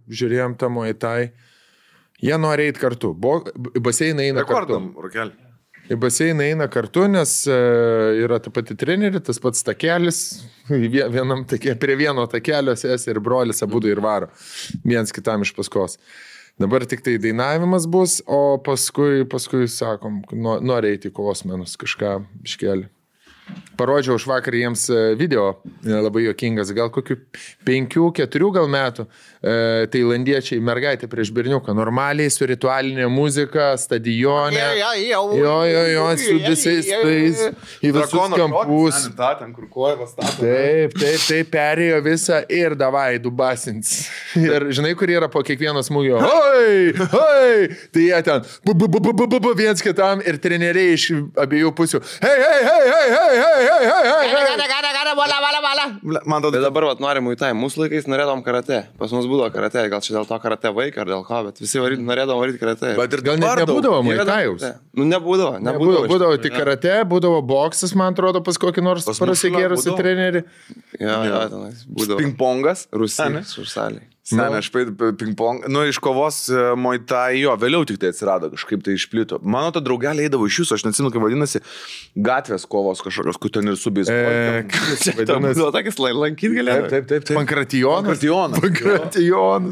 žiūrėjom tą Muay Thai. Jie nori eiti kartu. Baseiną eina kartu. Rokelį. Į baseiną eina kartu, nes yra ta pati treneri, tas pats takelis, prie vieno takelio sesė ir brolis abudu ir varo, viens kitam iš paskos. Dabar tik tai dainavimas bus, o paskui sakom, nori eiti į kosmenus, kažką iškelį. Parodžiau už vakar jiems video, labai juokingas, gal kokių 5-4 gal metų, tailandiečiai mergaitė prieš berniuką, normaliai su ritualinė muzika, stadione, jo, su visais tais, į visus kampus. Taip, perėjo visą ir davai, dubasins. Ir žinai, kur yra po kiekvieno smūgio, hoi, tai jie ten, viens kitam ir treneriai iš abiejų pusių, hei, Man atrodo, dabar nori Muay Thai. Mūsų laikais norėdom karate. Pas mus būdavo karate. Gal čia dėl to karate vaiką ar dėl ko, bet visi norėdom varyti karate. Bet ir gal net nebūdavo Muay Thai'us. Nebūdavo. Būdavo tik karate, būdavo boksas, man atrodo, pas kokį nors prasigėrusi trenerį. Jo, tenais būdavo. Pingpongas. Rusijos užsaliai. Aš pingpong, iš kovos Muay Thai, jo, vėliau tik tai atsirado, kažkaip tai išplito. Mano to draugelė eidavo iš jūsų, aš neatsimenu, kaip vadinasi, gatvės kovos kažkokios, kur ten ir subės. Vadinasi, tokis lankyti galėjo. Taip. Pankratijonas.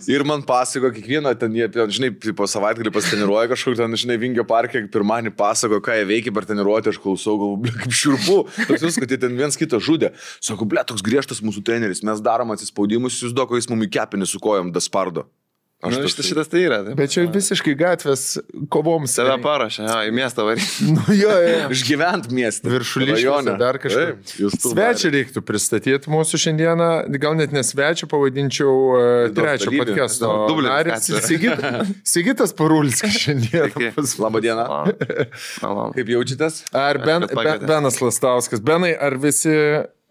Ir man pasako, kiekvieną ten, žinai, po savaitgalį pasiteniruoja kažkur, ten, žinai, Vingio parke, pirmanį pasako, ką jie veikia per treniruotę, aš klausau, galvoju, kaip šiurpu. Toks jūs, kad jie ten viens kitą žudė. Sako, toks griežtas mūsų treneris, mes darom atsispaudimus, jūs duoko, jis mumi kepinį su kojom daspardo. Šitas tai yra. Bet čia visiškai gatvės kovoms. Save parašė, į miestą varyti. Išgyvent miestą. Viršuliškėse dar kažkaip. Svečią reiktų pristatyti mūsų šiandieną. Gal net nesvečią, pavadinčiau trečio podcast'o. Sigitas Parulskis šiandien. Labą dieną. Kaip jaučiatės? Ar Benas Lastauskas. Benai, ar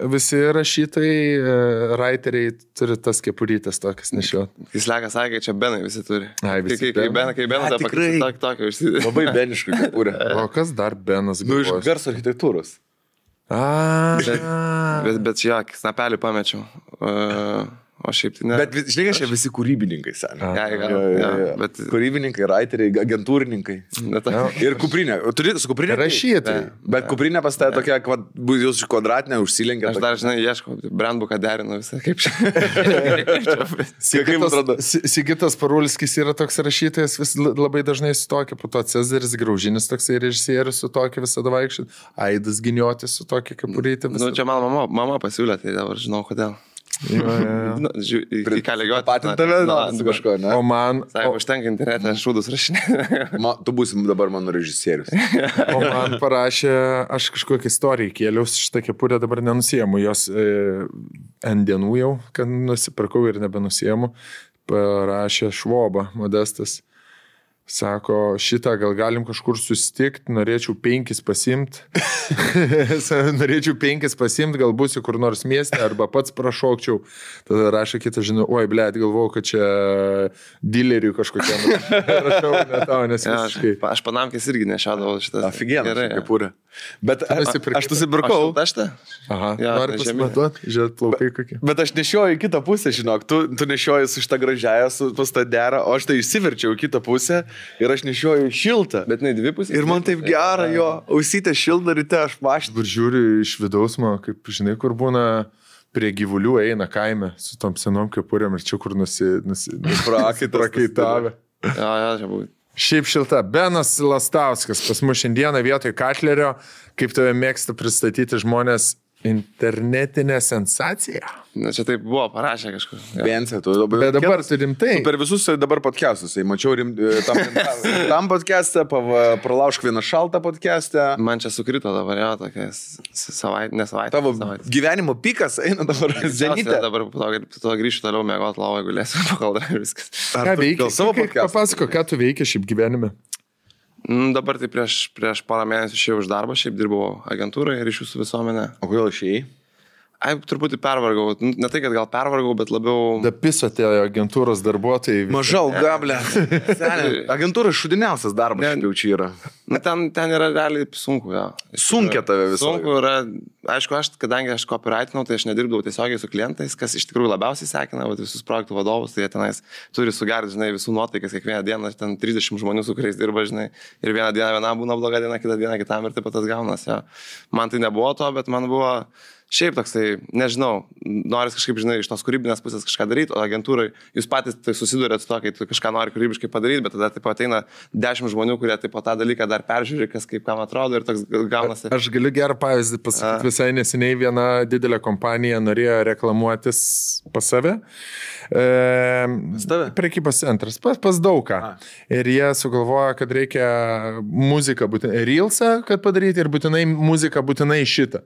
visi rašytojai, writeriai turi tas kepurytės tokias nešiot? Jis Lekas sakė, čia Benai visi turi. Visi kai Benas tą pakeisti tokio užsidė. Labai beniškai kepurė. O kas dar Benas? Iš garso architektūros. Bet čia snapelį pamečiau. O šiaip tai ne. Bet žinai, aš čia visi kūrybininkai, seniai. Bet kūrybininkai, writeriai, agentūrininkai. Ir kuprinė. Turi su kuprinė? Rašytojai. Bet kuprinė pas tai tokia, jūs kvadratinė užsilenkia. Aš dar, žinai, ieškau, brandbuką derinu visą. Kaip čia? Sigitas Parulskis yra toks rašytojas, vis labai dažnai su tokia, po to Cezaris Graužinis toksai režisierius su tokia visada vaikščiai. Aidas Giniotis su tokia kepurytė. Čia mama pasiūlė, tai dabar žinau kodėl. Į ką lygiuoti. Patintave, su kažko, ne? O man... Sako, užtenka internete, šūdus rašinė. Tu būsi dabar mano režisierius. O man parašė, aš kažkokią istoriją kėliaus, šitą kepurę dabar nenusiemu, jos N dienų jau, kad nusipirkau ir nebenusiemu, parašė Švoba, Modestas. Sako, šitą gal galim kažkur susitikti, norėčiau 5 pasimti. Norėčiau 5 pasimti, gal būsiu kur nors mieste, arba pats prašokčiau. Tada rašo kitą, žinau, oi, blėt, galvojau, kad čia dileriui kažkokiam. Rašau, ne tau, nes visiškai. Aš Panamkės irgi nešiadavau šitą. Aфиgeną, kepurę. Bet aš nusipirkau. Aha, nori pasimatuoti, žiūrėt, plaukai kokie. Bet aš nešioju į kitą pusę, žinok, tu nešioji su šitą gražiąją, su tą derą, o aš tai išsiverčiau į kitą pusę. Ir aš nešioju šiltą. Bet ne dvi pusės. Ir man taip gera jo, ausytė šiltą ryte, aš mašinau. Ir žiūriu iš vidaus, man, kaip žinai, kur būna prie gyvulių eina kaime su tom senom kepurėm ir čia kur prakaitavę. Čia buvo. Šiaip šilta. Benas Lastauskas pas mus šiandieną vietoj Katlerio, kaip tave mėgsta pristatyti žmonės, internetinė sensacija. Na, čia taip buvo, parašė kažkur. Bensė, tu dabar. Bet dabar tu rimtai. Per visus dabar podcastus. Mačiau tam podcastą, pralaušk vieną šaltą podcastą. Man čia sukrito dabar, jo, tokia savaitė. Tavo gyvenimo pikas eina dabar. Zenitė. Dabar po to grįšiu toliau mėgoti lovą, galėsiu pakal dar viskas. Ką veikia? Papasako, ką tu veikia šiaip gyvenime? Dabar tai prieš porą mėnesių išėjau iš darbo, šiaip dirbau agentūrai ryšių su visuomenė. O kodėl išėjai? Truputį pervargau. Ne tai, kad gal pervargau, bet labiau... Da piso tie agentūros darbuotojai. Maža alga, ble. Agentūra šudiniausias darbas, jau čia yra. Na, ten yra realiai sunku, jo. Sunkia tave visą. Sunku yra, aišku, kadangi aš copywritinau, tai aš nedirbdavau tiesiogiai su klientais, kas iš tikrųjų labiausiai sekina, visus projektų vadovus, tai jie tenais turi sugerinti, žinai, visų nuotaikas kiekvieną dieną, ten 30 žmonių, su kuriais dirba, žinai, ir vieną dieną vienam būna bloga diena, kitą dieną kitam ir taip pat tas gaunas, jo. Man tai nebuvo to, bet man buvo... Šiaip toksai, nežinau, noris kažkaip, žinai, iš tos kūrybinės pusės kažką daryti, o agentūrai jūs patys tai susidurėt su to, kai tu kažką nori kūrybiškai padaryti, bet tada taip ateina 10 žmonių, kurie taip tą dalyką dar peržiūri, kas kaip kam atrodo ir toks gaunasi. Aš galiu gerą pavyzdį pasakyti, visai neseniai viena didelė kompanija norėjo reklamuotis pas save. Prekybos centras, pas daugą. Ir jie sugalvojo, kad reikia muziką būtinai, reelsą, kad padaryti ir būtinai muziką būtinai šitą.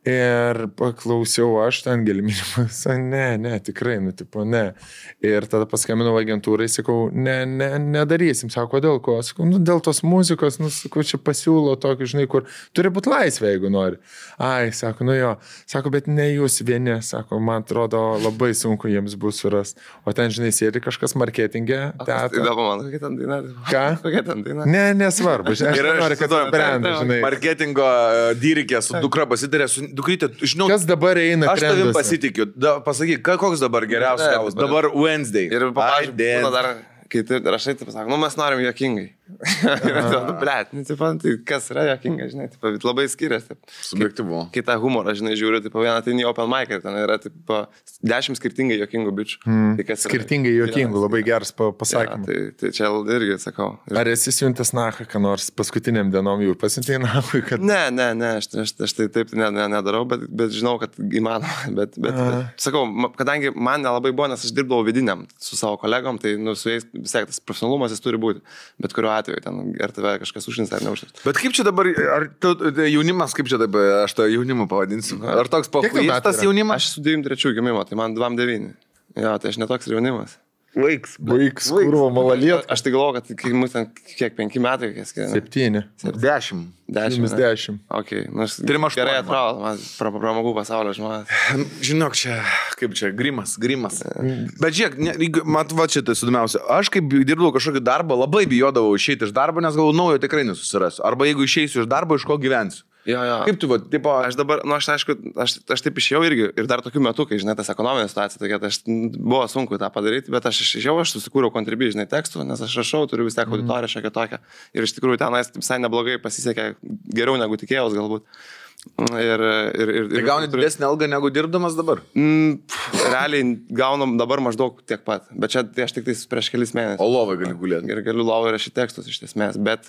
Ir paklausiau aš ten gelminimas, ne, tikrai, tipo, ne. Ir tada paskambinau agentūrai, sakau, nedarysim, sako, dėl ko? Sakau, dėl tos muzikos, sakau, čia pasiūlo tokį, žinai, kur turi būti laisvė, jeigu nori. Ai, sako, jo, sako, bet ne jūs vieni, sako, man atrodo, labai sunku jiems bus suras. O ten, žinai, sėdi kažkas marketingė. Įdomu man, kokia ten daina. Ką? Kokia ten daina? Nesvarbu, aš noriu, kad brandą, žinai. Marketingo dyrikė su dukra pasitarė, dukrytė, žinau, kas dabar eina aš tavim pasitikiu. Pasakyk, koks dabar geriausias gavus? Dabar Wednesday. Ir pavyzdžiui, dar, kai tu rašai, tai pasak, mes norim juokingai. Blet, tai kas yra juokinga, žinai, labai skiriasi. Subjektyvu. Kai tą humorą, žinai, žiūriu, vieną tai į open mic ir ten yra 10 skirtingai juokingų bičių. Skirtingai juokingų, labai geras pasakymas. Tai čia irgi sakau. Ar esi siuntęs nachą, ką nors paskutiniam dienom jau pasiuntėjai nachui, kad... Ne, aš tai taip nedarau, bet žinau, kad įmanoma. Bet sakau, kadangi man nelabai buvo, nes aš dirbdavau vidiniam su savo kolegom, tai su jais vis tiek tas profesionalumas jis turi būti. Bet kuriuo atveju, ten, ar tave kažkas užins ar neužins. Bet kaip čia dabar, ar jaunimas, kaip čia dabar, aš tą jaunimą pavadinsiu, ar toks pakuistas jaunimas? Aš su 93 gimimo, tai man 29. Jo, tai aš netoks jaunimas. Vaiks, kurvo, malaliet. Aš tai galvoju, kad mus ten kiek 5 metai, kiek skiriame. 7. 10. Ok, gerai atrodo, man pramogų pasaulio žmonės. Žinok, čia, kaip čia, grimas. Bet žiūrėk, mat, va čia tai sudomiausia. Aš kaip dirbdavau kažkokį darbą, labai bijodavau išeiti iš darbo, nes galvoju, naujo tikrai nesusirasiu. Arba jeigu išeisiu iš darbo, iš ko gyvensiu. Jo. Kaip tu, tipo... Aš dabar, aišku, aš taip išėjau irgi ir dar tokiu metu, kai, žinai, tas ekonominė situacija tokia, tai buvo sunku tą padaryti, bet aš išėjau, aš susikūriau Contribui, žinai, tekstų, nes aš rašau, turiu vis tiek auditoriją šiokią tokią ir iš tikrųjų tenais visai neblogai pasisekė, geriau negu tikėjaus galbūt. Tai gauni didesnį algą negu dirbdamas dabar? Realiai gaunam dabar maždaug tiek pat, bet čia tai aš tik prieš kelis mėnesius. O lovai gali gulėti. Ir galiu lovai rašyti tekstus iš esmės, bet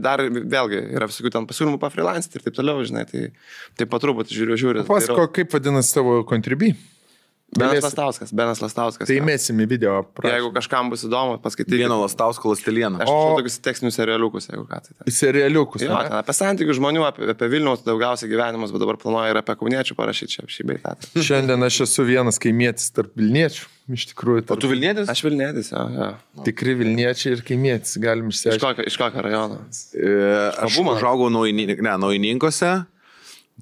dar vėlgi yra visokių ten pasiūlymų pafreelancinti ir taip toliau, žinai, tai patruputį žiūriu. Pasako, kaip vadinasi tavo Contribui? Benas Lastauskas. Tai įmėsim į video. Jeigu kažkam bus įdomu, paskaityti. Vieno Lastausko lastelieno. Aš turiu tokius tekstinius serialiukus, jeigu ką tai. Serialiukus. Jo, ten apie santykių žmonių, apie Vilniaus daugiausiai gyvenimus, bet dabar planuoju ir apie kauniečių parašyti čia šį beitą. Šiandien aš esu vienas kaimietis tarp Vilniečių. Iš tikrųjų. O tu Vilnietis? Aš Vilnietis, jo. Tikri Vilniečiai ir kaimietis, galim išsiaiškinti. Iš kokio rajono? Aš užaugau Naujininkose,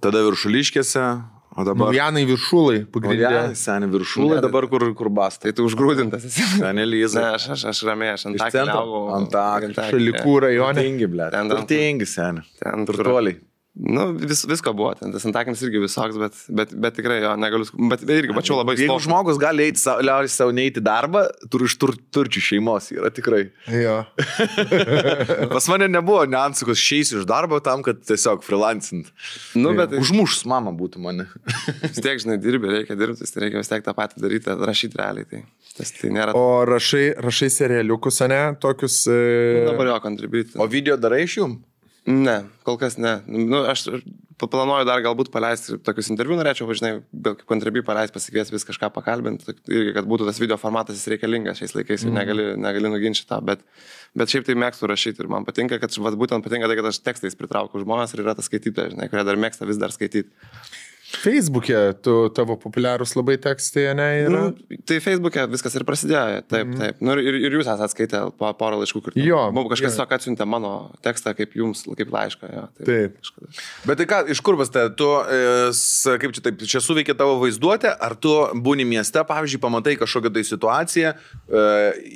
tada Viršuliškėse. O dabar... Naujanai Viršulai, pagrindinė. Seniai Viršulai, dabar kur basta. Tai tu užgrūdintas esi. Seniai Lyza. Ne, aš ramiai, aš Antakalnį augau. Antakalnį. Šalikų rajone. Turtingi, blėt. Turtingi, seniai. Turtuoliai. Nu, visko buvo, ten tas Antakalnis irgi visoks, bet tikrai jo, negaliu, bet irgi mačiau labai Jeigu žmogus gali liautis savo neiti darbą, turi iš turčių šeimos, yra tikrai. Jo. Pas mane nebuvo niuansų, kad išeisiu iš darbo tam, kad tiesiog freelancint. Nu, bet užmušus mama būtų mane. Vis tiek, žinai, reikia dirbti, tai reikia vis tiek tą patį daryti, rašyti realiai. Tai nėra... O rašai serialiukus, ne, tokius... Dabar jo Contribui. O video darai iš jum? Ne, kol kas ne. Nu, aš planuoju dar galbūt paleisti tokius interviu, norėčiau, žinai, kaip Contribui paleisti, pasikvies vis kažką pakalbinti, irgi, kad būtų tas video formatas jis reikalingas šiais laikais, negali nuginčyti tą, bet šiaip tai mėgstu rašyti ir man patinka, kad būtent patinka tai, kad aš tekstais pritraukiu žmonės ir yra tas skaitytojas, žinai, kurie dar mėgsta vis dar skaityti. Facebook'e tavo populiarūs labai tekstai, ne? Yra? Tai Facebook'e viskas ir prasidėjo, taip. Ir jūs esate skaitę porą laiškų, kur mums kažkas tiesiog atsiuntė mano tekstą kaip jums, kaip laišką. Jo, taip. Bet tai ką, iš kur pas tai, tu, kaip čia taip, čia suveikia tavo vaizduotė, ar tu būni mieste, pavyzdžiui, pamatai kažkokią tai situaciją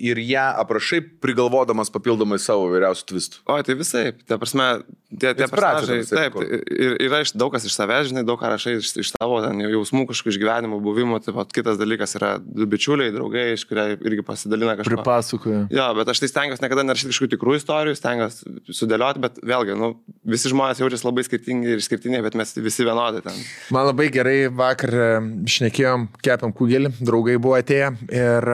ir ją aprašai, prigalvodamas papildomai savo vyriausių tvistų? O, tai visai, ta prasme, tie personažai, taip, ir yra daug kas iš savęs, žinai, daug ką rašai iš tavo jausmų, kažkokių išgyvenimų, buvimų, taip pat kitas dalykas yra du bičiuliai, draugai, iš kurie irgi pasidalina kažką. Pripasakoja. Jo, bet aš tai stengiuosi niekada nerašyti kažkokių tikrų istorijų, stengiuosi sudėlioti, bet vėlgi, visi žmonės jaučiasi labai skirtingi ir išskirtiniai, bet mes visi vienodai ten. Man labai gerai vakar šnekėjom, kepėm kugelį, draugai buvo atėję ir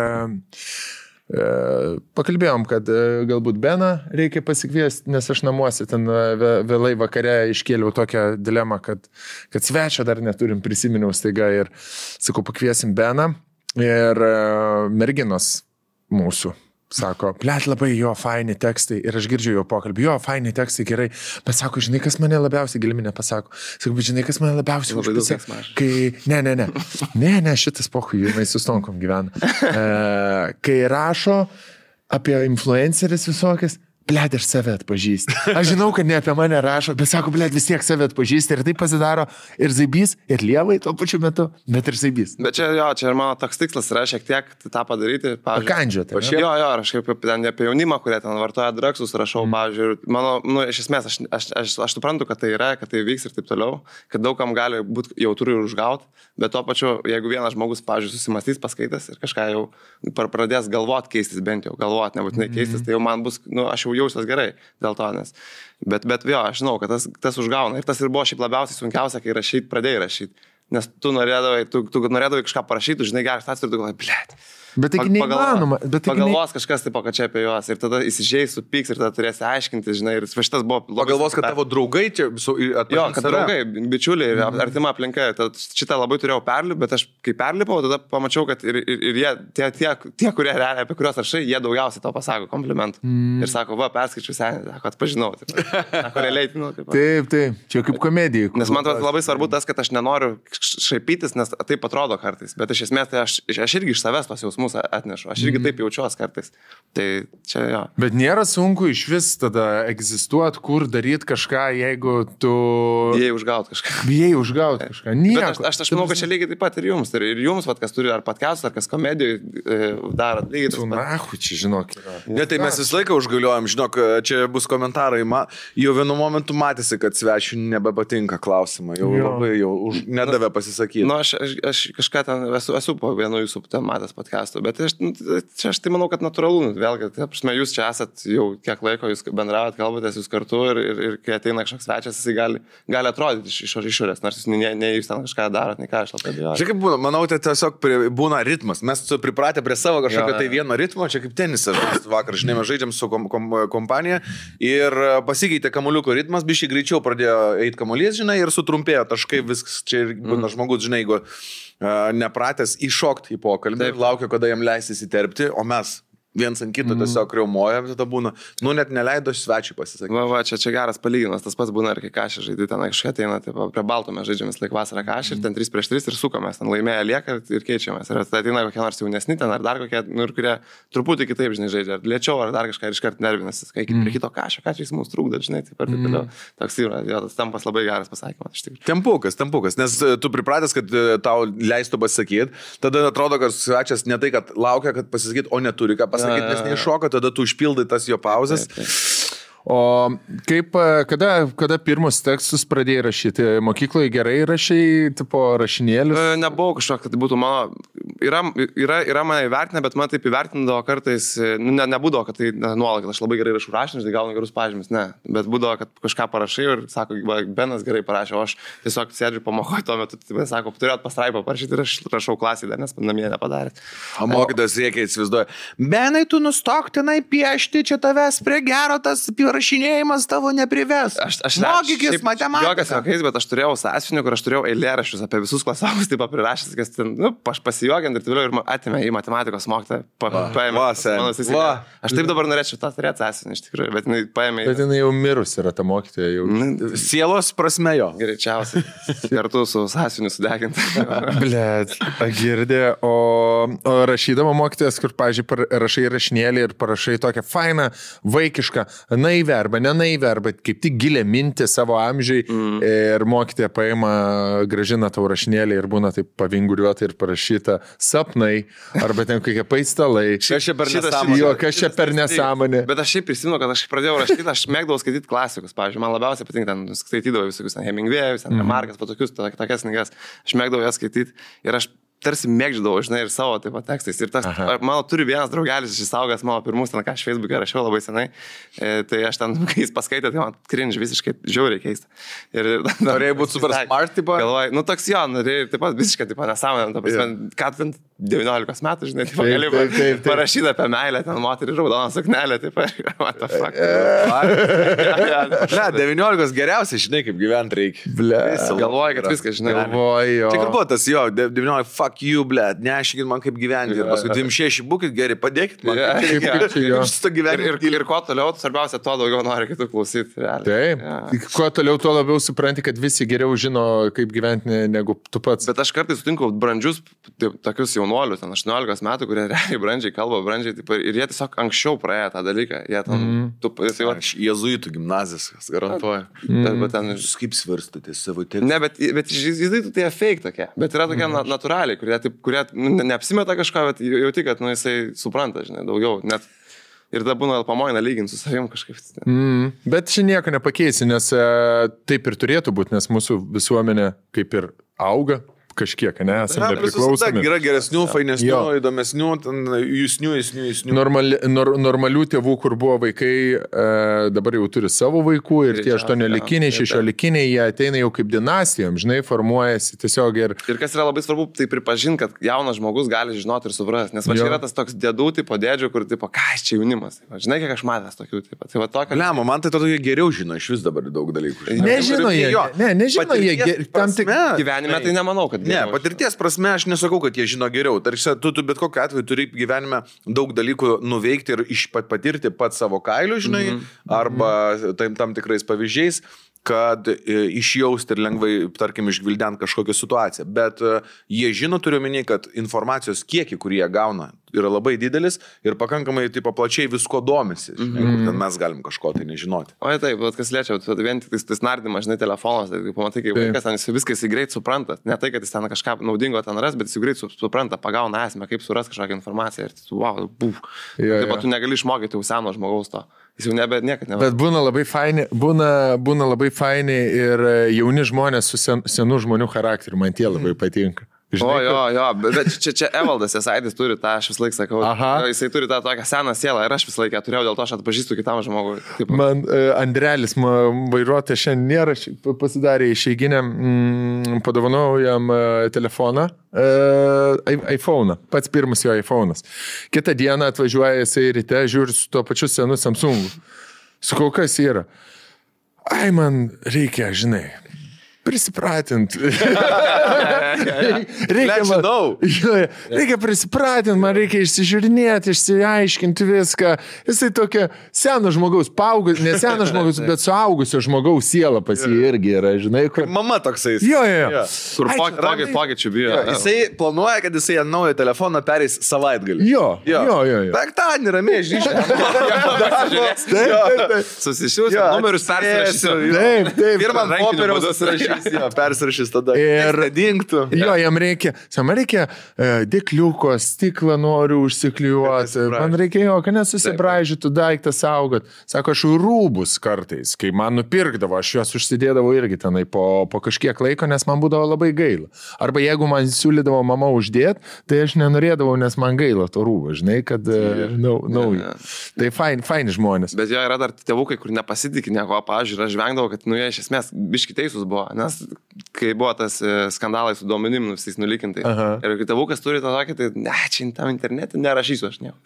pakalbėjom, kad galbūt Beną reikia pasikviesti, nes aš namuose ten vėlai vakare iškėliau tokią dilemą, kad svečio dar neturim, prisiminiau staiga ir sakau, pakviesim Beną ir merginos mūsų. Sako, blėt, labai jo faini tekstai ir aš girdžiu jo pokalbį, jo faini tekstai gerai, bet sako, žinai, kas mane labiausiai giliminė pasako, sako, bet žinai, kas mane labiausiai užpisa, kai, ne, šitas pohui, jinai su stonkom gyvena, kai rašo apie influenceris visokias, blėt, aš save atpažįsti. Aš žinau, kad ne apie mane rašo, bet sako, blėt, vis tiek save atpažįsti ir tai pasidaro ir Zaibys, ir Lievai tuo pačiu metu, bet ir Zaibys. Bet čia ir mano toks tikslas yra šiek tiek tą padaryti. Pakandžioti. Jo, aš kaip ten apie jaunimą, kurie ten vartoja dragsus, rašau, pavyzdžiui, mano, iš esmės, aš suprantu, kad tai yra, kad tai vyks ir taip toliau, kad daugam gali būti jautru ir užgauti, bet tuo pačiu, jeigu vienas žmogus, pavyzdžiui, susimastys paskaitęs ir kažką jau pradės galvoti keistis, bent jau galvoti, nebūtinai keistis, tai jau man bus, aš jau jausiuos gerai dėl to, nes. Bet jo, aš žinau, kad tas užgauna. Ir tas ir buvo šiaip labiausiai sunkiausia, kai pradėjai rašyti. Nes tu norėdavai kažką parašyti, žinai, geras tas ir tu galvoji, blėt. Bet taigi neįmanoma. Pagalvos kažkas taip, kad čia apie juos ir tada įsižeis, supyks ir tada turėsi aiškinti, žinai, ir šitas buvo... Pagalvos, kad tavo draugai čia... Jo, kad draugai, bičiuliai ir artima aplinka. Šitą labai turėjau perlipti, bet aš kai perlipau, tada pamačiau, kad ir jie, tie kurie realiai, apie kuriuos rašai, jie daugiausiai to pasako komplimentų. Ir sako, va, perskaičiu senį, sako, atpažinau. Taip, čia kaip komedija. Nes man atrodo labai svarbu tas, kad aš nenoriu šaipytis, nes taip atrodo kartais. Bet iš esmės tai aš irgi iš savęs tos jausmus atnešu. Aš irgi taip jaučiuos kartais. Tai čia jo. Bet nėra sunku iš vis tada egzistuoti, kur daryti kažką, jeigu tu... Bijai užgauti kažką. Nieko. Bet aš manau, kad čia lygiai taip pat ir jums. Ir jums, kas turi ar podcastus, ar kas komedijų daro. Čia žinok. Ne, tai mes visą laiką užgaliuojam, žinok, čia bus komentarai. Jau vienu momentu matėsi, kad svečių nebepatinka klausimą. Labai nedavė pasisakyti. Aš kažką ten esu po vienu jūsų ten matęs podcastų. Bet aš tai manau, kad natūralu, vėlgi, jūs čia esat jau kiek laiko, jūs bendravot, kalbatės jūs kartu ir kai ateina kažkoks svečias, jisai gali atrodyti iš išorės, nors jūs ne jūs ten kažką darot, ne ką aš labai abejoju. Čia kaip būna, manau, tai tiesiog būna ritmas, mes pripratę prie savo kažkokio tai vieno ritmo, čia kaip tenisas, vakar, žinai, mes žaidžiam su kompanija ir pasikeitė kamuoliuko ritmas, biškai greičiau pradėjo eiti kamuolys, žinai, ir sutrumpėjo taškai, viskas, čia ir būna žmogus, žinai, jeigu nepratęs įšokti į pokalbį, laukia, kada jam leisis įterpti, o mes viens ant kito tiesiog riaumojam, tada būna, net neleido svečiui pasisakyti. Va, čia geras palyginimas, tas pats būna ir kai kažkai žaidži, ten kažkai ateina, prie balto mes žaidžiam vis laik vasarą kažkai ir ten 3-3 ir sukomės, ten laimėję lieka ir keičiamės. Ir tada ateina kokie nors jaunesni ten ar dar kokie, ir kurie truputį kitaip, žinai, žaidžia, ar lėčiau, ar dar kažką ir iškart nervinasi, kai prie kito kažkai jis mums trukdo, žinai, taip ir taip toliau. Toks yra, tas tempas labai geras pasakymas, iš tikrųjų. Tempukas, nes tu pripratęs, kad tau leistų pasakyti, tada atrodo, kad svečias ne tai, kad laukia, kad pasakyti, o neturi ką pasakyti, nes neiššoka, tada tu užpildai tas jo pauzes. O kaip, kada pirmus tekstus pradėjai rašyti? Mokykloje gerai rašai, tipo rašinėlius? Nebuvau kažkokia, kad tai būtų mano... Yra mane įvertinę, bet man taip įvertindavo kartais, nebūdavo, kad tai nuolat, kad aš labai gerai rašau rašinius, tai gaunu gerus pažymius, ne. Bet būdavo, kad kažką parašai ir sako, Benas gerai parašė, o aš tiesiog sėdžiu pamokoju tuo metu, tai sako, turėt pastraipą parašyti ir aš rašau klasį dar, nes namie nepadarėt. O mokytas reikia įsivaizduoja, Benai, tu nustok tenai piešti, čia tavęs prie gero tas rašinėjimas tavo neprives. Mokykis matematikos. Jokas juokais, bet aš turėjau sąsiuvinį, kur aš turėjau eilėraščius apie visus klasiokus, taip prirašęs, kas ten, pasijuokiant ir toliau ir atėmė į matematikos mokytoją. Aš taip dabar norėčiau tą turėti sąsiuvinį, iš tikrųjų, bet jinai paėmė. Bet jinai jau mirus yra ta mokytoja. Jau. Sielos prasme jo. Greičiausiai. Kartu su sąsiuviniu sudeginti. Blet, girdė, o rašydama mokytojas, kur, pavyzdžiui, rašai rašinėlį ir parašai tokią fainą, vaikišką, naivę arba nenaivę, arba kaip tik gilę mintį savo amžiai ir mokytoja paima, grąžina tau rašinėlį ir būna taip pavinguriuota ir parašyta sapnai, arba ten kokie paistalai. Kas čia per nesąmonė. Bet aš šiaip prisimenu, kad aš pradėjau rašyti, aš mėgdavau skaityti klasikus, pavyzdžiui, man labiausiai patinka, ten skaitydavau visokius Hemingway'us, Markas, tokius, tokias knygas, aš mėgdavau jas skaityti ir aš tarsi mėgdžiau, žinai, ir savo taip pat tekstais. Ir tas, mano turi vienas draugelis išsaugęs mano pirmus, ten ką aš Facebook'e rašiau labai senai, tai aš ten, kai jis paskaitė, tai man cringe visiškai žiauriai keista. Norėjai būti super smart, tipo? Galvoju, toks jo, norėjai taip pat visiškai, taip pat nesąmonė, ką ten 19 metų, žinai, taip gali parašyti apie meilę, ten moterį raudoną suknelę, taip pat, what the fuck. Ne, 19 geriausiai, žinai, kaip gyventi reikia. Galvoju, kad viskas, žinai. Čia kur buvo tas, jo, 19, fuck you, blėt, nešykit man kaip gyventi. Ir paskui 26 būkit geri, padėkit man. Ir kuo toliau, svarbiausia, to daugiau nori kitų klausyti. Taip, kuo toliau, tuo labiau supranti, kad visi geriau žino, kaip gyventi negu tu pats. Bet aš kartais sutinku brandžius, tokius jaunuolius, 18 metų, kurie realiai brandžiai kalba, brandžiai, ir jie tiesiog anksčiau praėjo tą dalyką. Jėzuitų gimnazijas, garantuoju. Kaip svarstote savo tekstą? Ne, bet jėzuitų tai fake tokie, bet yra tokie natūraliai, kurie neapsimeta kažką, bet jauti, kad jisai supranta, žinai, daugiau. Net ir tada būna pamoina lyginti su savim kažkaip. Bet čia nieko nepakeisi, nes taip ir turėtų būti, nes mūsų visuomenė kaip ir auga. Kažkiek, ne, esame nepriklausomi. Yra geresnių, fainesnių, įdomesnių, jūsnių. Normalių tėvų, kur buvo vaikai, dabar jau turi savo vaikų ir tie 8-likiniai, 6-likiniai, jie ateina jau kaip dinastijom, žinai, formuojasi tiesiog ir... Ir kas yra labai svarbu, tai pripažinti, kad jaunas žmogus gali žinoti ir suprasti, nes va čia yra tas toks dėdų tipo dėdžių, kur tipo, ką čia jaunimas, žinai, kiek aš matęs tokių tipo. Tai va tokio... Lemo, man tai to geriau žino iš vis dabar daug dalykų. Nežino jie, tam tik gyvenime tai nemanau, kad ne, patirties prasme aš nesakau, kad jie žino geriau. Tarsi tu bet kokiu atveju turi gyvenime daug dalykų nuveikti ir patirti pat savo kailiu, žinai, arba tam tikrais pavyzdžiais, kad išjausti ir lengvai, tarkim, išgvildent kažkokią situaciją. Bet jie žino, turiu omeny, kad informacijos kiekį, kurį jie gauna, yra labai didelis ir pakankamai tipo, plačiai visko domisi, žinai, kur ten mes galim kažko tai nežinoti. O taip, bet kas liečia, vien tik tas nardymas, žinai, telefonas, tai pamatai, kaip vaikas ten viską jis greit supranta. Ne tai, kad jis ten kažką naudingo ten ras, bet jis greit supranta, pagauna esmę, kaip suras kažkokią informaciją ir wow, buf. Taip pat tu negali išmokyti jau seno žmogaus to. Jis jau niekad nebūna. Bet būna labai faini ir jauni žmonės su senų žmonių charakteriu, man tie labai patinka. Žinai, jo, bet čia Evaldas Esaidis turi tą, aš vis laik sakau, jisai turi tą tokią seną sielą ir aš vis laiką turėjau, dėl to aš atpažįstu kitam žmogui. Man Andrelis, vairuotojas šiandien nėra, pasidarė išeiginę, padovanojau jam telefoną, iPhone'ą, pats pirmas jo iPhone'as. Kitą dieną atvažiuoja jisai ryte, žiūri su tuo pačiu senu Samsungu. Sakau, kas yra? Ai, man reikia, žinai, prisipratint. Reikia prisipratint, man reikia išsižiūrinėti, išsiaiškinti viską. Jisai tokia seno žmogaus, ne seno žmogaus, bet suaugusio žmogaus siela pas jį irgi yra, žinai. Kur... Mama toksai. Jo. Kur pokyčių bijo. Jisai planuoja, kad jisai ant naujo telefoną pereis savaitgalį. Jo. Penktadienį ramiai žyšė. Susisiūs, numerius persirašysiu. Taip. Pirmą popieriaus persirašys tada. Ir dingtų. Jo, jam reikia dėkliuko, stiklą noriu užsiklijuoti. Man reikia kad nesusibraižytų daiktą saugot. Sako, aš rūbus kartais, kai man nupirkdavo, aš juos užsidėdavau irgi tenai po kažkiek laiko, nes man būdavo labai gaila. Arba jeigu man siūlydavo mama uždėti, tai aš nenorėdavau, nes man gaila to rūbo, žinai, kad naujo. Tai faini žmonės. Bet jo yra dar tėvukai, kur nepasitikė nieko, pavyzdžiui, aš žvengdavau, kad jie iš esmės biški teisūs buvo, nes kai buvo tas skandalai su duomenim visais nulikintais. Ir kai tėvukas turi tą tokį, tai ne, čia tam internete nerašysiu aš nieko.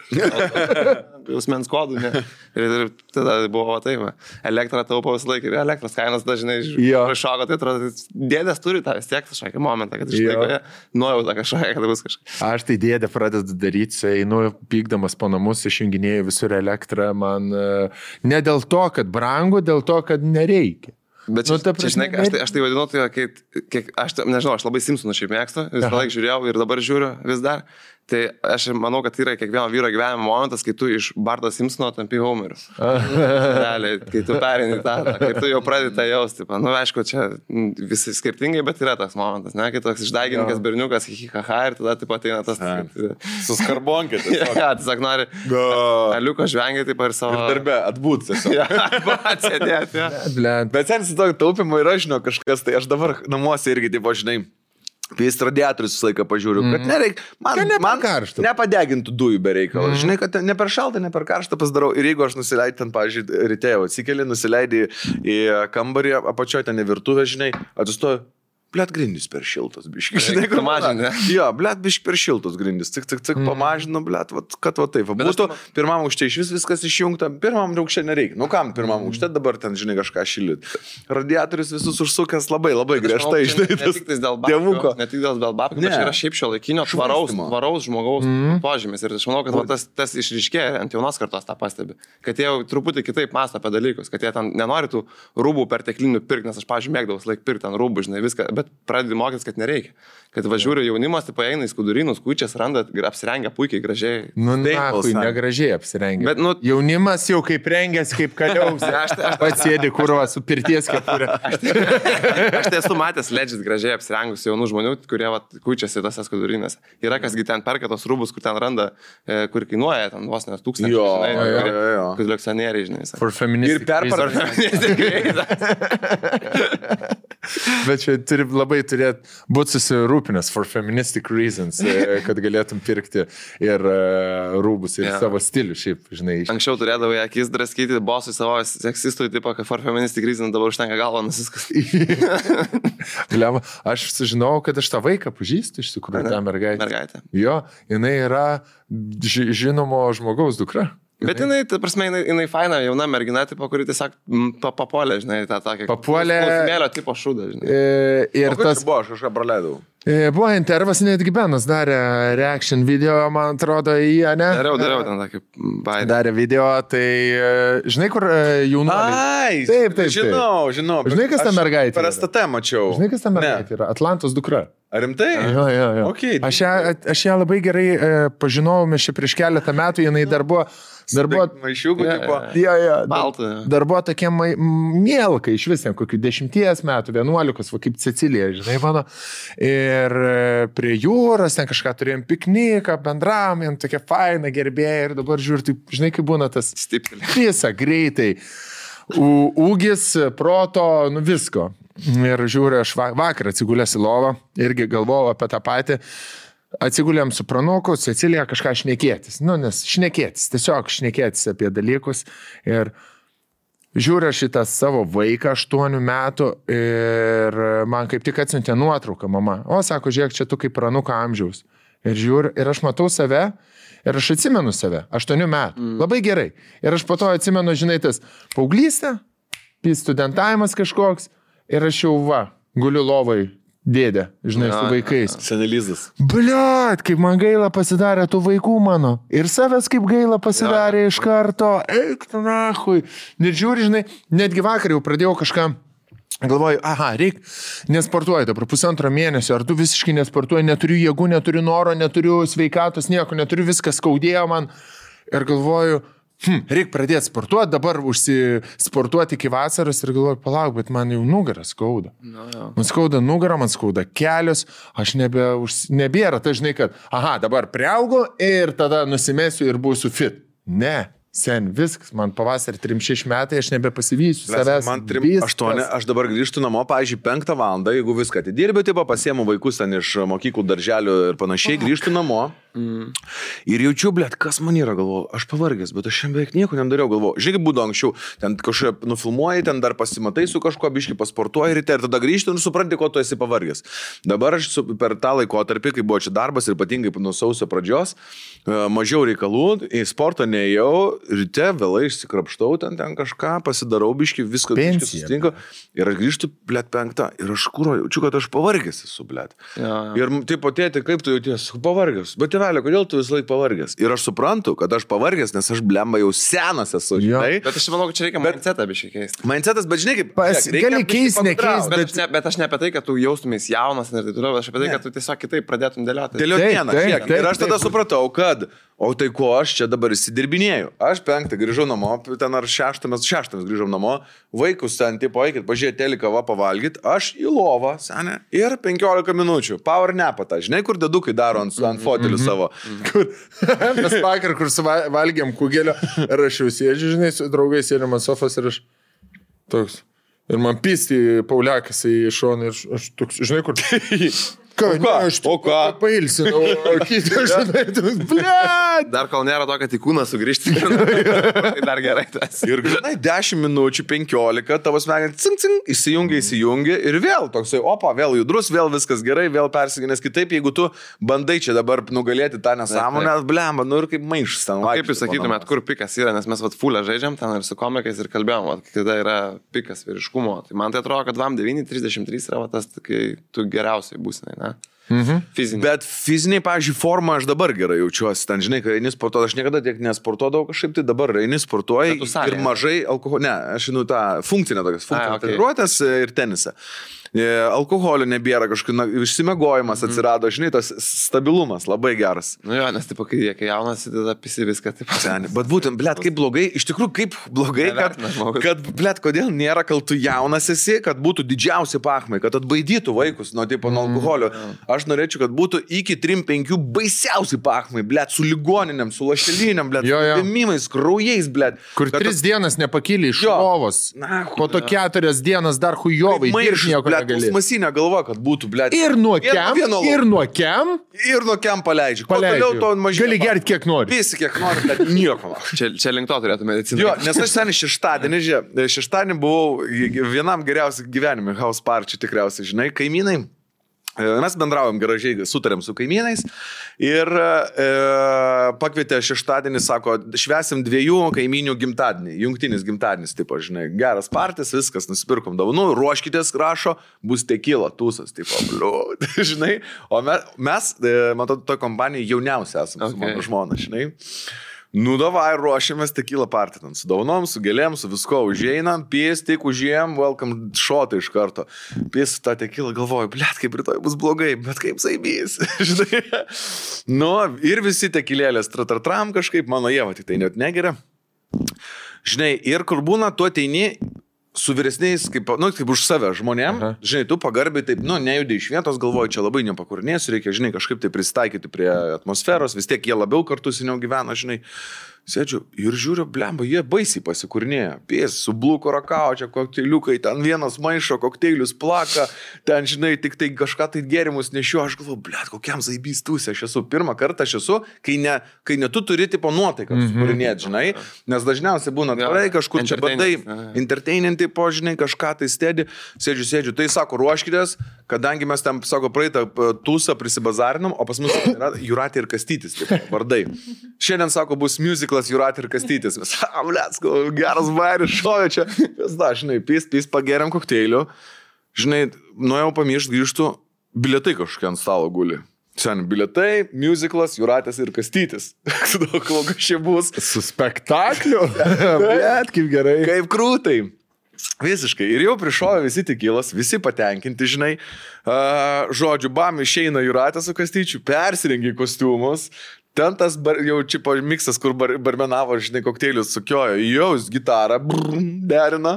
Jausmens kodų, ne. Ir tada buvo taip, elektrą taupo visą laiką ir elektros kainos dažnai iššoko, tai atrodo, dėdės turi tą vis tiek kažkokį momentą, kad išlaiko nuojautą kažkokią, kad bus kažkas. Aš tai dėdė pradedu daryti, einu pykdamas po namus, išjunginėjau visur elektrą, man ne dėl to, kad brangu, dėl to, kad nereikia. Bet čia, žinai, aš tai vadinu, tai aš nežinau, aš labai Simpsonų šiaip mėgstu, visą laiką žiūrėjau ir dabar žiūriu vis dar. Tai aš manau, kad yra kiekvieno vyro gyvenimo momentas, kai tu iš Barto Simpsono tampi Homeriu. Realiai, kai tu perini tą, kai tu jau pradedi tą jausti. Nu, aišku, čia visi skirtingai, bet yra tas momentas, ne? Kai toks išdaigininkas berniukas, hihihaha, ir tada taip ateina tas... Su skarbonkė. Ja, tiesiog nori aliuko žvengiai taip ir savo... Ir darbę atbūt tiesiog. Atsėdėti, ja. Bet sen su tokio taupimo yra, žinau, kažkas, tai aš dabar namuose irgi, taip, žinai, Pės radiatorius visą laiką pažiūriu, kad nereik, man nepadegintų dujų be reikalo. Žinai, kad ne per šaltą, ne per karštą pasidarau. Ir jeigu aš nusileidžiu ten, pavyzdžiui, ryte jau atsikeli, nusileidži į kambarį, apačioje ten į virtuvę, žinai, atsistoju. Blet, grindys per šiltos, biški. Žinai, kur mažinė. Jo, blet, biški per šiltos grindys. Tik pamažinu, blet, kad va taip. Būtų pirmam aukšte iš viskas išjungta, pirmam aukšte nereikia. Nu kam pirmam aukšte dabar ten, žinai, kažką šildyt. Radiatorius visus užsukęs labai griežtai, žinai, tas dievuko. Ne tik dėl babkių, bet yra šiaip šio laikinio tvaraus žmogaus požymis. Ir aš manau, kad tas išryškėja ant jaunos kartos tą pastebi. Kad jie jau truputį kitaip mąsto apie dalykus, kad jie ten nenori tų rūbų perteklinių pirkti, nes aš, pavyzdžiui, mėgdavau laik pirkti ant rūbų, žinai, viską. Bet pradedi mokytis, kad nereikia. Kad važiuoja jaunimas, tai paeina į skudurynus, kučias, randa, apsirengia puikiai, gražiai. Nu, negražiai apsirengia. Bet, jaunimas jau kaip rengęs, kaip kaliaus. Aš pats sėdi kurva su pirties kepurė. Aš tai esu matęs legit gražiai apsirengus jaunų žmonių, kurie kučiasi tose skudurynėse. Yra kasgi ten perka tos rūbus, kur ten randa, kur kainuoja ten vos nes 1000. Kolekcionieriai, žinai. For feministic Bet čia turi labai būti susirūpinęs for feministic reasons, kad galėtum pirkti ir rūbus, ir savo stilių šiaip, žinai. Anksčiau turėdavau akis draskyti bosui savo seksistui, tipo, kad for feministic reasons dabar užtenka galvą nusiskas. Aš sužinojau, kad aš tą vaiką pažįstu iš tikrųjų, tą mergaitę. Jo, jinai yra žinomo žmogaus dukra. Bet jinai, ta prasme, jinai faina, jauna mergina, tipo, kuri tiesiog papuolė, žinai, tą tokį... Papuolė... Smėlio tipo šūdą, žinai. Ir tas... Buvo, aš kažką praleidau. Buvo intervas, netgi Benas darė reaction video, man atrodo, į ją, ne? Dariau ten tokį baidį. Darė video, tai žinai, kur jaunuoliai... Ai, taip. Žinau. Žinai, kas ta mergaitė? Per STT mačiau. Žinai, kas ta mergaitė yra? Atlantos dukra. Ar rimtai? Jo. Okay. Aš ją labai gerai pažinojau, mes čia prieš keletą metų, jinai dar buvo maišiukų, tipo. Baltų. Dar buvo tokie mielkai iš vis, kokių 10 metų, 11, va, kaip Cecilija, žinai, mano. Ir prie jūros, ten kažką turėjom pikniką, bendravom, jam tokia faina gerbėja ir dabar žiūrėjau, tai, žinai, kaip būna tas visą greitai. Ūgis, proto, nu visko. Ir žiūrėjau, aš vakar atsigulęs į lovą, irgi galvojau apie tą patį. Atsigulėm su pranuku, Cecilija kažką šnekėtis. Nu, nes šnekėtis, tiesiog šnekėtis apie dalykus. Ir žiūrėjau šitą savo vaiką 8 metų ir man kaip tik atsiuntė nuotrauką mama. O, sako, žiūrėk, čia tu kaip pranuko amžiaus. Ir žiūriu, ir aš matau save, ir aš atsimenu save, 8 metų. Labai gerai. Ir aš po to atsimenu, žinai, tas paauglystė, studentavimas kažkoks, ir aš jau guliu lovai. Dėdė, žinai, su vaikais. Senelizas. Bliat, kaip man gaila pasidarė tų vaikų mano. Ir savęs kaip gaila pasidarė iš karto. Eik, tu nahui. Ir žiūri, žinai, netgi vakar jau pradėjau kažką. Galvoju, reik, nesportuoju dabar 1,5 mėnesio, ar tu visiškai nesportuoji, neturiu jėgų, neturiu noro, neturiu sveikatos, nieko, neturiu, viskas skaudėjo man. Ir galvoju, reik pradėti sportuoti, dabar užsisportuoti iki vasaros ir galvoju, palauk, bet man jau nugarą skauda. Man skauda nugarą, man skauda kelius, aš nebėra, tai žinai, kad, dabar priaugu ir tada nusimesiu ir būsiu fit. Ne, Sen, viskas, man pavasarį 3-6 metai, aš nebepasivysiu savęs. Man 3-8, aš dabar grįžtu namo, pavyzdžiui, 5 valandą, jeigu viską atidirbiu, tipo pasiemu vaikus ten iš mokyklų, darželių ir panašiai, grįžtu namo. Ir jaučiu, blėt, kas man yra, galvoju, aš pavargęs, bet aš šiandien beveik nieko nedariau, galvoju. Žinai, kaip būdavo anksčiau, ten kažkaip nufilmuoji, ten dar pasimatai su kažkuo, biški pasportuoji ryte ir tada grįžti ir supranti, ko tu esi pavargęs. Dabar aš per tą laikotarpį, kai buvo čia darbas ir ypatingai nuo sausio pradžios, mažiau reikalų, į sportą neėjau, ryte vėlai išsikrapštau, ten kažką, pasidarau biški, viską susitinka ir aš grįžtu, blėt, 5 ir aš jaučiu, kad aš pavargęs esu, blėt. Ir taip tėti, kaip tu jauties, pavargęs, bet tėvelė, kodėl tu vis laik pavargęs? Ir aš suprantu, kad aš pavargęs, nes aš blemba jau senas esu, žinai. Bet aš manau, kad čia reikia mindsetą biškai keisti. Mindsetas, bet žinai, kaip... Gali keisti, nekeisti. Bet aš ne apie tai, kad tu jaustumės jaunas ir taip toliau, aš apie tai, kad tu tiesiog kitaip pradėtum dėlioti. Dėlioti dieną, žiūrėk. Ir aš tada supratau, kad, o tai ko aš čia dabar įsidirbinėjau. Aš 5 grįžau namo, ten ar 6 grįžau namo, vaikus ten, tipo, eikit, pažiūrėti teliką, pavalgyti, aš į lovą, senė, ir 15 minučių, power napatą, žinai, kur dedukai daro ant fotelių savo. Mes vakar, kur valgėm kugelio, ir aš jau sėdžiu, žinai, su draugais sėdėm ant sofos ir aš toks. Ir man pisti Pauliakas į šoną ir aš toks, žinai, kur... O ką? Pailsinau, o kitą, žinai, toks, blėt. Dar kol nėra to, kad į kūną sugrįžti, tai dar gerai tas. Ir, žinai, 10 minučių, 15, tavo smegenys, cing, cing, įsijungia ir vėl toksai, opa, vėl judrus, vėl viskas gerai, vėl persiginės kitaip, jeigu tu bandai čia dabar nugalėti tą nesąmonę, blemba, nu ir kaip maišas ten. Kaip jūs sakytumėt, kur pikas yra, nes mes fulę žaidžiam ten ir su komikais ir kalbėjom, kada yra pikas vyriškumo. Tai man tai atrodo, kad 9:33 yra tas, kai tu geriausiai būsi, ne? Fiziniai. Bet fiziniai, pavyzdžiui, formą aš dabar gerai jaučiuosi. Ten, žinai, kai eini sportuoti, aš niekada tiek nesportuodavau kažkaip, tai dabar eini sportuoji ir mažai alkoholio. Ne, aš einu tą funkcinę tokias, treniruotės ir tenisą. Alkoholio nebėra, kažkaip išsimiegojimas atsirado, žinai, tas stabilumas labai geras. Nu jo, nes taip, kai jaunas, tada pisi viską taip. Bet būtent, blėt, kaip blogai, iš tikrųjų, kaip blogai, kad blėt, kodėl nėra, kol tu jaunas esi, kad būtų didžiausi pachmai, kad atbaidytų vaikus nuo alkoholio. Aš norėčiau, kad būtų iki 3-5 baisiausi pachmai, blėt, su ligoniniam, su lašeliniam, blėt, su vėmimais, kraujais, blėt. Kur 3 dienas nepakyli iš lovos, po to 4 dienas dar hujovai, dirš nieko negali. Masinė galva, kad būtų, blėt. Ir nuo kem paleidžiu. Gali gerti kiek nori. Visi kiek nori, bet nieko. Čia link to turėtų mediciną. Jo, nes aš seniai šeštadienį buvau vienam geriausiai gyvenime, house party tikriausiai, žinai, kaimynai. Mes bendraujam gražiai, sutarėm su kaimynais ir pakvietė šeštadienį, sako, švęsim 2 kaimynių gimtadienį, jungtinis gimtadienis, tipo, žinai, geras partis, viskas, nusipirkom dovanų, ruoškitės, rašo, bus tekila, tūsas, tipo, bliūd, žinai, o mes matau, to kompanijai jauniausia esame su mano žmona, žinai. Nu, davai, ruošiamės tekilą partį, su daunom, su gėlėm, su visko užeinam, pės, tik užėjom, welcome šotą iš karto. Pės tą tekilą, galvoju, blėt, kaip rytoj bus blogai, bet kaip saibys, žinai. Nu, ir visi tekilėlės tratratram kažkaip, mano Ieva tik tai net negeria. Žinai, ir kur būna, tu ateini su vyresniais, kaip už save žmonėm, žinai, tu pagarbiai taip, nejudai iš vietos, galvoju, čia labai nepakurnėsiu, reikia, žinai, kažkaip tai prisitaikyti prie atmosferos, vis tiek jie labiau kartu seniau gyvena, žinai. Sėdžiu ir žiūriu, blemba, jie baisiai pasikurnėja. Pės, su bluko rakau, čia kokteiliukai, ten vienas maišo, kokteilius plaka, ten, žinai, tik tai kažką tai gėrimus nešiu, aš galvoju, blet, kokiam zaibys tūsė, aš esu, pirmą kartą aš esu, kai ne tu turi tipo nuotaiką sukurinėti, žinai, nes dažniausiai būna tvarai, kažkur čia bandai, entertaininti, po, žinai, kažką tai stėdi, sėdžiu, tai sako, ruoškitės, kadangi mes ten, sako, praeitą tūsą prisibazarinom, o pas mus yra Jūratė ir Kastytis, tipo, vardai. Šiandien, sako, bus musiclas Jūratė ir Kastytis. Bletsko, geras bairis, šovė čia. Žinai, pys, pageriam kokteilių. Žinai, nuėjau pamiršti, grįžtu, bilietai kažkokie ant stalo guli. Sen, bilietai, musiclas, Jūratės ir Kastytis. Kokia čia bus. Su spektakliu. Blet, kaip gerai. Kaip krūtai. Visiškai. Ir jau prišovė visi tekilas, visi patenkinti, žinai. Žodžiu, bam, išeina Jūratė su Kastyčiu, persirengia kostiumus. Ten tas jau čipo miksas, kur barmenavo, žinai, kokteilius sukiojo, jau gitarą derina.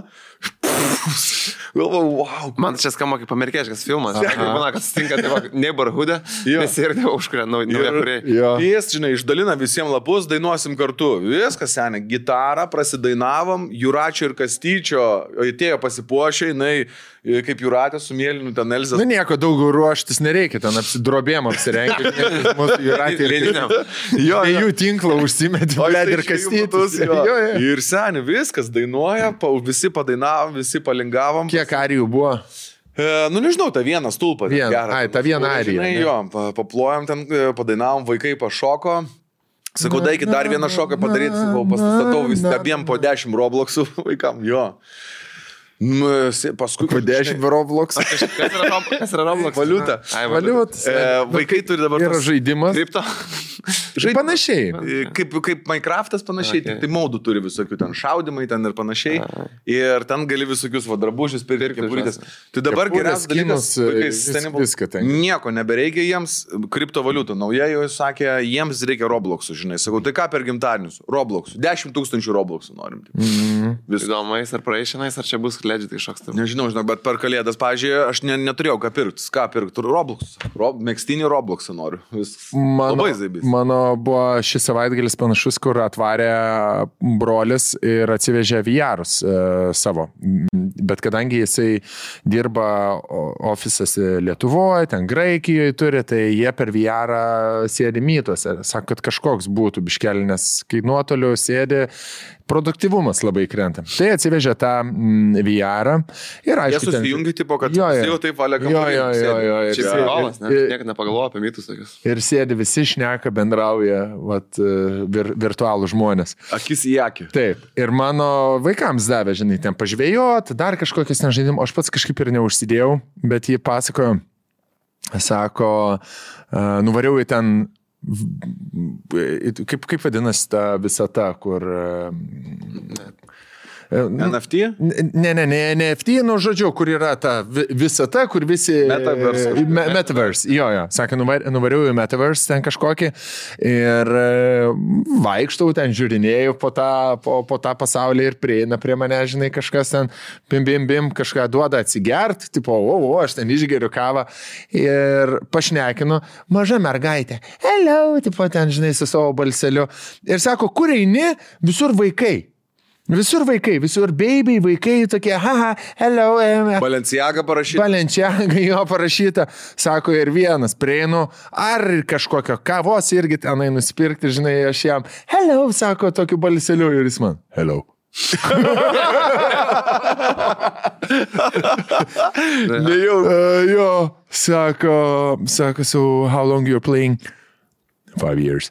Galvoju, wow. Man čia skamba kaip amerikieškas filmas. Būna, kad sutinka neighborhood'e, nes ir tai užkuria nauja kuriai. Jis, žinai, išdalina visiems lapus, dainuosim kartu. Viskas, seniai, gitarą prasidainavom, Juračio ir Kastyčio atėjo pasipuošę, jinai kaip Juratė su Mėlynu, ten Elzas. Na nieko, daug ruoštis nereikia, ten drobėm apsirengti. Mūsų Juratė ir jo, jų tinklą užsimetė, ir Kastytis. Ir seniai, viskas dainuoja, visi padainavom, visi palingavom. Kiek arijų buvo? Nu, nežinau, tą vieną stulpą. Ta viena arija. Jo, paplojom ten, padainavom, vaikai pašoko. Sakau, daikit dar vieną šoką padaryti, sakau, pastatau vis abiem po 10 Robloxų vaikam, jo. Paskui po 10 Roblox. Kas yra Roblox? Valiuta. Vaikai turi dabar... Yra žaidimas. Kripto. Panašiai. Kaip Minecraftas panašiai, tai maudų turi visokių ten šaudimai ten ir panašiai. Ir ten gali visokius drabužius pirkti. Tai dabar geriausias dalykas, nieko nebereikia jiems, kriptovaliutų. Nauja jau sakė, jiems reikia Robloxų, žinai. Sakau, tai ką per gimtadienius? Robloxų. 10 000 Robloxų norim. Įdomais ar praeišinais, ar čia bus legit kažkoks. Nežinau, bet per kalėdas, pažiūrėjau, aš neturėjau ką pirkti. Ką pirkti? Roblox. Megztinį Robloxą noriu. Labai zaibys. Mano buvo šis savaitgalis panašus, kur atvarė brolis ir atsivežė VR'us savo. Bet kadangi jisai dirba ofisas Lietuvoje, ten Graikijoje turi, tai jie per VR'ą sėdi mytuose. Sako, kad kažkoks būtų biškelį, nes kai nuotoliu sėdi, produktyvumas labai krenta. Tai atsivežė tą VR'ą ir aišku... Jie susijungi, tipo, kad jau taip valia kamuolį. Čia sėdolas, niek nepagalvoja apie mytus tokius. Ir sėdi visi šneka, bendrauja, virtualų žmonės. Akis į akį. Taip. Ir mano vaikams davė, žinai, ten pažvėjot, dar kažkokias ten žaidimų. Aš pats kažkaip ir neužsidėjau, bet jį pasakojo, sako, nuvariau į ten... Kaip vadinasi ta visata, kur... NFT? Ne NFT, nu žodžiu, kur yra ta visata, kur visi... Metaverse. Jo. Sakė, nuvariau į Metaverse ten kažkokį ir vaikštau ten, žiūrinėjau po tą pasaulį ir prieina prie mane, žinai, kažkas ten bim, kažką duoda atsigert, tipo, aš ten išgeriu kavą ir pašnekinu, maža mergaitė, hello, tipo ten, žinai, su savo balseliu ir sako, kur eini, visur vaikai. Visur vaikai, visur baby, vaikai tokie, hello. Balenciaga parašyta. Balenciaga jo parašyta. Sako, ir vienas prieinu, ar kažkokio kavos irgi tenai nusipirkti, žinai, aš jam, hello, sako, tokiu balseliu ir jis man, hello. Jo, sako, so how long you're playing? 5 years.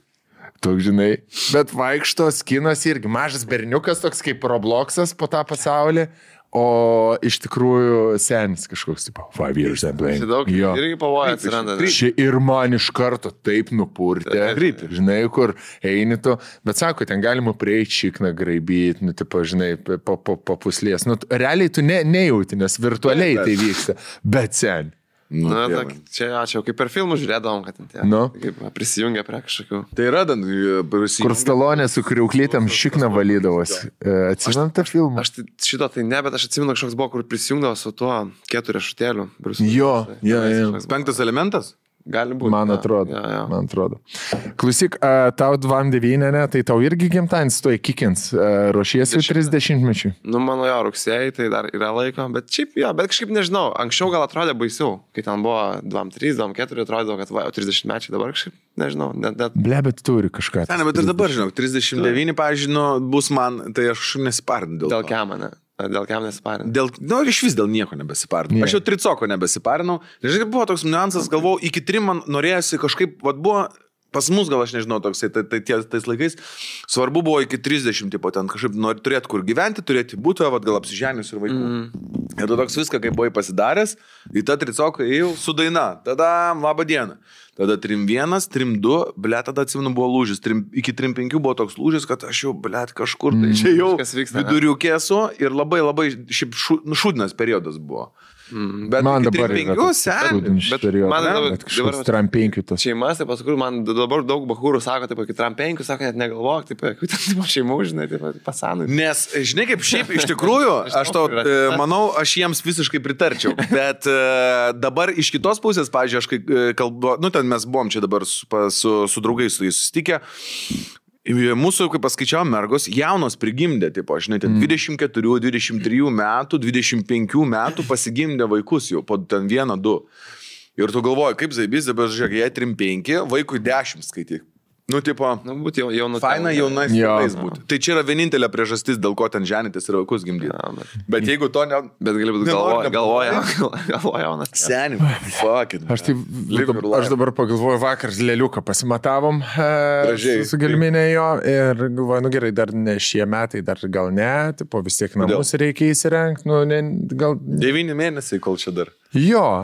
Toks, žinai, bet vaikšto skinas irgi mažas berniukas, toks kaip Robloxas po tą pasaulį, o iš tikrųjų senis kažkoks, tipo, 5 years I'm playing. Daug irgi pavoja atsiranda. Ir man iš karto taip nupurtė, žinai, kur eini tu, bet sako, ten galima prieiti šikną graibyti, nu, tipo, žinai, po puslės. Nu, realiai tu nejauti, nes virtualiai tai vyksta, bet sen. Čia ačiū, kaip per filmų žiūrėdavom, kad tie prisijungia prie kažkokių. Tai yra, kur Stalonė su kriauklytėm šikną valydavosi. Atsimenu tą filmą? Aš šito tai ne, bet aš atsimenu, kažkoks buvo, kur prisijungdavo su tuo 4 šutėliu. Jo. 5 elementas? Gali būti. Man atrodo. Klausyk, tau 29, tai tau irgi gimtadienis tuoj kikins, ruošiesi 30-mečiui? Nu, mano jo, rugsėjai, tai dar yra laiko, bet šiaip, bet kažkaip nežinau, anksčiau gal atrodė baisiau, kai ten buvo 2-3, 2-4, atrodė, kad 30-mečiai dabar kažkaip, nežinau, net... Ble, bet turi kažką. Ne, bet ir dabar, žinau, 39, pavyzdžiui, bus man, tai aš nesiparinu dėl to. Dėl kiam, ne? Dėl kiam nesiparinu? Iš vis dėl nieko nebesiparinu. Aš jau tricoko nebesiparinau. Žinai, buvo toks niuansas, galvojau, iki 3 man norėjosi kažkaip, buvo pas mus gal aš nežinau toksai, tais laikais, svarbu buvo iki 30, tipo, ten kažkaip turėti kur gyventi, turėti būtą, gal apsiženius ir vaikų. Ir tu toks viską, kaip buvai pasidaręs, į tą tricoką ėjau su daina, tada labą dieną. Tada 3-1, 3-2, ble, tada atsimenu buvo lūžis, iki 3-5 buvo toks lūžis, kad aš jau, ble, kažkur, tai čia jau viduriukėsu ir labai šiaip šūdinas periodas buvo. Bet Man iki dabar 35 seniai. man kažkoks trampenkių tos. Šeimas, tai paskui man dabar daug bahūrų sako, taip, iki trampenkių, sako, net negalvok, taip, kaip šeimų, žinai, taip, pasanui. Nes, žinai, kaip šiaip iš tikrųjų, aš to manau, aš jiems visiškai pritarčiau. Bet dabar iš kitos pusės, pavyzdžiui, aš kai kalbu, nu ten mes buvom čia dabar su draugais su jais susitikę. Mūsų, kaip paskaičiavom, mergos jaunos prigimdė, tipo, žinai, 24, 23 metų, 25 metų pasigimdė vaikus jau, po ten 1-2. Ir tu galvoji, kaip zaibys, dabar žiūrėk, jie 3-5, vaikui 10 skaityk. Nu, tipo, būti jaunas. Faina jaunais tėvais būti. Tai čia yra vienintelė priežastis, dėl ko ten ženytis ir vaikus gimdyti. Bet jeigu to ne... Bet gali būti galvoja jaunas. Senim, fuck it. Aš dabar pagalvoju, vakar lėliuką pasimatavom su gelminė jo ir galvoju, nu gerai, dar ne šie metai, dar gal ne, tipo, vis tiek namus reikia įsirengti, nu, ne, gal... 9 mėnesiai, kol čia dar. Jo.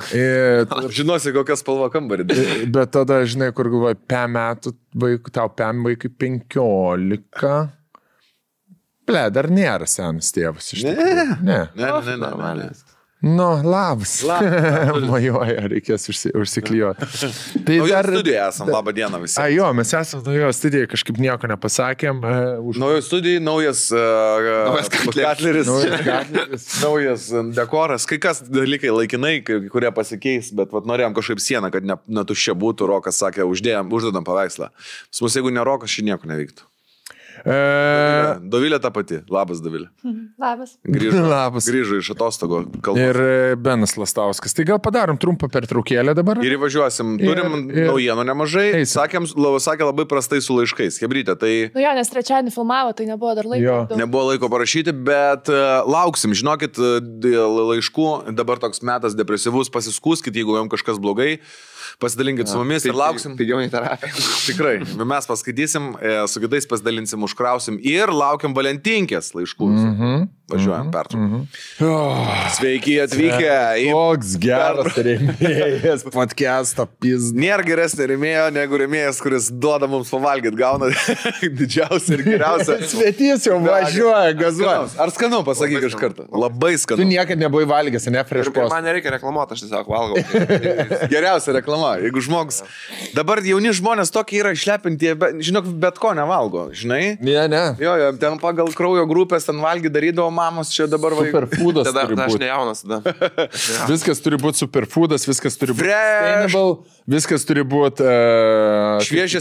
Žinosi, kokią spalvą kambarį. Bet tada, žinai, kur galvoju, 5 metų tau 5 vaikui 15. Ble, dar nėra senas tėvas iš tikrųjų. Ne. Nu, labas. Majoja, reikės užsiklijuoti. Tai dar studijoje esam, labą dieną visi. Jo, mes esam naujoje studijoje, kažkaip nieko nepasakėm. Naujoje studijoje, naujas katleris, naujas dekoras, kai kas dalykai laikinai, kurie pasikeis, bet norėjom kažkaip sieną, kad netuščia būtų, Rokas sakė, uždedam paveikslą. Pas mus, jeigu ne Rokas, ši nieko nevyktų. Dovilė ta pati. Labas, Dovilė. Labas. Grįžo iš atostogo kalbos. Ir Benas Lastauskas. Tai gal padarom trumpą pertraukėlę dabar? Ir įvažiuosim. Turim naujienų nemažai. Sakė labai prastai su laiškais. Hebrytė, tai... Nu jo, nes trečiadienį filmavo, tai nebuvo dar laiko. Nebuvo laiko parašyti, bet lauksim. Žinokit, laiškų. Dabar toks metas depresyvus. Pasiskūskit, jeigu jums kažkas blogai. Pasidalinkit su mumis ir lauksim. Pigiau nei terapija. Tikrai. Mes paskaitysim, su kitais pasidalinsim, užkrausim ir laukiam Valentinkės laiškų. Važiuojam pertrauką. Sveiki atvykę. Koks geras rėmėjas podcast'o pizd. Nėra geresnė rėmėjo negu rėmėjas, kuris duoda mums pavalgyti, gauna didžiausią ir geriausią. Svetys jau važiuoja, gazuoja. Ar skanu, pasakyk iš karto. Labai skanu. Tu niekad nebuvai valgęs, ne prieš post. Man nereikia reklamuoti, aš tiesiog valgau. Geriausia reklama. Jeigu žmogus... Dabar jauni žmonės tokie yra išlepinti, žinok, bet ko nevalgo, žinai? Ne. Jo, ten pagal kraujo grupės ten valgy darydavo mamos, čia dabar superfoodas turi būti. Aš nejaunas tada. Viskas turi būti superfoodas, viskas turi būti sustainable, viskas turi būti šviežia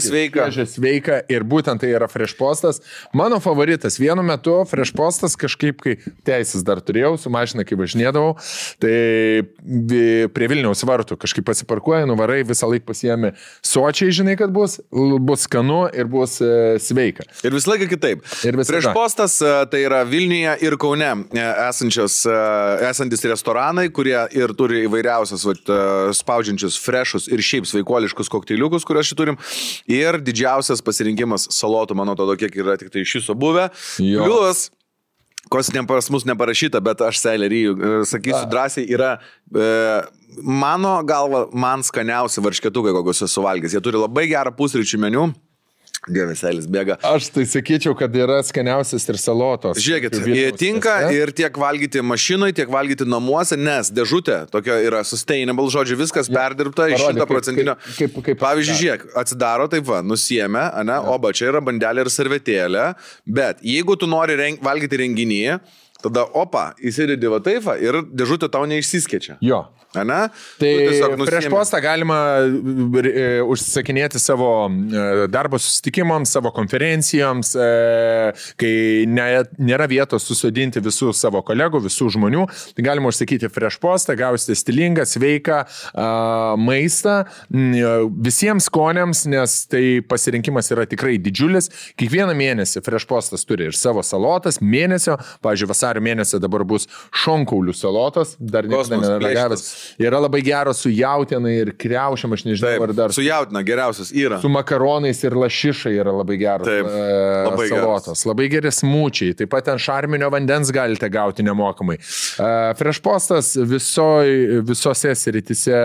sveika ir būtent tai yra Fresh Postas. Mano favoritas. Vienu metu Fresh Postas kažkaip, kai teisės dar turėjau, su mašina, kai važinėdavau, tai prie Vilniaus vartų kažkaip pasiparkuoja, nuvarai, visą laiką pasiėmė sočiai, žinai, kad bus skanu ir bus sveika. Ir visą laiką kitaip. Fresh Postas tai yra Vilniuje ir Kaune esantis restoranai, kurie ir turi įvairiausias spaudžiančius freshus ir šiaip sveikuoliškus kokteiliukus, kuriuos šį turim. Ir didžiausias pasirinkimas salotų, mano to, kiek yra tik tai iš viso buvę. Plius, kos pas mus neparašyta, bet aš Seilerį sakysiu drąsiai, yra mano galva, man skaniausi varšketukai, kokius esu valgęs. Jie turi labai gerą pusryčių meniu. Dievas, Eilis bėga. Aš tai sakyčiau, kad yra skaniausias ir salotos. Žiūrėkit, jie tinka ir tiek valgyti mašinai, tiek valgyti namuose, nes dėžutė tokia yra sustainable, žodžiu, viskas perdirbta iš 100%. Pavyzdžiui, žiūrėk, atsidaro taip va, nusiėmė, oba, čia yra bandelė ir servetėlė, bet jeigu tu nori valgyti renginį, tada opa, įsidedi va taip va ir dėžutė tau neišsiskečia. Jo. Ane? Tai prieš postą galima užsisakinėti savo darbo susitikimams, savo konferencijoms, kai nėra vietos susodinti visų savo kolegų, visų žmonių, tai galima užsakyti prieš postą, gausite stilingą, sveiką maistą visiems skoniams, nes tai pasirinkimas yra tikrai didžiulis. Kiekvieną mėnesį prieš postas turi ir savo salotas, mėnesio, pavyzdžiui, vasario mėnesio dabar bus šonkaulių salotas, dar niekada neragavęs. Yra labai geros su jautiena ir kriaušiam, aš nežinau, taip, ar dar. Su jautina geriausias yra. Su makaronais ir lašišai yra labai geros labai salotos. Geras. Labai geri smūčiai. Taip pat ten šarminio vandens galite gauti nemokamai. Fresh Postas visose sritise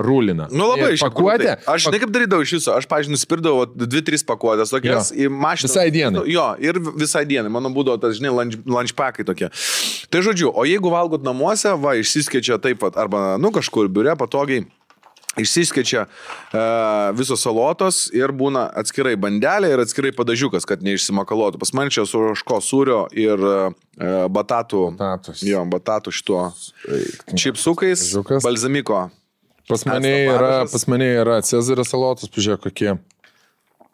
rūlina. Nu labai pakuotė. Aš žinai kaip darydavau iš viso. Aš, pavyzdžiui, nuspirdavau 2-3 pakuotės tokias į mašiną. Visai dienai. Jo, ir visai dienai. Mano būdavo tas, žinai, lunchpackai tokie. Tai žodžiu, o jeigu valgot namuose, va, išsiskečia taip pat, arba, kažkur biure patogiai, išsiskečia visos salotos ir būna atskirai bandelė ir atskirai padažiukas, kad neišsimakalotų. Pas man čia su ožko sūrio ir batatų šituo čipsukais, balzamiko. Pas mane yra Cezario salotos, pažiūrėk, kokie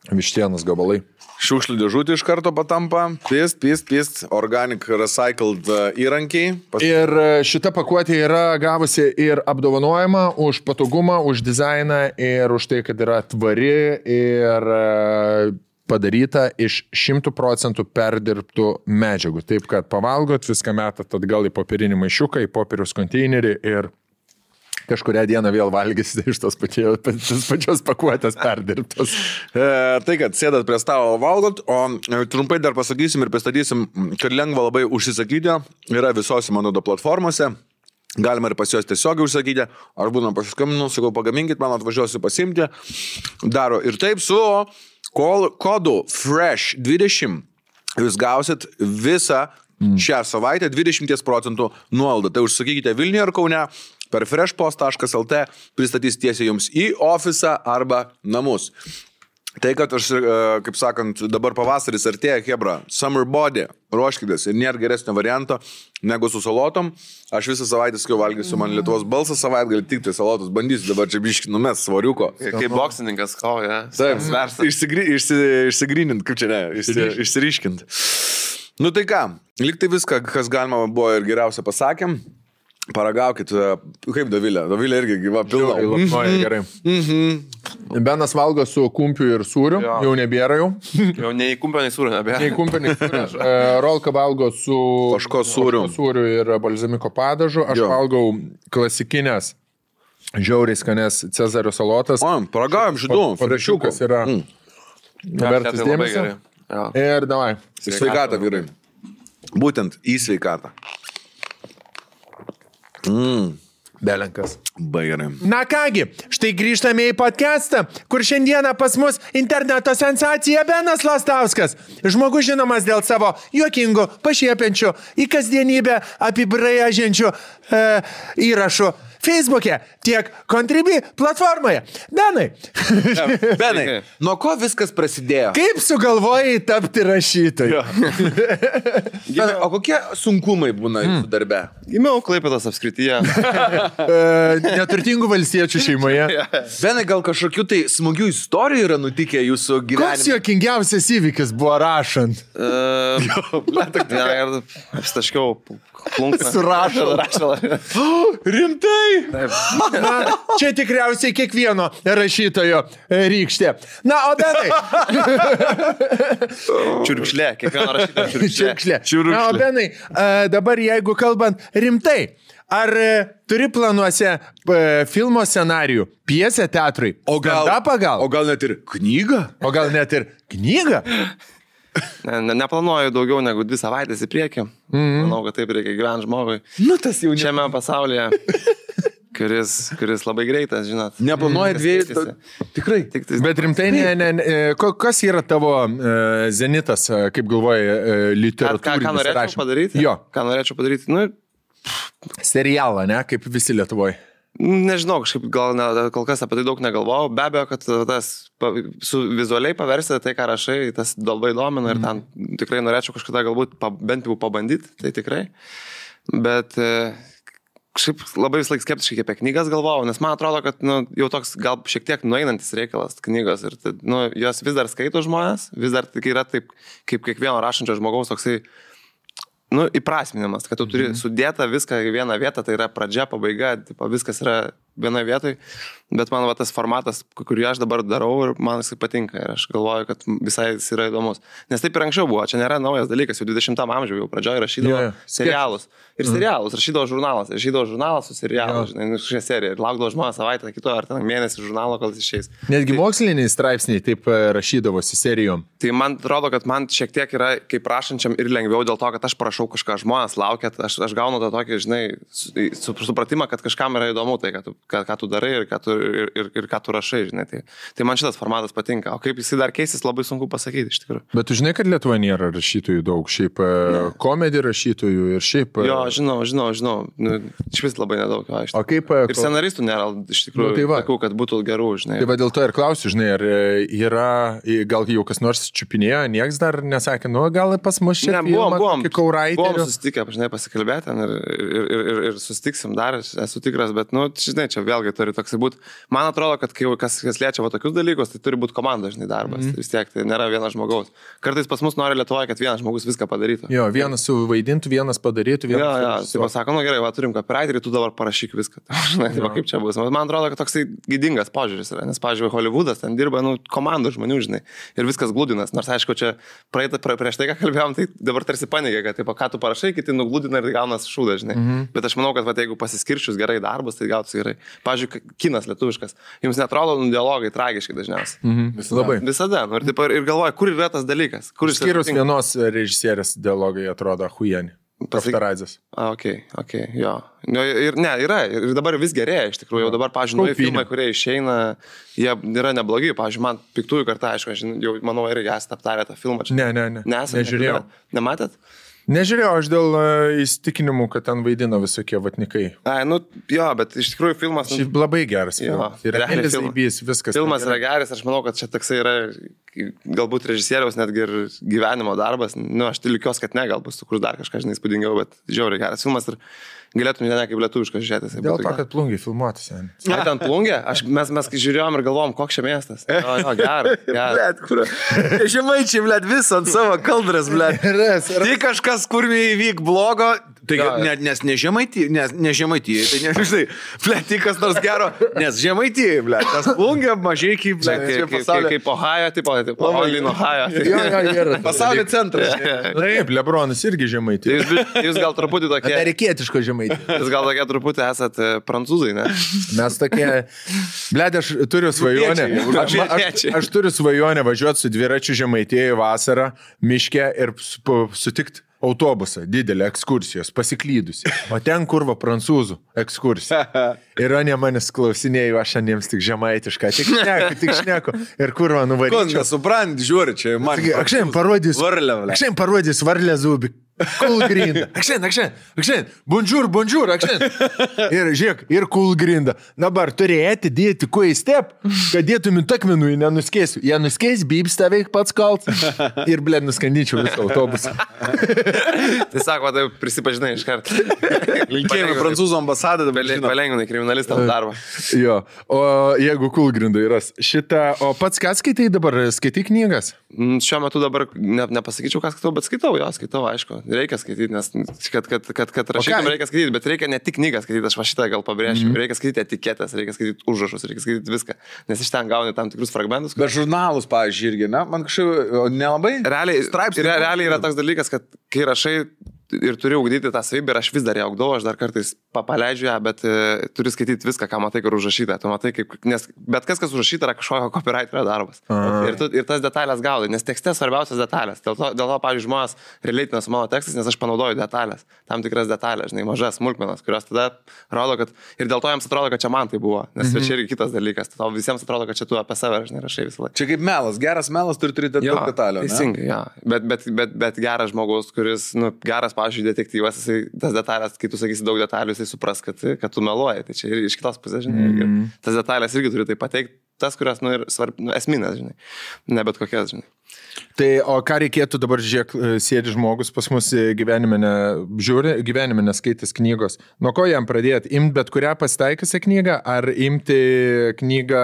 vištienos gabalai. Šiukšlių dėžutė iš karto patampa, pist, organic recycled įrankiai. Ir šita pakuotė yra gavusi ir apdovanojimą už patogumą, už dizainą ir už tai, kad yra tvari ir padaryta iš 100% perdirbtų medžiagų. Taip, kad pavalgot, viską metat atgal į popierinį maišiuką, į popieriaus konteinerį ir kažkurią dieną vėl valgysite iš tos pačios pakuotės perdirbtos. Tai, kad sėdat prie stalo valgot, o trumpai dar pasakysim ir pristatysim, kad lengva labai užsisakyti, yra visose Manodo platformose, galima ir pas juos tiesiog užsakyti, ar būna pasiskambinu, sakau, pagaminkit, man atvažiuosiu pasimti, daro ir taip su kodu FRESH20, jūs gausit visą šią savaitę 20% nuolaidą. Tai užsakykite Vilniuje ar Kaune, per freshpost.lt pristatys tiesiai jums į ofisą arba namus. Tai, kad aš, kaip sakant, dabar pavasaris artėja, hebra, summer body, ruoškitės ir nėra geresnio varianto negu su salotom. Aš visą savaitę skiau valgysiu, man Lietuvos balsas savaitgalį tik tai salotus bandysiu, dabar čia biški numes svariuko. Kaip boksininkas, Taip, išsigrynint, kaip čia ne, išsiriškint. Nu tai ką, liktai viską, kas galima buvo ir geriausia pasakėm. Paragaukit, kaip Dovilė. Dovilė irgi gyva pilna. Gerai. Benas valgo su kumpiu ir sūriu, jau nebėra jau. Jau nei kumpio, nei sūriu nebėra. Nei kumpio, nei sūriu. Rolka valgo su ožko sūriu ir balzamiko padažu. Aš valgau klasikinės, žiauriai skanės Cezario salotas. Paragavom šitų. Frešiukas yra vertas dėmesio. Ir davai. Sveikatą, vyrai. Būtent į sveikatą. Belenkas. Baigiam. Na kągi, štai grįžtame į podcastą, kur šiandieną pas mus interneto sensacija Benas Lastauskas. Žmogus žinomas dėl savo juokingų, pašiepiančių, į kasdienybę apibrėžiančių įrašų Facebook'e, tiek Contribui platformoje. Benai, nuo ko viskas prasidėjo? Kaip sugalvojai tapti rašytoju? O kokie sunkumai būna jūsų darbe? Gimiau Klaipėdos apskrityje. Neturtingų valstiečių šeimoje. Benai, gal kažkokių tai smagių istorijų yra nutikę jūsų gyvenime? Koks jokingiausias įvykis buvo rašant? Apstaškiau plunksną. Surašalą. Rimtai? Na, čia tikriausiai kiekvieno rašytojo rykštė. Na, o Benai. Čiurkšlė, kiekvieno rašytojo čiurkšlė. Na, o Benai, dabar jeigu kalbant rimtai, ar turi planuose filmo scenarijų, pjesę teatrui? O gal net ir knygą? Neplanuoju daugiau negu 2 savaitės į priekį. Manau, kad taip reikia gyventi žmogui. Nu, tas jau šiame pasaulyje, kuris labai greitas, žinot. Neplanuoja 2. Tikrai. Bet rimtai, kas yra tavo zenitas, kaip galvoji, literatūrinis? Ką norėčiau padaryti? Jo. Ką norėčiau padaryti? Nu, serialą, ne? Kaip visi Lietuvoje. Nežinau, kažkaip kol kas apie tai daug negalvojau. Be abejo, kad tas vizualiai paversti tai, ką rašai, tas labai domina ir ten tikrai norėčiau kažkada galbūt bent jau pabandyti, tai tikrai. Bet kažkaip labai vis laik skeptiškai apie knygas galvojau, nes man atrodo, kad jau toks gal šiek tiek nueinantis reikalas knygos ir jos vis dar skaito žmonės, vis dar yra taip, kaip kiekvieno rašančio žmogaus toksai įprasminimas, kad tu turi sudėta viską į vieną vietą, tai yra pradžia, pabaiga, viskas yra vienoje vietoje, bet man tas formatas, kurį aš dabar darau ir man jis patinka ir aš galvoju, kad visai jis yra įdomus. Nes taip ir anksčiau buvo, čia nėra naujas dalykas, jau 20 amžiuje jau pradžioje rašydavo serialus. Ir serialus, rašydavo žurnalas su serialu, šią seriją ir laukdavo žmonės savaitę, kito ar ten mėnesį žurnalo, kol jis išeis. Netgi moksliniai straipsniai taip rašydavosi serijom. Tai man atrodo, kad man šiek tiek yra kaip rašančiam ir lengviau dėl to, kad aš prašau kažką, žmonės laukia, aš gaunu tą tokį, žinai, supratimą, kad kažkam yra įdomu tai, kad tu ką tu darai ir ką tu rašai, žinai. Tai man šitas formatas patinka, o kaip jisai dar keisis, labai sunku pasakyti iš tikrųjų. Bet tu žinai, kad Lietuvoje nėra rašytojų daug, šiaip komedijų rašytojų ir šiaip... Jo, žinau, nu, iš vis labai nedaug, jo, iš tikrųjų. O kaip... Ir scenaristų nėra, iš tikrųjų, tai tokių, kad būtų gerų, žinai. Tai va dėl to ir klausiu, žinai, ar yra, gal jau kas nors čiupinėjo, nieks dar nesakė, nu gal pas mus čia buvom susitikę, žinai, pasikalbėti ir susitiksim dar, esu tikras, bet, nu, žinai, čia vėlgi turi toksai būti. Man atrodo, kad kai kas liečia va tokius dalykus, tai turi būti komanda, žinai, darbas. Vis tiek, tai nėra vienas žmogaus. Kartais pas mus nori Lietuvoje, kad vienas žmogus viską padarytų. Jo, vienas suvaidintų, vienas padarytų, vienas... Tai pasako, nu gerai, va turim copywriterį, tu dabar parašyk viską. Žinai, tai kaip čia bus. Man atrodo, kad toksai gydingas požiūris yra, nes, pavyzdžiui, Hollywoodas ten dirba, nu, komandų žmonių, žinai, ir viskas glūdinas. Nors, aišku, čia prieš tai, ką kalbėjom, tai dabar tarsi paneigė, kad, taip, ką tu parašai, kiti nuglūdina ir gaunas šūdas, žinai. Bet aš manau, kad, va, jeigu pasiskirčius gerai darbas, tai gautųsi gerai. Pavyzdžiui, kinas lietuviškas. Jums netrodo dialogai tragiški dažniausiai. Labai. Visada. Nu, ir galvoja, kur yra tas dalykas. Skyrus vienos režisierės dialogai atrodo huieni. Kaftaradzės. Okay, jo. Ir ne, yra. Ir dabar vis gerėja, iš tikrųjų. Jau dabar, pavyzdžiui, filmai, kurie išeina, jie yra neblogi. Pavyzdžiui, man Piktųjų karta, aišku, aš jau, manau, irgi esate aptarę tą filmą. Ne. Nežiūrėjau. Nematėt? Nežiūrėjau, aš dėl įsitikinimų, kad ten vaidino visokie vatnikai. Nu, jo, bet iš tikrųjų filmas... Šiaip labai geras. Ir viskas. Filmas yra geras, aš manau, kad čia toksai yra galbūt režisieriaus netgi ir gyvenimo darbas. Nu, aš tikiuosi, kad ne, galbūt sukurs dar kažką, žinai, įspūdingiau, bet žiauriai geras filmas ir galėtum ne kaip lietuviškas žiūrėtis. Dėl to, kad plungiai filmuotas. Ai, ten plungė? Mes žiūrėjom ir galvom, koks čia miestas. Jo, geras. Blet, kur? Žemaičiai, blet, visą ant savo kaldras, blet. Tai kažkas, kur įvyk blogo, tai nes ne Žemaitijai, tai nežinai, blet, tai kas nors gero, nes Žemaitijai, blet, tas plungė mažai kaip, blet, kaip Ohajo, tipo Olin Ohajo. Pasaulio centras. Taip, Lebronas irgi Žemaitijai. Jūs gal truputį tokie... Amerikietiško Žemaitijai. Jūs gal tokie truputį esat prancūzai, ne? Mes tokie... Blet, aš turiu svajonę. Aš turiu svajonę važiuoti su dviračiu Žemaitijai vasarą, miške ir sutikti autobusą, didelį ekskursijos, pasiklydusi. O ten kurva prancūzų ekskursija. Ir ne manęs klausinėjau, aš jiems tik žemaitišką, tik šneku. Ir kurva nuvaryčiau. Ko nesuprant, žiūri, čia man. Aš šiandien parodys varlę zubį. Cool grinda. Akšen. Bonjour, akšen. Ir žiūrėk, ir cool grinda. Dabar turėti dėti kuo į step, kad dėtum į takmenų, nenuskėsiu. Jie nuskės, bybs taveik pats kalt. Ir, blėd, nuskandyčiau visą autobusą. Tai sako, tai prisipažinai iš karto. Linkėjimai prancūzų ambasadą, palengvinai kriminalistams darbą. Jo, o jeigu cool grinda yra šitą, o pats ką skaitai dabar? Skaitai knygas? Šiuo metu dabar nepasakyčiau, ką skaitau, bet skaitau, aišku. Reikia skaityti, nes kad rašytum reikia skaityti, bet reikia ne tik knygą skaityti, aš va šitą gal pabrėšiu, reikia skaityti etiketės, reikia skaityti užrašus, reikia skaityti viską, nes iš ten gauni tam tikrus fragmentus. Bet žurnalus, pavyzdžiui, irgi, ne? Man kažkaip nelabai. Realiai yra toks dalykas, kad kai rašai ir turiu ugdyti tą savybę ir aš vis dar ją ugdau, aš dar kartais paleidžiu ją, bet turiu skaityti viską, ką matai, kur užrašyta. Tu matai, nes bet kas užrašyta, yra kažkokio copywriterio darbas. Ir tas detalės gaudai, nes tekste svarbiausias detalės. Dėl to pavyzdžiui, žmonės realiai su mano tekstais, nes aš panaudoju detalės, tam tikras detalės, žinai, mažas smulkmenas, kurios tada rodo, kad ir dėl to jiems atrodo, kad čia man tai buvo, nes čia irgi kitas dalykas. Tau visiems atrodo, kad čia tu apie save, žinai, rašai visą laiką. Čia kaip melas, geras melas turi turėti daug detalių. Teisingai, ja. Bet geras žmogus, kuris, geras, pavyzdžiui, detektyvas, jisai tas detalės, kai tu sakysi daug detalių, jisai supras, kad tu meluoji. Tai čia ir iš kitos pusės, žinai, tas detalės irgi turi tai pateikti, tas, kurios, ir esminės, žinai, ne bet kokias, žinai. Tai, o ką reikėtų dabar, žiūrėk, sėdi žmogus pas mus gyvenime neskaitęs knygos. Nuo ko jam pradėti? Imti bet kurią pasitaikiusią knygą, ar imti knygą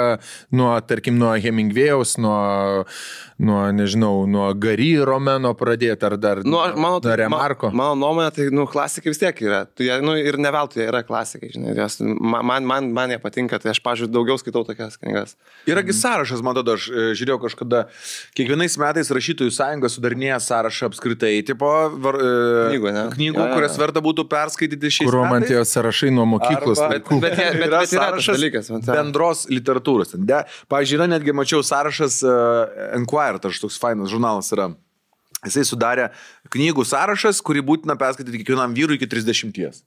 tarkim, nuo Hemingwėjaus, nuo Gary romano pradėti, ar dar nuo Remarko? Mano nuomonė, tai, klasikai vis tiek yra. Ir ne veltui jie yra klasikai, žinai. Man jie patinka, tai aš, pavyzdžiui, daugiau skaitau tokias knygas. Yragi sąrašas, man tada, aš žiūrėjau kažkada, kiekvienais metais rašytojų sąjunga sudarinėja sąrašą apskritai, tipo knygų, kurias verta būtų perskaityti šiais metais. Kur man tie sąrašai nuo mokyklos. Bet yra sąrašas dalykas, bendros literatūros. Pavyzdžiui, yra netgi, mačiau sąrašas Enquirer, toks fainas žurnalas yra. Jisai sudarė knygų sąrašas, kurį būtina perskaityti kiekvienam vyrui iki 30.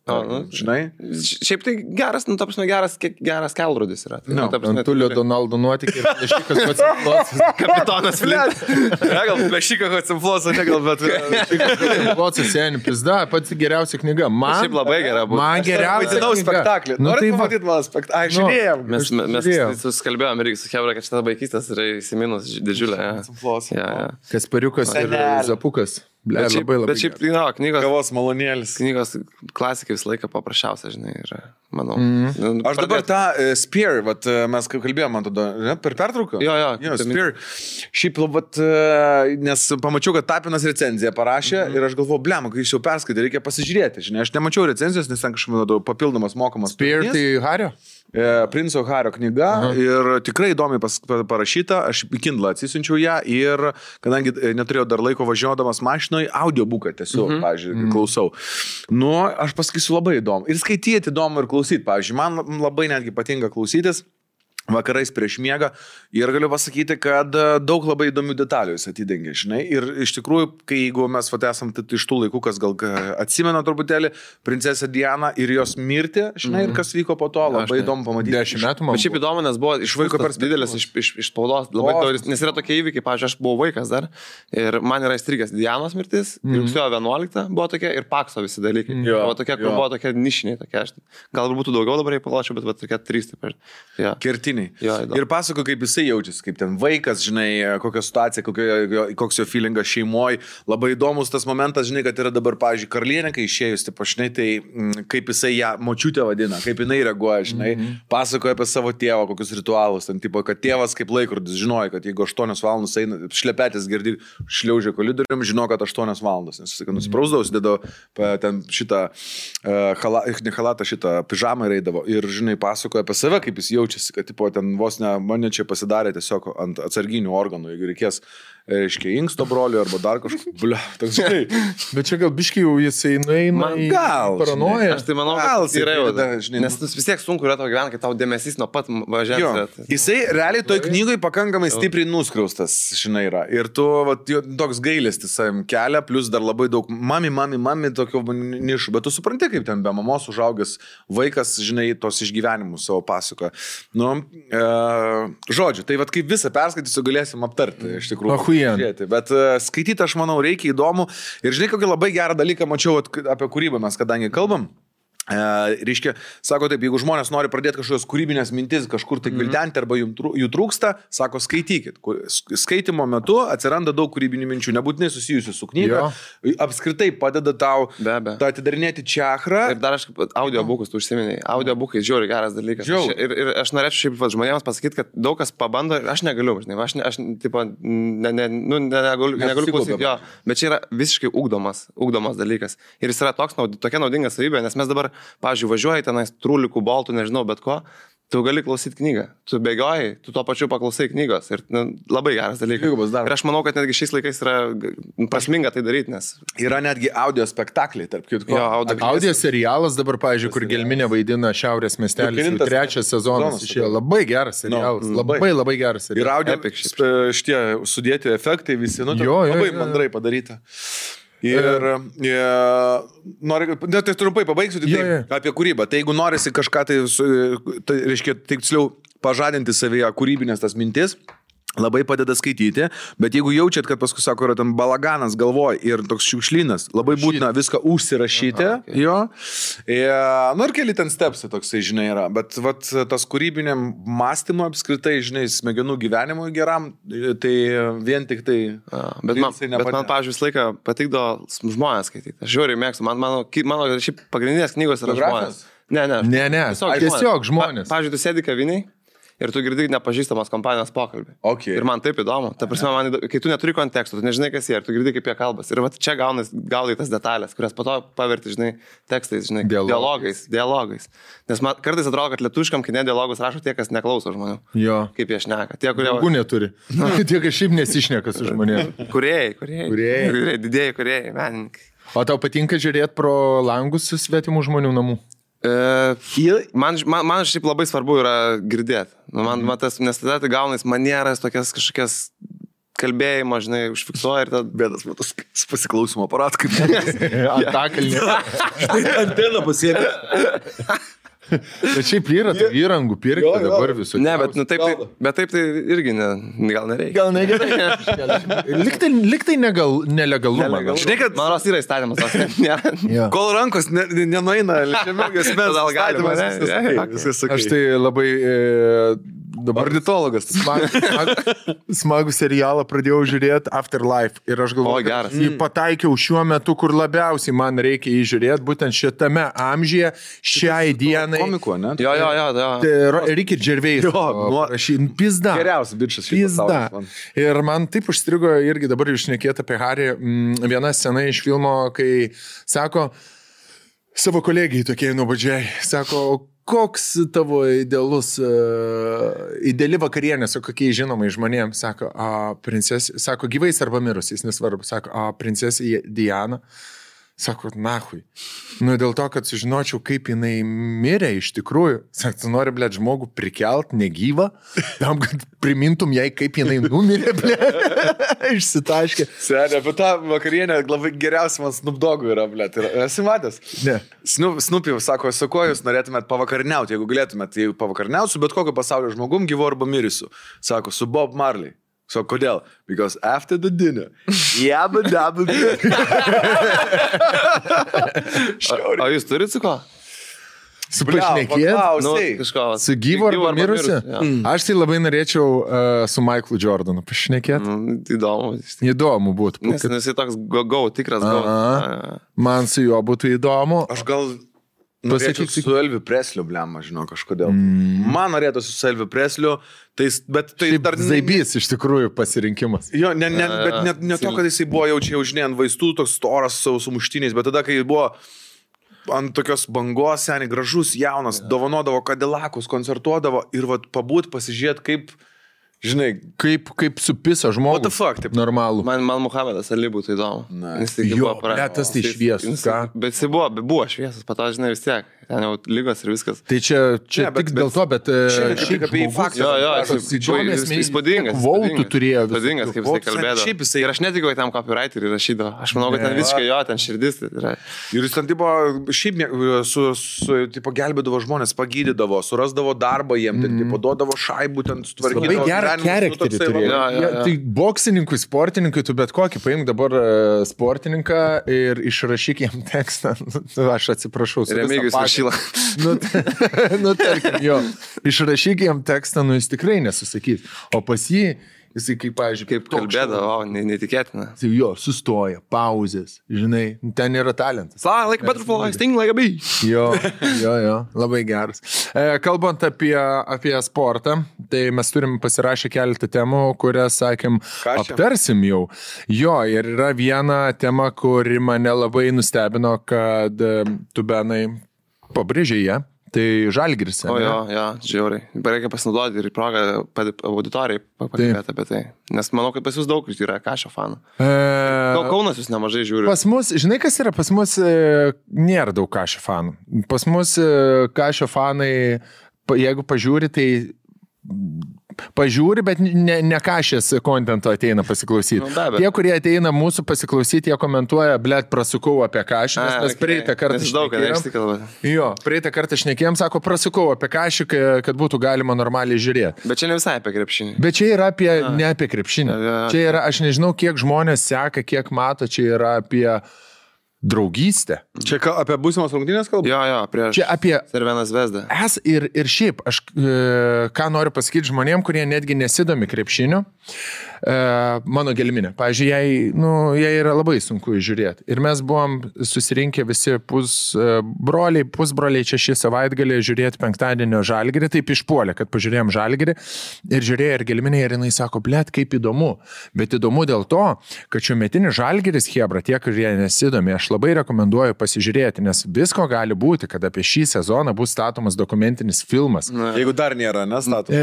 Žinai? Šiaip tai geras, ta prasme, geras kelrodis yra. Tai, ta prasme, Antulio Donaldo nuotykį ir Plešikas Hotzenflosas. Kapitonas Flint. Gal Plešikas Hotzenflosas, negal, bet... Hotzenflosas seniai pizda, pati geriausia knyga. Šiaip labai gera buvo. Man geriausia Vaidinau knyga. spektaklį. Nu, Norite tai va. pamatyti mano spektaklį? Žiūrėjom. Mes susikalbėjom irgi su Hebra, kad šitą vaikystės yra įsiminus didžiulė. Kaspariukas ir Zapukas. Ble, labai labai. Bet šiaip, knygos... Kavos malonėlis. Knygos klasikai visą laiką paprasčiausia, žinai, yra, manau. Aš dabar tą Spear, vat, mes kaip kalbėjom, man tada, ne, per pertrauką? Jo, Spear. Šiaip, vat, nes pamačiau, kad Tapinas recenziją parašė ir aš galvoju, blem, kai jis jau perskaitė, reikia pasižiūrėti, žinai, aš nemačiau recenzijos, nes ten kažkaip papildomas mokamas. Spear tai Hario? Princo Hario knyga ir tikrai įdomiai parašyta, aš į Kindle atsisiunčiau ją ir kadangi neturėjau dar laiko važiuodamas mašinoje, audiobuką tiesiog, pavyzdžiui, klausau. Nu, aš pasakysiu labai įdomu. Ir skaityti įdomu ir klausyti, pavyzdžiui, man labai netgi patinka klausytis vakarais prieš miegą ir galiu pasakyti, kad daug labai įdomių detalių jis atidengia, žinai, ir iš tikrųjų, kai jeigu mes esam iš tų laikų, kas gal atsimena truputėlį, princesę Dianą ir jos mirtį, žinai, ir kas vyko po to, labai įdomu pamatyti. 10 metų man. Bet šiaip įdomu, nes buvo iš vaiko didelis iš spaudos, labai daugelis, nes yra tokie įvykiai, pavyzdžiui, aš buvau vaikas dar ir man yra įstrigęs Dianos mirtis, rugsėjo 11 buvo tokia ir Pakso visi dalykai. Buvo tokia, kur buvo tokia nišiniai, tokia, gal būtų daugiau dabar, jei palačiau, bet tokia 3 taip. Kertiniai. Ir pasako, kaip jisai jaučiasi, kaip ten vaikas, žinai, kokia situacija, koks jo feelingas šeimoje. Labai įdomus tas momentas, žinai, kad yra dabar, pavyzdžiui, karalienė, kai išėjus, taip aš, žinai, tai kaip jisai ją močiutę vadina, kaip jinai reaguoja, žinai, pasakoja apie savo tėvą, kokius ritualus, ten, tipo, kad tėvas kaip laikrodis žinojo, kad jeigu 8 valandas eina, šlepetės girdi, šliaužia koridorium, žino, kad 8 valandas, nes jis, nusiprausdavo, sudėdavo ten šitą halatą, šitą pižamą ir eidavo. Ir, žinai, pasakoja apie save, kaip jis jaučiasi, kad, tipo, ten vos ne, mane čia pasidarė tiesiog ant atsarginių organų, jeigu reikės, reiškia, inksto brolio arba dar kažkokio, ble, toks, žinai. Bet čia gal biškai jau jisai nueina į paranoją. Aš tai manau, kad yra jau, žinai, nes vis tiek sunku yra tau gyventi, kai tau dėmesys nuo pat važiuoti. Jisai realiai toj knygoj pakankamai stipriai nuskriaustas, žinai, yra. Ir tu, vat, toks gailestis savim kelia, plus dar labai daug mami, tokio nišų, bet tu supranti, kaip ten be mamos užaugęs vaikas, žinai, tos išgyvenimus savo pasakoja. Nu, žodžiu, tai vat kaip visą perskaitysiu galėsim aptarti, iš tikrųjų. Bet skaityti, aš manau, reikia įdomu. Ir žinai, kokį labai gerą dalyką mačiau apie kūrybą mes, kadangi kalbam. Reiškia, sako taip, jeigu žmonės nori pradėti kažkokios kūrybinės mintis, kažkur tai gvildenti arba jų trūksta, sako, skaitykit. Skaitimo metu atsiranda daug kūrybinių minčių, nebūtinai susijusių su knyga. Apskritai padeda tau atidarinėti čakrą. Ir dar aš audiobukus, tu užsiminėjai. Audiobukai žiūri geras dalykas. Ir aš norėčiau šiaip žmonėms pasakyti, kad daug kas pabando ir aš negaliu, žinai, aš tipo, negaliu klausyti jo, bet čia yra visiškai ugdomas dalykas. Ir jis yra tokia naudinga savybė, nes mes dabar pavyzdžiui, važiuoji tenais trūlikų, boltų, nežinau, bet ko, tu gali klausyti knygą. Tu bėgioji, tu tuo pačiu paklausai knygos. Ir labai geras dalykas. Ir aš manau, kad netgi šiais laikais yra prasminga tai daryti, nes... Yra netgi audio spektakliai, tarp kitko. Audio serialas dabar, pavyzdžiui, kur Gelminė vaidina Šiaurės miestelis. 3 sezonas išėjo. Labai geras serialas. Labai geras serialas. Ir audio šitie sudėti efektai visi, labai mandrai padaryta. Ir noriu, tai trumpai pabaigsiu apie kūrybą. Tai jeigu norisi kažką, tai reiškia, tiksliau pažadinti savyje kūrybinės tas mintis, labai padeda skaityti, bet jeigu jaučiat, kad paskui, sako, yra ten balaganas galvoj ir toks šiukšlynas, labai būtina viską užsirašyti, jo. Ir keli ten stepsai toksai, žinai, yra, bet vat, tas kūrybiniam mąstymo apskritai, žinai, smegenų gyvenimui geram, tai vien tik tai... Bet man, pavyzdžiui, visą laiką patikdo žmonės skaityti. Aš žiūriu, mėgstu, mano šiaip pagrindinės knygos yra žmonės. Ne, tiesiog žmonės. Pavyzdžiui, tu sėdi kaviniai ir tu girdi nepažįstamos kompanijos pokalbį. Ir man taip įdomu. Ta prasme, kai tu neturi konteksto, tu nežinai, kas jie, ir tu girdi, kaip jie kalbas. Ir va, čia gaudai tas detalės, kurias po to paverti, žinai, tekstais, žinai, dialogais. Nes man kartais atrodo, kad lietuviškam kine dialogus rašo tie, kas neklauso žmonių. Jo. Kaip jie šneka. Tie, kurie... Draugų neturi. Tie, kas šiaip nesišneka su žmonėmis. Kūrėjai, didėjai kūrėjai, menininkai. O tau patinka žiūrėti pro langus su svetimų žmonių namų? Man šiaip labai svarbu yra girdėti. Nes tada tai gaunais manieras, tokias kažkokias kalbėjimo, žinai, užfiksuoja ir tada... Bėdas, matas, pasiklausimo aparat, kaip Antakalnė. anteną pasiėmė. Bet šiaip yra tų įrangų pirkti dabar visų. Ne, bet, bet taip tai irgi gal nereikia. Gal negerai. Liktai nelegalumą. Žinai, kad man ros yra įstatymas. Kol rankos nenueina, ličiamėgės mes. Gal galima, viskas sakai. Aš tai labai dabar ornitologas. Smagų serialą pradėjau žiūrėti Afterlife ir aš galvoju, geras. jį pataikiau šiuo metu, kur labiausiai man reikia jį žiūrėti, būtent šitame amžiuje, šiai dienai. Komiko, ne? Jo. Ricky Gervais. Pizda. Geriausias bičias. Pizda. Ir man taip užstrigo irgi dabar jūs šnekėt apie Harry. Viena scena iš filmo, kai sako savo kolegijai tokiai nuobodžiai, sako, koks tavo ideali vakarienė su kokiais žinomai žmonėms, sako, princesė, sako, gyvais arba mirusiais, nesvarbu, sako, princesė Diana. Sako, nahui. Nu, dėl to, kad sužinočiau, kaip jinai mirė iš tikrųjų. Sako, tu nori, blėt, žmogų prikelt negyvą, tam, kad primintum jai, kaip jinai numirė, blėt. Išsitaškė. Senė, apie tą vakarienę labai geriausia man Snoop Dogg'u yra, blėt. Esi matęs? Ne. Snoopy sako, su kuo jūs norėtumėt pavakarniauti, jeigu galėtumėt, tai pavakarniausiu, bet kokio pasaulio žmogum, gyvu arba mirusiu. Sako, su Bob Marley. So, kodėl? Because after the dinner, jabba dabba. O jūs turit su ko? Su pašnekėt? Kažko. Su gyvu arba mirusiu? Aš tai labai norėčiau su Michaelu Jordanu pašnekėt. Įdomu. Įdomu būtų. Nes jis toks tikras go. Man su juo būtų įdomu. Aš gal... Pasakyk su Elviu Presliu, blema, žinau, kažkodėl. Man norėtųsi su Elviu Presliu, bet tai dar... Zaibys iš tikrųjų pasirinkimas. Jo, bet ne to, kad jisai buvo jau žinai, ant vaistų, toks storas su muštiniais, bet tada, kai buvo ant tokios bangos, seniai, gražus, jaunas, dovanodavo Cadillakus, koncertuodavo ir vat pabūt, pasižiūrėt, kaip... Žinai, kaip supisa žmogus. What the fuck, taip. Normalų. Man Muhamedas Ali būtų įdomu. Jo, tas tai šviesus, ką? Bet jis buvo šviesus, pato, žinai, vis tiek. Ten jau lygos ir viskas. Tai čia tik dėl to, bet šiaip apie jį faktą. Įspūdingas. Vautų turėjo. Įspūdingas, kaip jisai kalbėdavo. Ir aš netikiu, kad tam copywriterį rašydavo. Aš manau, kad ten visiškai jo, ten širdis. Ir jis ten tipo, šiaip tipo, gelbėdavo žmonės, pagydydavo, surasdavo darbą jiem, ten tipo, duodavo šaibų, ten sutvarkydavo. Labai gerą charakterį turėjo. Tai boksininkui, sportininkui, tu bet kokį paimk dabar sportininką ir išrašyk jam tekstą. Aš atsiprašau. Tarkim, jo, išrašyk jam tekstą, jis tikrai nesusakys. O pas jį, jisai kaip, pavyzdžiui, kaip kalbėdavo, neįtikėtina. Jo, sustoja, pauzės, žinai, ten yra talentas. Like butterfly, sting like a bee. Jo, labai geras. Kalbant apie sportą, tai mes turim pasirašę keletą temų, kurias, sakėm, aptarsim jau. Jo, ir yra viena tema, kuri mane labai nustebino, kad tu, Benai, pabrėžė ją, tai Žalgiris. O jo, žiauriai. Reikia pasinaudoti ir į progą auditorijai pakalbėti apie tai. Nes manau, kad pas jūs daug yra Kašio fanų. Kaunas jūs nemažai žiūri. Pas mus, žinai kas yra, pas mus nėra daug Kašio fanų. Pas mus Kašio fanai, jeigu pažiūri, tai pažiūri, bet ne Kašės kontento ateina pasiklausyti. Tie, kurie ateina mūsų pasiklausyti, jie komentuoja, blėt, prasukau apie Kašį, nes praeitą kartą praeitą kartą šnekėjom, sako, prasukau apie Kašį, kad būtų galima normaliai žiūrėti. Bet čia ne visai apie krepšinį. Bet čia yra ne apie krepšinį. Čia yra, aš nežinau, kiek žmonės seka, kiek mato, čia yra apie draugystę. Čia apie būsimos rungtynės kalbą? Jo, prieš Cervena Zvezdą. Ir šiaip, aš ką noriu pasakyti žmonėm, kurie netgi nesidomi krepšiniu, mano gelminė. Pavyzdžiui, jai yra labai sunku žiūrėti. Ir mes buvom susirinkę visi pusbroliai čia šį savaitgalį žiūrėti penktadienio Žalgirį, taip išpuolė, kad pažiūrėjom Žalgirį ir žiūrėjo ir gelminė ir jinai sako, blėt, kaip įdomu. Bet įdomu dėl to, kad šiuometinis Žalgiris, chebra, tie, kurie nesidomi, aš labai rekomenduoju pasižiūrėti, nes visko gali būti, kad apie šį sezoną bus statomas dokumentinis filmas. Jeigu dar nėra, nestatomas.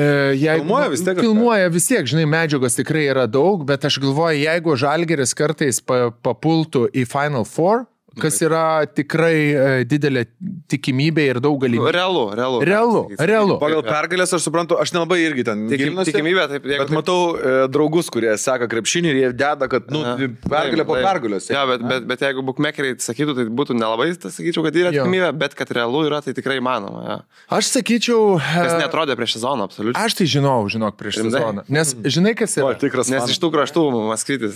Filmuoja vis tiek, žinai, medžiagos tikrai yra daug, bet aš galvoju, jeigu Žalgiris kartais papultų į Final Four kas yra tikrai didelė tikimybė ir daug galimybių. Realu. Pagal pergalės aš suprantu, aš nelabai irgi ten gilinuosi. Tikimybė, taip. Bet matau draugus, kurie seka krepšinį ir jie deda, kad pergalė po pergalės. Ja, bet jeigu bookmakeriai sakytų, tai būtų nelabai, sakyčiau, kad yra tikimybė, bet kad realu yra, tai tikrai įmanoma. Ja. Aš sakyčiau... Kas netrodė prieš sezoną, absoliučiai. Aš tai žinok, prieš sezoną. Nes žinai, kas yra? Nes iš tų kraštų Maskvytis.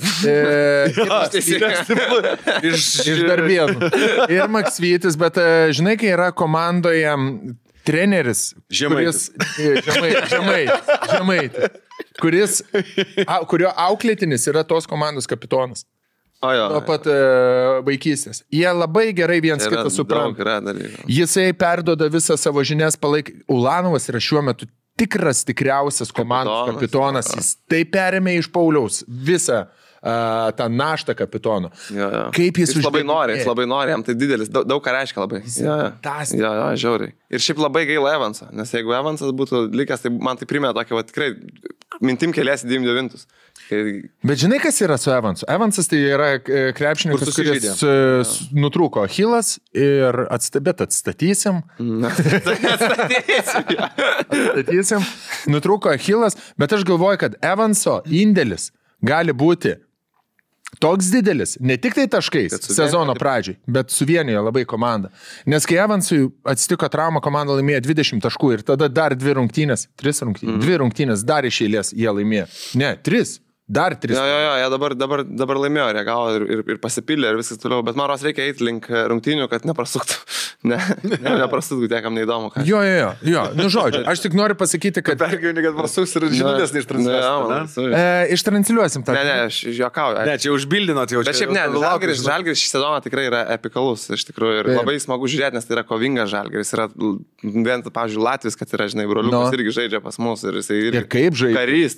Iš Darbėnų. Ir Maksvytis, bet žinai, kai yra komandoje treneris, Žemaitis, kurio auklėtinis yra tos komandos kapitonas. Nuo pat vaikystės. Jie labai gerai viens kitą supranta. Jisai perduoda visą savo žinias, Ulanovas yra šiuo metu tikriausias komandos kapitonas. Jis tai perėmė iš Pauliaus visą tą naštą kapitono. Kaip jis labai nori, jam tai didelis, daug ką reiškia labai. Žiauriai. Ir šiaip labai gaila Evansą, nes jeigu Evansas būtų likęs, tai man tai primė tokį, tikrai mintim keliasi 99. Bet žinai, kas yra su Evansu? Evansas tai yra krepšininkas, kuris nutrūko Achilas ir atstatysim. Atstatysim. Nutrūko Achilas, bet aš galvoju, kad Evanso indėlis gali būti toks didelis, ne tik tai taškais sezono pradžiai, bet suvienijo labai komandą. Nes kai Evansui atsitiko trauma, komanda laimėjo 20 taškų ir tada dar 2 rungtynės dar iš eilės jie laimėjo. Ne, 3. Dar 3. Jie dabar laimėjo, reagavo ir pasipildė ir viskas toliau, bet man ros reikia eiti link rungtynių, kad neprasuktų. Neprasuktų, niekam neįdomu. Jo, nu žodžiu, aš tik noriu pasakyti, kad... Pergyveni, kad prasuks ir žinutės neištransliuosim. Ištransliuosim tą. Ne, aš juokauju. Ne, čia užbildinot jau. Bet šiaip ne, Žalgiris šį sezoną tikrai yra epikalus, iš tikrųjų, ir labai smagu žiūrėti, nes tai yra kovingas Žalgiris. Yra vien, pavyzdžiui, Latvis, kad yra, žinai, broliukas irgi žaidžia pas mus ir jisai irgi... Ir kaip žaidžia? Karys,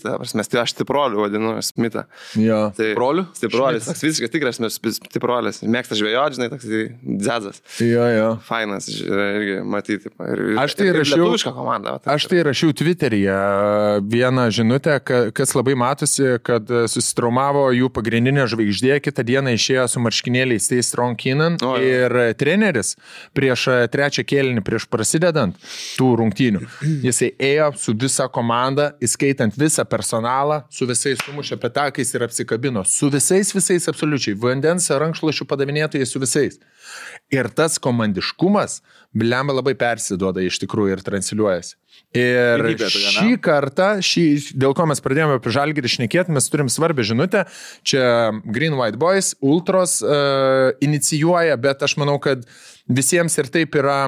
aš stiproliu vadinu, Smitą. Tai broliu? Stiprolis, toks visiškai tikras stiprolis. Mėgsta žvejoti, žinai, toks dzadzas. Jo. Fainas, irgi matyti. Aš tai rašiau Twitteryje vieną žinutę, kas labai matosi, kad susitraumavo jų pagrindinė žvaigždė, kitą dieną išėjo su marškinėliais Stay Strong Keenan ir treneris prieš trečią kėlinį, prieš prasidedant tų rungtynių, jisai ėjo su visa komanda, įskaitant visą personalą, su visais sumušė petakais ir apsikabino, su visais absoliučiai, vandens rankšluošių padavinėtojai su visais. Ir tas komandiškumas, blemba, labai persiduoda iš tikrųjų ir transliuojasi. Ir šį kartą, dėl ko mes pradėjome apie Žalgirį šnekėti, mes turim svarbią žinutę. Čia Green White Boys, Ultros inicijuoja, bet aš manau, kad visiems ir taip yra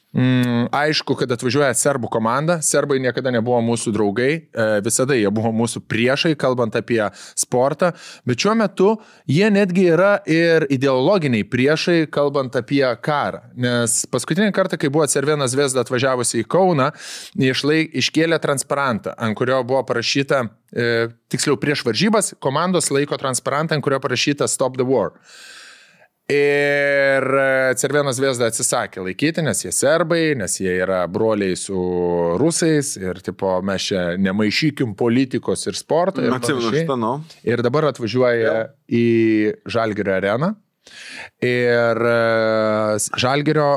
aišku, kad atvažiuoja serbų komanda. Serbai niekada nebuvo mūsų draugai, visada jie buvo mūsų priešai, kalbant apie sportą, bet šiuo metu jie netgi yra ir ideologiniai priešai, kalbant apie karą. Nes paskutinį kartą, kai buvo Cervena Zvezda atvažiavusi į Kauną, iškėlė transparantą, ant kurio buvo parašyta, tiksliau prieš varžybas, komandos laiko transparantą, ant kurio parašyta Stop the War. Ir Cervena Zvezda atsisakė laikyti, nes jie serbai, nes jie yra broliai su rusais ir tipo, mes čia nemaišykim politikos ir sporto. Ir dabar atvažiuoja į Žalgirio areną ir Žalgirio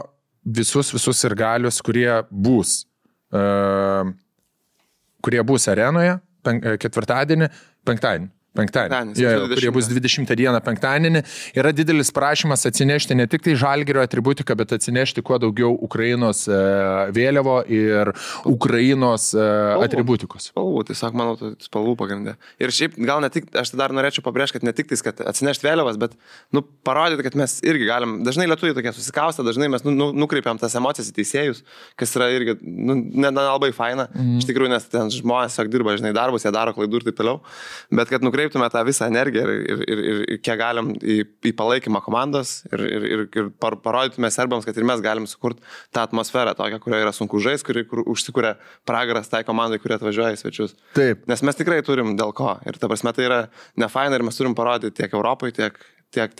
visus sirgalius, kurie bus arenoje penktadienį, kurie bus 20 dieną penktadienį, yra didelis prašymas atsinešti ne tik tai Žalgirio atributiką, bet atsinešti kuo daugiau Ukrainos vėliavo ir Ukrainos atributikos. Spalvų, tiesiog manau, spalvų pagrindė. Ir šiaip gal ne tik, aš dar norėčiau pabrėžti, kad ne tik tais, kad atsinešti vėliavas, bet parodyti, kad mes irgi galim, dažnai lietuviai tokie susikaustę, dažnai mes nukreipiam tas emocijas į teisėjus, kas yra irgi nelabai faina, iš tikrųjų, nes ten žmonės dirba, žinai, darbus, jie daro klaidų ir taip toliau, bet kad nukreiptume tą visą energiją ir kiek galim į palaikymą komandos ir parodytume serbams, kad ir mes galim sukurti tą atmosferą tokią, kurioje yra sunku žaisti, kur užsikuria pragaras tai komandai, kurie atvažiuoja į svečius. Taip. Nes mes tikrai turim dėl ko. Ir ta prasme tai yra nefaina ir mes turim parodyti tiek Europai, tiek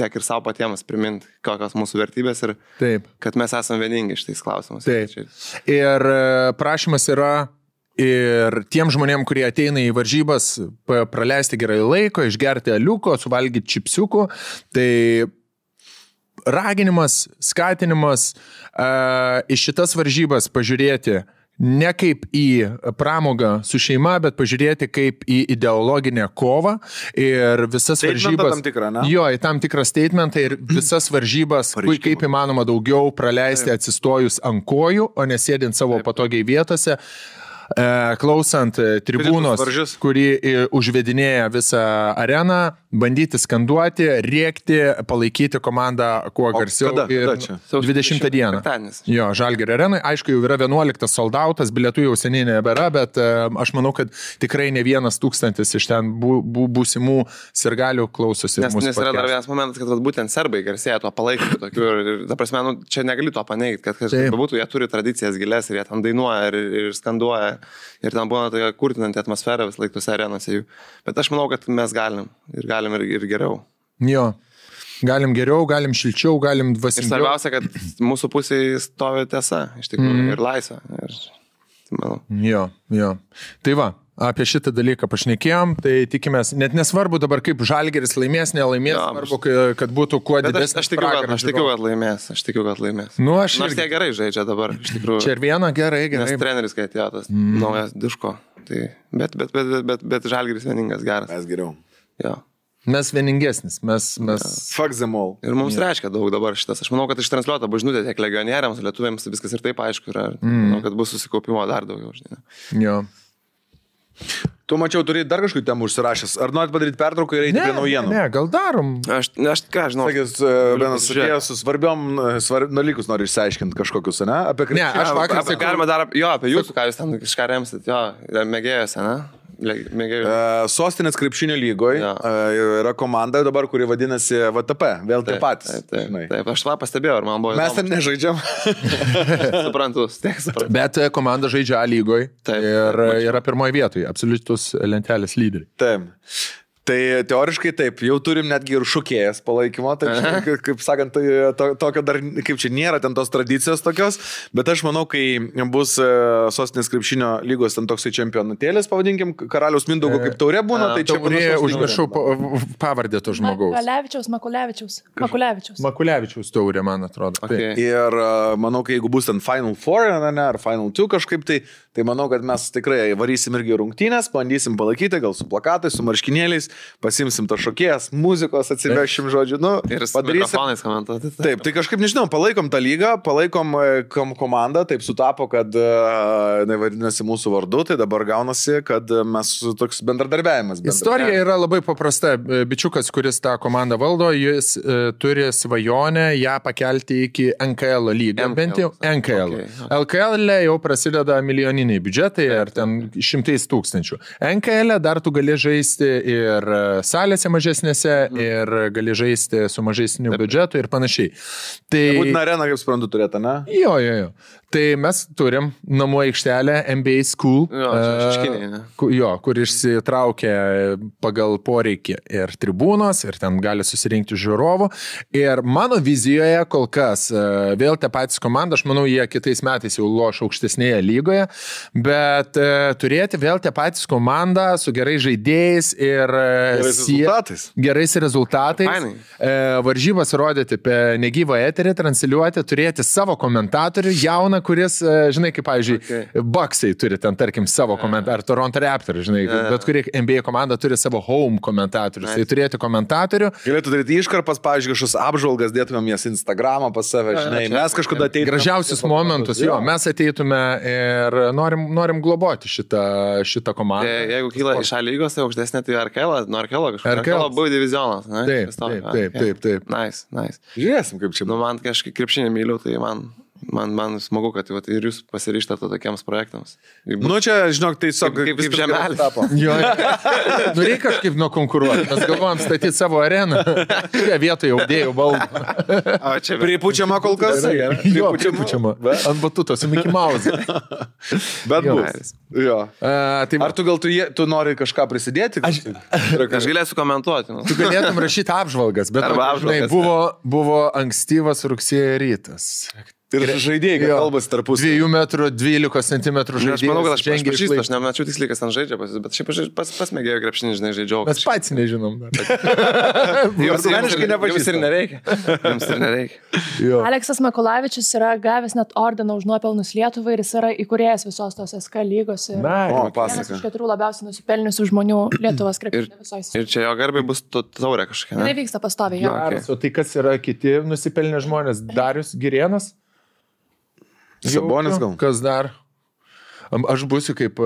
ir savo patiems priminti, kokios mūsų vertybės ir kad mes esame vieningi šitais klausimus. Taip. Ir prašymas yra ir tiem žmonėm, kurie ateina į varžybas, praleisti gerai laiko, išgerti aliuko, suvalgyti čipsiukų, tai raginimas, skatinimas į šitas varžybas pažiūrėti ne kaip į pramogą su šeima, bet pažiūrėti kaip į ideologinę kovą ir visas varžybas. Tam tikrą, ne? Jo, į tam tikrą statementą ir visas varžybas, kaip įmanoma daugiau praleisti atsistojus ant kojų, o nesėdint savo patogiai vietose. Klausant tribūnos, kuri užvedinėja visą areną, bandyti skanduoti, rėkti, palaikyti komandą kuo garsiau. Kada čia? 20 dieną. Jo, Žalgirio arenai. Aišku, jau yra 11 soldautas, bilietų jau seniai nebėra, bet aš manau, kad tikrai ne 1,000 iš ten būsimų sirgalių klausosi. Nes yra dar vienas momentas, kad būtent serbai garsėja tuo palaikymu tokiu. Ir ta prasme, čia negali to paneigti, kad būtų, jie turi tradicijas gilės ir jie ten dainuoja ir skanduoja. Ir ten būna tokia kurtinanti atmosfera vis laik tose arenose jų. Bet aš manau, kad mes galim ir geriau. Jo, galim geriau, galim šilčiau, galim dvasingiau. Ir svarbiausia, kad mūsų pusėje stovi tiesa, iš tikrųjų, ir laisvė. Jo. Tai va, apie šitą dalyką pašnekėjom, tai tikimės, net nesvarbu dabar kaip Žalgiris laimės, nelaimės, svarbu, kad būtų kuo didesnis. Aš tikiu, kad laimės. Nu, nors jie gerai žaidžia dabar, iš tikrųjų. Čia ir viena gerai. Nes treneris, kai atėjo tas naujas Diško. Tai, bet Žalgiris vieningas, geras. Mes geriau. Jo. Mes vieningesnis, mes... Fuck them all. Ir mums reiškia daug dabar šitas. Aš manau, kad ištransliuota žinutė tiek legionieriams, lietuviams, viskas ir taip aišku yra. Manau, kad bus susikaupimo dar daugiau. Žinai. Jo. Tu mačiau, turi dar kažkokių temų užsirašęs. Ar norit padaryti pertrauką ir eiti prie naujienų? Ne, gal darom. Aš ką žinau. Sakys, vienas atėjęs su svarbiom dalykus nori išsiaiškinti kažkokius, ne? Apie krepšinį. Ne, aš vakar sakau. Galima dar apie jūsų, ką jūs ten kažką remsit, jo, mėgėjose, ne? Sostinės krepšinio lygoje yra komanda dabar, kuri vadinasi VTP, vėl tie patys. Taip, aš tą pastebėjau, ar man buvo įdomu. Mes ten nežaidžiam. Suprantu. Bet komanda žaidžia A lygoje ir yra pirmoje vietoje, absoliutus lentelės lyderiai. Taip. Tai teoriškai taip, jau turim netgi ir šokėjas palaikymo, tai kaip sakant, tokio dar, kaip čia nėra ten tos tradicijos tokios, bet aš manau, kai bus Sostinės krepšinio lygos ten toksai čempionatėlis, pavadinkim, Karaliaus Mindaugo kaip taurė būna, tai čia užmiršau pavardę to žmogaus. Makulevičiaus taurė, man atrodo. Okay. Ir manau, kai jeigu bus ten Final Four, ar Final Two kažkaip, tai manau, kad mes tikrai varysim irgi rungtynės, bandysim palaikyti, gal su plakatais, su marškinėliais, pasimsim to šokėjas, muzikos atsivešim, žodžiu, nu, ir padarysim. Taip, tai kažkaip, nežinau, palaikom tą lygą, palaikom komandą, taip sutapo, kad nevadinasi mūsų vardu, tai dabar gaunasi, kad mes toks bendradarbiavimas. Istorija yra labai paprasta. Bičiukas, kuris tą komandą valdo, jis turi svajonę ją pakelti iki NKL lygą, bent jau NKL. Okay. LKL jau prasideda milijoniniai biudžetai, ar ten 100,000. NKL dar tu gali žaisti ir salėse mažesnėse, ir gali žaisti su mažesniu biudžetu ir panašiai. Tai būtina arena, kaip suprantu, turėtų, ne? Jo. Tai mes turim namų aikštelę NBA School, kur išsitraukia pagal poreikį ir tribūnos, ir ten gali susirinkti žiūrovų. Ir mano vizijoje kol kas, vėl tie patys komanda, aš manau, jie kitais metais jau loš aukštesnėje lygoje, bet turėti vėl tie patys komanda su gerais žaidėjais ir gerais rezultatais. Varžybas rodyti apie negyvą eterį, transliuoti, turėti savo komentatorių, jauną, kuris, žinai, kaip, pavyzdžiui, Bucksai turi ten, tarkim, savo komentatorių, Toronto Raptors, žinai, bet kuri NBA komanda turi savo home komentatorius, tai turėti komentatorių. Galėtų daryti iškarpas, pavyzdžiui, kažkokius apžvalgas, dėtumėm jas Instagramą pas save, žinai, mes kažkada ateitume. Gražiausius momentus, jo, mes ateitume ir norim globoti šitą komandą. Jeigu kyla iš A lygos, tai aukštesnė, tai Arkela, nuo Arkelo kažkas. Arkelo buvo divizionas, ne? Taip. Nice. Žiūrėsim, kaip čia. Nu, man kažkaip krepšinį myliu, tai man smagu, kad ir jūs pasiryžtate tokiems projektams. Nu, čia, žinok, tai kaip žemelis tapo. Jo, nu reikia kažkaip nukonkuruoti. Mes galvojam statyti savo areną. Čia vietoje audėjų baldų. Pripučiama kol kas? Jo, pripučiama. Ant batutos, Mickey Mouse. Bet bus. Jo. Ar tu nori kažką prisidėti? Aš galėsiu komentuoti. Tu galėtum rašyti apžvalgas, bet buvo ankstyvas rugsėjo rytas. Ir žaidėjai kalbasi tarpusavy. 2 metrų 12 centimetrų žaidėjas. Aš manau, kad aš žengia pažįstu, iš aš nemačiau tiksliai, kas ten žaidžia, bet šiaip pasmėgėjau krepšinį, žinai, žaidžiau. Mes patys nežinom. Jums asmeniškai ir nereikia. Jums ir nereikia. Aleksas Makulavičius yra gavęs net ordiną už nuopelnus Lietuvai ir jis yra įkūrėjas visos tos SK lygos. Ir O, tai vienas pasaka. iš 4 labiausiai nusipelniusių žmonių Lietuvos krepšinio visos. Ir čia jo garbai bus taurė kažkokia. Tai Ne? vyksta pastoviai. Jo. Okay. O tai kas yra kiti nusipelnę žmonės? Darius Girėnas? Sabonis gal? Kas dar? Aš būsiu kaip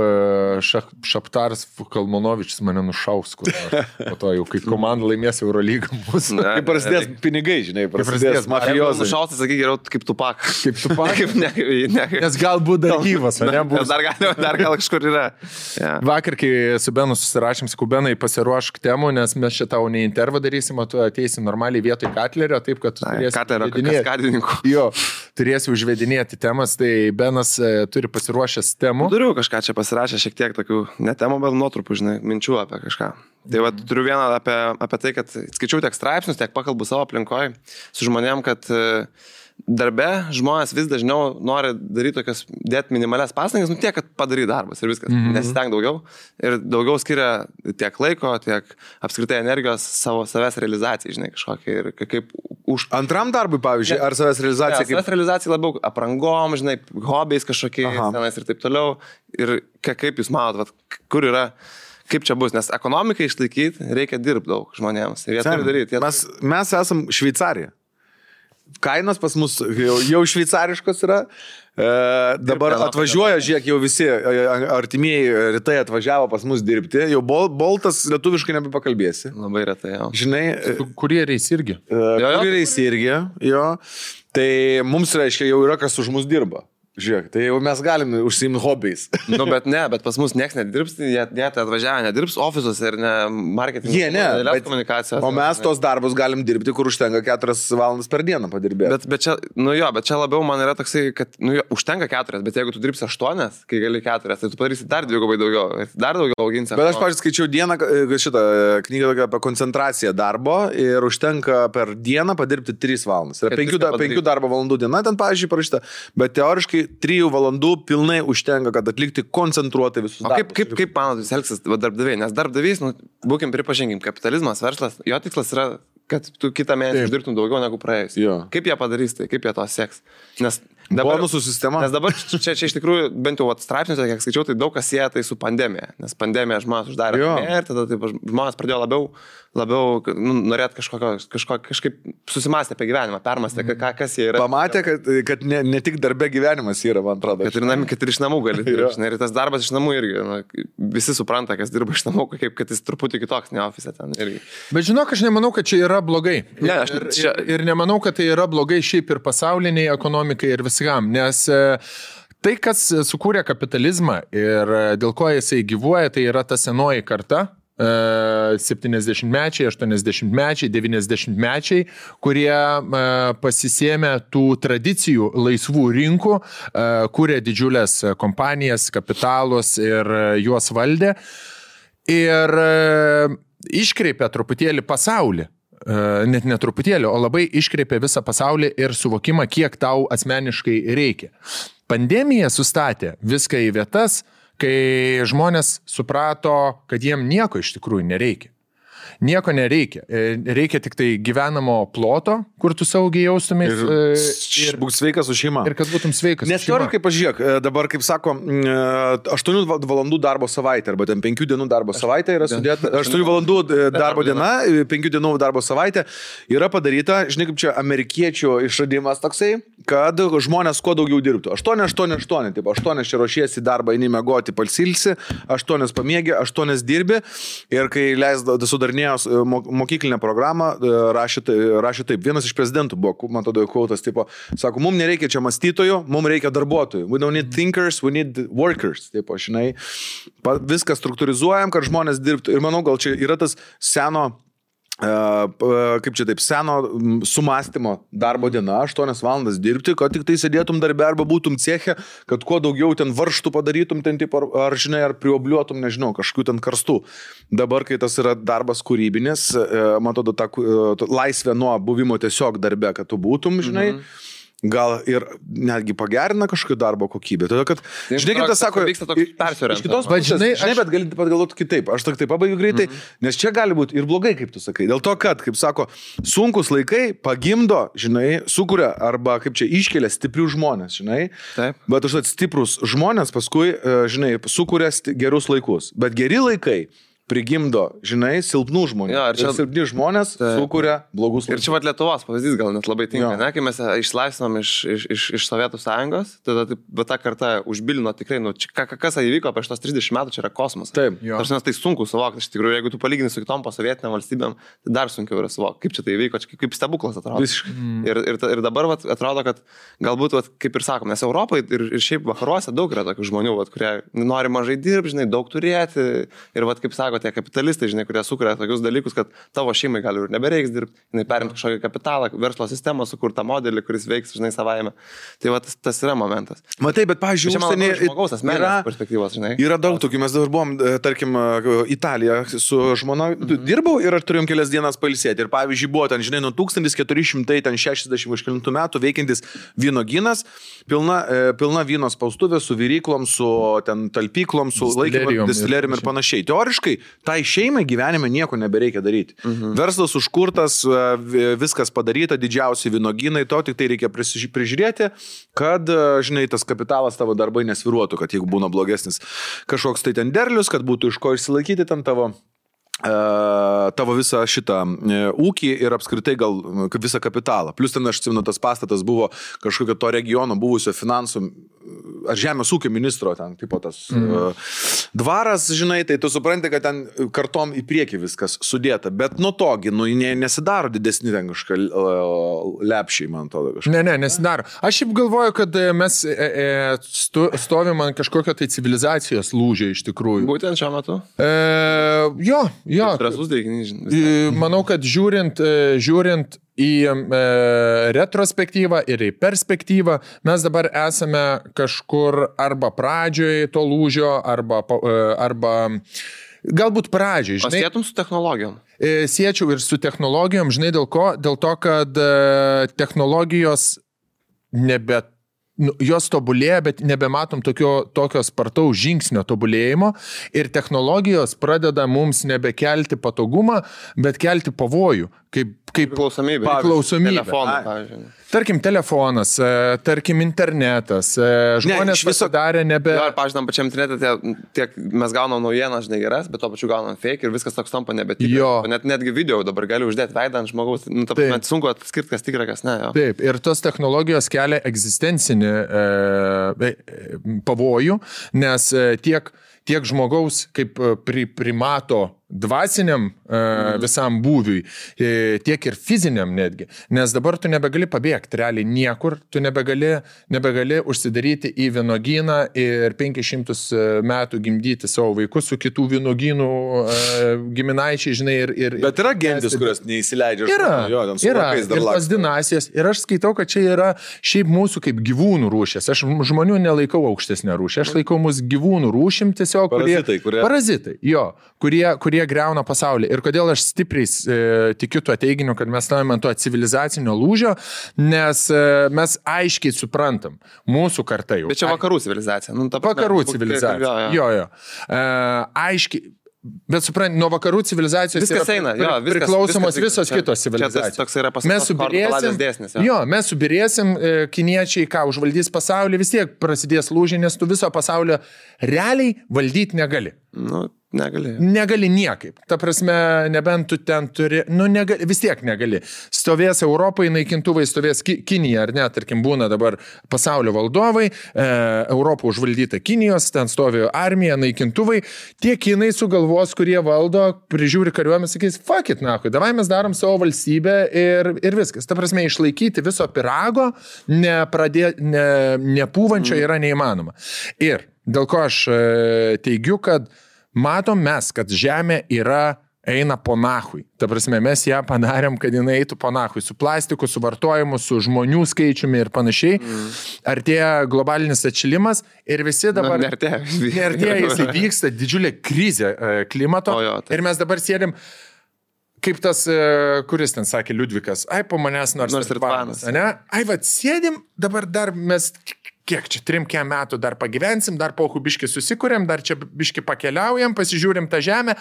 Šaptaras Kalmanovičius mane nušaus, kur nors. Po to jau, kai komanda laimės Eurolygą mūsų. Kai prasidės pinigai, žinai, prasidės mafijozai. Nušautas, sakyk, geriau kaip Tupak. Kaip tu Kaip ne. Nes galbūt dar gyvas, ne? Bus. Dar gal kažkur yra. Ja. Vakar, kai su Benu susirašėm, sakau, Benai, pasiruošk temų, nes mes šitą ne intervą darysim, o tu ateisi normaliai vietoj Katlerio, taip, kad tu turėsi Katlerio užvedinėti. kaskadininkų. Jo, turėsi užvedinėti temas, tai Benas turi pasiruošęs temų. Turiu kažką čia pasirašę, šiek tiek tokių, ne temų, bet nuotrupų, žinai, minčių apie kažką. Tai va, turiu vieną apie tai, kad skaičiau tiek straipsnius, tiek pakalbu savo aplinkoje su žmonėm, kad darbe žmonės vis dažniau nori daryti tokias, dėti minimalias pastangas, tiek, kad padaryti darbas ir viskas. Nesisteng daugiau. Ir daugiau skiria tiek laiko, tiek apskritai energijos savęs realizacijai, žinai, kažkokia. Ir kaip už... Antram darbui, pavyzdžiui, ar savęs realizacija kaip... Savęs realizacija labiau aprangom, žinai, hobiais kažkokiais tenais ir taip toliau. Ir kaip jūs manot, kur yra... Kaip čia bus, nes ekonomikai išlaikyti reikia dirbti daug žmonėms. Ir jie turi daryti. Mes esam Šveicarija. Kainos pas mus jau šveicariškos yra. Dabar atvažiuoja, žiūrėk, jau visi artimieji rytai atvažiavo pas mus dirbti. Jau boltas lietuviškai nebepakalbėsi. Labai retai, jo. Žinai, Kurieriais irgi. kurieriais irgi, jo. Tai mums reiškia, jau yra kas už mus dirba. Žiūrėk, tai jau mes galime užsiimti hobiais. Nu, bet pas mus nieks nedirbs, jie tai atvažiavę nedirbs ofisuose ir ne marketingo. Jie ne, komunikacijos. O mes tos darbus galim dirbti, kur užtenka 4 valandas per dieną padirbėti. Bet čia labiau man yra toksai, kad užtenka 4, bet jeigu tu dirbsi 8, kai gali 4, tai tu padarysi dar dvigubai daugiau, dar daugiau auginsi. Bet aš, pavyzdžiui, skaičiau dieną šitą knygą apie koncentraciją darbo ir užtenka per dieną padirbti 3 valandas. Yra 5 darbo valandų diena, ten, pavyzdžiui, parašyta, bet teoriškai 3 valandų pilnai užtenka, kad atlikti koncentruotai visus darbus. Kaip manot, jūs elgsis darbdaviai? Nes darbdavys, būkim pripažinkim, kapitalizmas, verslas, jo tikslas yra, kad tu kitą mėnesį uždirbtum daugiau negu praėjus. Kaip jie padarys tai, kaip jie to seks? Nes dabar, bonusų sistema. Nes dabar čia iš tikrųjų, bent jau straipsniuose, kiek skaičiau, tai daug kas sieja tai su pandemija. Nes pandemija žmonės uždarė ir tada taip, žmonės pradėjo labiau norėti kažkaip susimastę apie gyvenimą, permastę, kas jie yra. Pamatė, kad ne tik darbe gyvenimas yra, man atrodo. Kad ir iš namų gali dirbti. Ir tas darbas iš namų irgi. Visi supranta, kas dirba iš namų, kad jis truputį kitoks, ne ofise ten irgi. Bet žinok, aš nemanau, kad čia yra blogai. Ne, ir nemanau, kad tai yra blogai šiaip ir pasauliniai ekonomikai ir viskam, nes tai, kas sukūrė kapitalizmą ir dėl ko jisai gyvuoja, tai yra ta senoji karta. 70-mečiai, 80-mečiai, 90-mečiai, kurie pasisėmė tų tradicijų laisvų rinkų, kūrė didžiulės kompanijas, kapitalus ir juos valdė ir iškreipė truputėlį pasaulį. Net netruputėlį, o labai iškreipė visą pasaulį ir suvokimą, kiek tau asmeniškai reikia. Pandemija sustatė viską į vietas, kai žmonės suprato, kad jiem nieko iš tikrųjų nereikia. Nieko nereikia. Reikia tik tai gyvenamo ploto, kur tu saugiai jaustumės. Ir būk sveikas su šeima. Ir kad būtum sveikas. Nes teoriškai, pažiūrėk, dabar, kaip sako, 8 valandų darbo savaitė, arba ten 5 dienų darbo savaitė yra sudėta. 8 valandų darbo diena, 5 dienų darbo savaitė yra padaryta, žinai, kaip čia amerikiečių išradimas toksai, kad žmonės kuo daugiau dirbtų. 8, taip, 8 čia ruošiesi darbą, eini miegoti, palsilsi, 8 pamiegi, 8 dirbi ir kai sudarinėjo mokyklinę programą, rašė taip. Vienas iš prezidentų buvo, man tada kautas, tipo, sako, mums nereikia čia mąstytojų, mums reikia darbuotojų. We don't need thinkers, we need workers. Tipo, žinai, viską struktūrizuojam, kad žmonės dirbtų. Ir manau, gal čia yra tas seno sumąstymo darbo diena, 8 valandas dirbti, kad tik tai sėdėtum darbę arba būtum ceche, kad kuo daugiau ten varštų padarytum, ten tipo, ar žinai, ar priobliuotum, nežinau, kažkokių ten karstų. Dabar, kai tas yra darbas kūrybinis, man atrodo, ta laisvė nuo buvimo tiesiog darbe, kad tu būtum, žinai, gal ir netgi pagerina kažkokį darbo kokybę. Todėl, kad, žinai, kaip tas sako, vyksta toks persiorientavimas. iš kitos pusės, žinai, bet gali pagalvoti kitaip. Aš tik tai pabaigiu greitai, nes čia gali būti ir blogai, kaip tu sakai. Dėl to, kad, kaip sako, sunkus laikai pagimdo, žinai, sukuria arba, kaip čia, iškelia stiprių žmonės, žinai. Taip. Bet užtat stiprus žmonės paskui, žinai, sukuria gerus laikus. Bet geri laikai prigimdo, žinai, silpnų žmonių. Jo, ir silpni žmonės sukuria blogus laikus. Ir čia vat Lietuvos pavyzdys gal net labai tinka, ne? Kai mes išlaisvinom iš Sovietų sąjungos, tada ta karta užbilino tikrai, nu, kas įvyko prieš tos 30 metų, čia yra kosmosas. Taip. Tai sunku suvokti, iš tikrųjų, jeigu tu palygini su kitom posovietinėm valstybėm, tai dar sunkiau yra suvokti, kaip čia tai įvyko, kaip stebuklas atrodo. Ir dabar vat, atrodo, kad galbūt, vat, kaip ir sakom, nes Europoje ir šiaip vakaruose daug yra tokių žmonių, vat, kurie nori mažai dirbti, žinai, daug turėti ir, vat, kaip sako, tie kapitalistai, žinai, kurie sukuria tokius dalykus, kad tavo šeimai gali ir nebereiks dirbti, jinai perimti kažkokį kapitalą, verslo sistemą, sukurtą modelį, kuris veiks, žinai, savaime. Tai va, tas yra momentas. Matai, bet, pavyzdžiui, užsienį žmogaus asmeninės perspektyvos, žinai. Yra daug tokių, mes dabar buvom, tarkim, Italija su žmona dirbau ir turėjom kelias dienas pailsėti. Ir, pavyzdžiui, buvo ten, žinai, nuo 1460 metų veikiantis vynogynas, pilna vyno spaustuvė su viryklom, su ten talpyklom, su laikymo distillerijom ir panašiai. Teoriškai, tai šeimai gyvenime nieko nebereikia daryti. Verslas užkurtas, viskas padaryta, didžiausi vynogynai, to tik tai reikia prižiūrėti, kad, žinai, tas kapitalas tavo darbai nesviruotų, kad jeigu būna blogesnis kažkoks tai ten derlius, kad būtų iš ko išsilaikyti ten tavo visą šitą ūkį ir apskritai gal visą kapitalą. Plus ten, aš atsimenu, tas pastatas buvo kažkokio to regiono buvusio finansų ar žemės ūkio ministro ten, tipo tas dvaras, žinai, tai tu supranti, kad ten kartom į priekį viskas sudėta, bet nuo togi, nu, nesidaro didesni ten kažką lepšiai, man atrodo. Ne, nesidaro. Aš šiaip galvoju, kad mes stovim ant kažkokio tai civilizacijos lūžio iš tikrųjų. Būtent šiuo metu? Jo. Drąsus teiginys. Manau, kad žiūrint į retrospektyvą ir į perspektyvą, mes dabar esame kažkur arba pradžioje to lūžio, arba galbūt pradžiai. O sėtum su technologijom? Siečiau ir su technologijom, žinai, dėl ko? Dėl to, kad technologijos jos tobulėja, bet nebematom tokio spartaus žingsnio tobulėjimo ir technologijos pradeda mums nebekelti patogumą, bet kelti pavojų. Kaip priklausomybė. Telefonai, pavyzdžiui. Tarkim, telefonas, tarkim, internetas. Žmonės pasidarė nebe... Jo, ir, pavyzdžiui, pačiam internete tiek mes gaunam naujieną, žinai, geras, bet to pačiu gaunam fake ir viskas toks tampa nebetikras. Netgi video dabar gali uždėti veidą ant žmogaus. Net sunku atskirti, kas tikra, kas ne. Jo. Taip, ir tos technologijos kelia egzistencinį pavojų, nes tiek žmogaus kaip primato dvasiniam visam būviui, tiek ir fiziniam netgi. Nes dabar tu nebegali pabėgti realiai niekur, tu nebegali užsidaryti į vynogyną ir 500 metų gimdyti savo vaikus su kitų vynogynų giminaičiai, žinai, ir... Bet yra gentis, kurios neįsileidžia. Yra. Ir tos dinastijos. Ir aš skaitau, kad čia yra šiaip mūsų kaip gyvūnų rūšės. Aš žmonių nelaikau aukštesnę rūšę. Aš laikau mūsų gyvūnų rūšim tiesiog, parazitai, jo, kurie greuna pasaulį. Ir kodėl aš stipriai tikiu tuo teiginiu, kad mes stovime ant to civilizacinio lūžio, nes mes aiškiai suprantam, mūsų karta jau. Bet čia vakarų civilizacija. Vakarų civilizacija. Jo. Aiškiai. Bet suprant, nuo vakarų civilizacijos viskas eina, priklausomos visos kitos civilizacijos. Toks yra pasaulis. Mes subirėsim, kiniečiai, užvaldys pasaulį, vis tiek prasidės lūžiai, nes tu viso pasaulio realiai valdyti negali. Negali niekaip. Ta prasme, nebent tu ten turi, vis tiek negali. Stovės Europai naikintuvai, stovės Kinija, ar ne, tarkim, būna dabar pasaulio valdovai, Europą užvaldyta Kinijos, ten stovi armija, naikintuvai, tie kinai sugalvos, kurie valdo, prižiūri kariuomenę, sakys, fuck it, nahui, davai mes darom savo valstybę ir viskas. Ta prasme, išlaikyti viso pirago, nepūvančio yra neįmanoma. Ir dėl ko aš teigiu, kad matom mes, kad žemė eina po nahui. Ta prasme, mes ją padarėm, kad jinai eitų po nahui. Su plastiku, su vartojimu, su žmonių skaičiumi ir panašiai. Artėja globalinis atšilimas ir visi dabar... Neartėja, jis vyksta didžiulė krizė klimato. Ir mes dabar sėdim... kaip tas, kuris ten sakė Liudvikas, ai po manęs nors ir tvanas. Ne? Ai, sėdim, dabar dar mes, kiek čia, 3 metų dar pagyvensim, dar po biški susikūrėm, dar čia biški pakeliaujam, pasižiūrim tą žemę.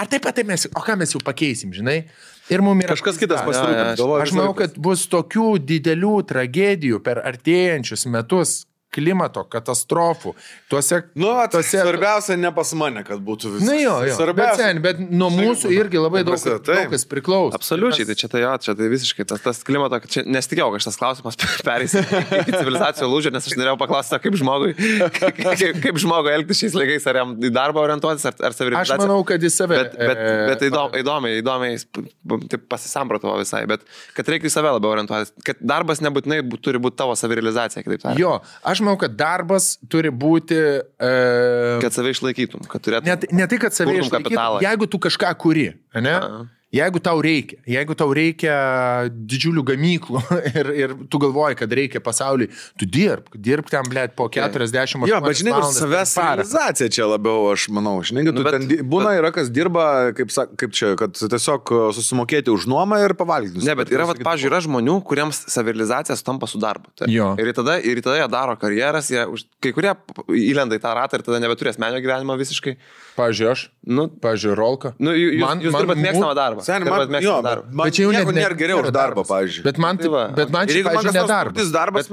Ar taip pat mes, o ką mes jau pakeisim, žinai? Ir mums yra kažkas kitas pasirūpins. Aš manau, kad bus tokių didelių tragedijų per artėjančius metus, klimato katastrofų. Svarbiausia ne pas mane, kad būtų viskas. Na jo. Bet nuo mūsų irgi labai daug kas priklauso. Absoliučiai, tai čia tai visiškai tas klimato, čia nesitikėjau, kad šitas klausimas perės į civilizacijos lūžį, nes aš norėjau paklausti, kaip žmogui elgtis šiais laikais, ar jam į darbą orientuotis, ar savirealizaciją. Aš manau, kad į save. Bet įdomiai taip pasisamprotavo visai, bet kad reikia į save labiau orientuotis, kad darbas nebūtinai turi būti tavo savirealizacija, kitaip tariant. Jo, aš manau, kad darbas turi būti... Kad save išlaikytum, kad turėtum... Ne tai, kad save išlaikytum, jeigu tu kažką kuri, ne? Jeigu tau reikia didžiulių gamyklų ir tu galvoji, kad reikia pasauliui, tu dirbk ten, blėt, po 40 Jo, bet žinai, savęs realizacija čia labiau, aš manau. Žinai, tu ten būna yra, kas dirba, kaip čia, kad tiesiog susimokėti už nuomą ir pavalgyti. Ne, bet yra, pavyzdžiui, yra žmonių, kuriems savirealizacija sutampa su darbu. Ir tada jie daro karjeras, kai kurie įlenda į tą ratą ir tada nebeturės asmeninio gyvenimo visiškai. Pavyzdžiui, aš, pavyzdžiui, Rolka. Jūs dirbat mėgstamą darbą. Bet čia jau nėra geriau už darbą, pavyzdžiui. Bet man čia, pavyzdžiui, nedarbas.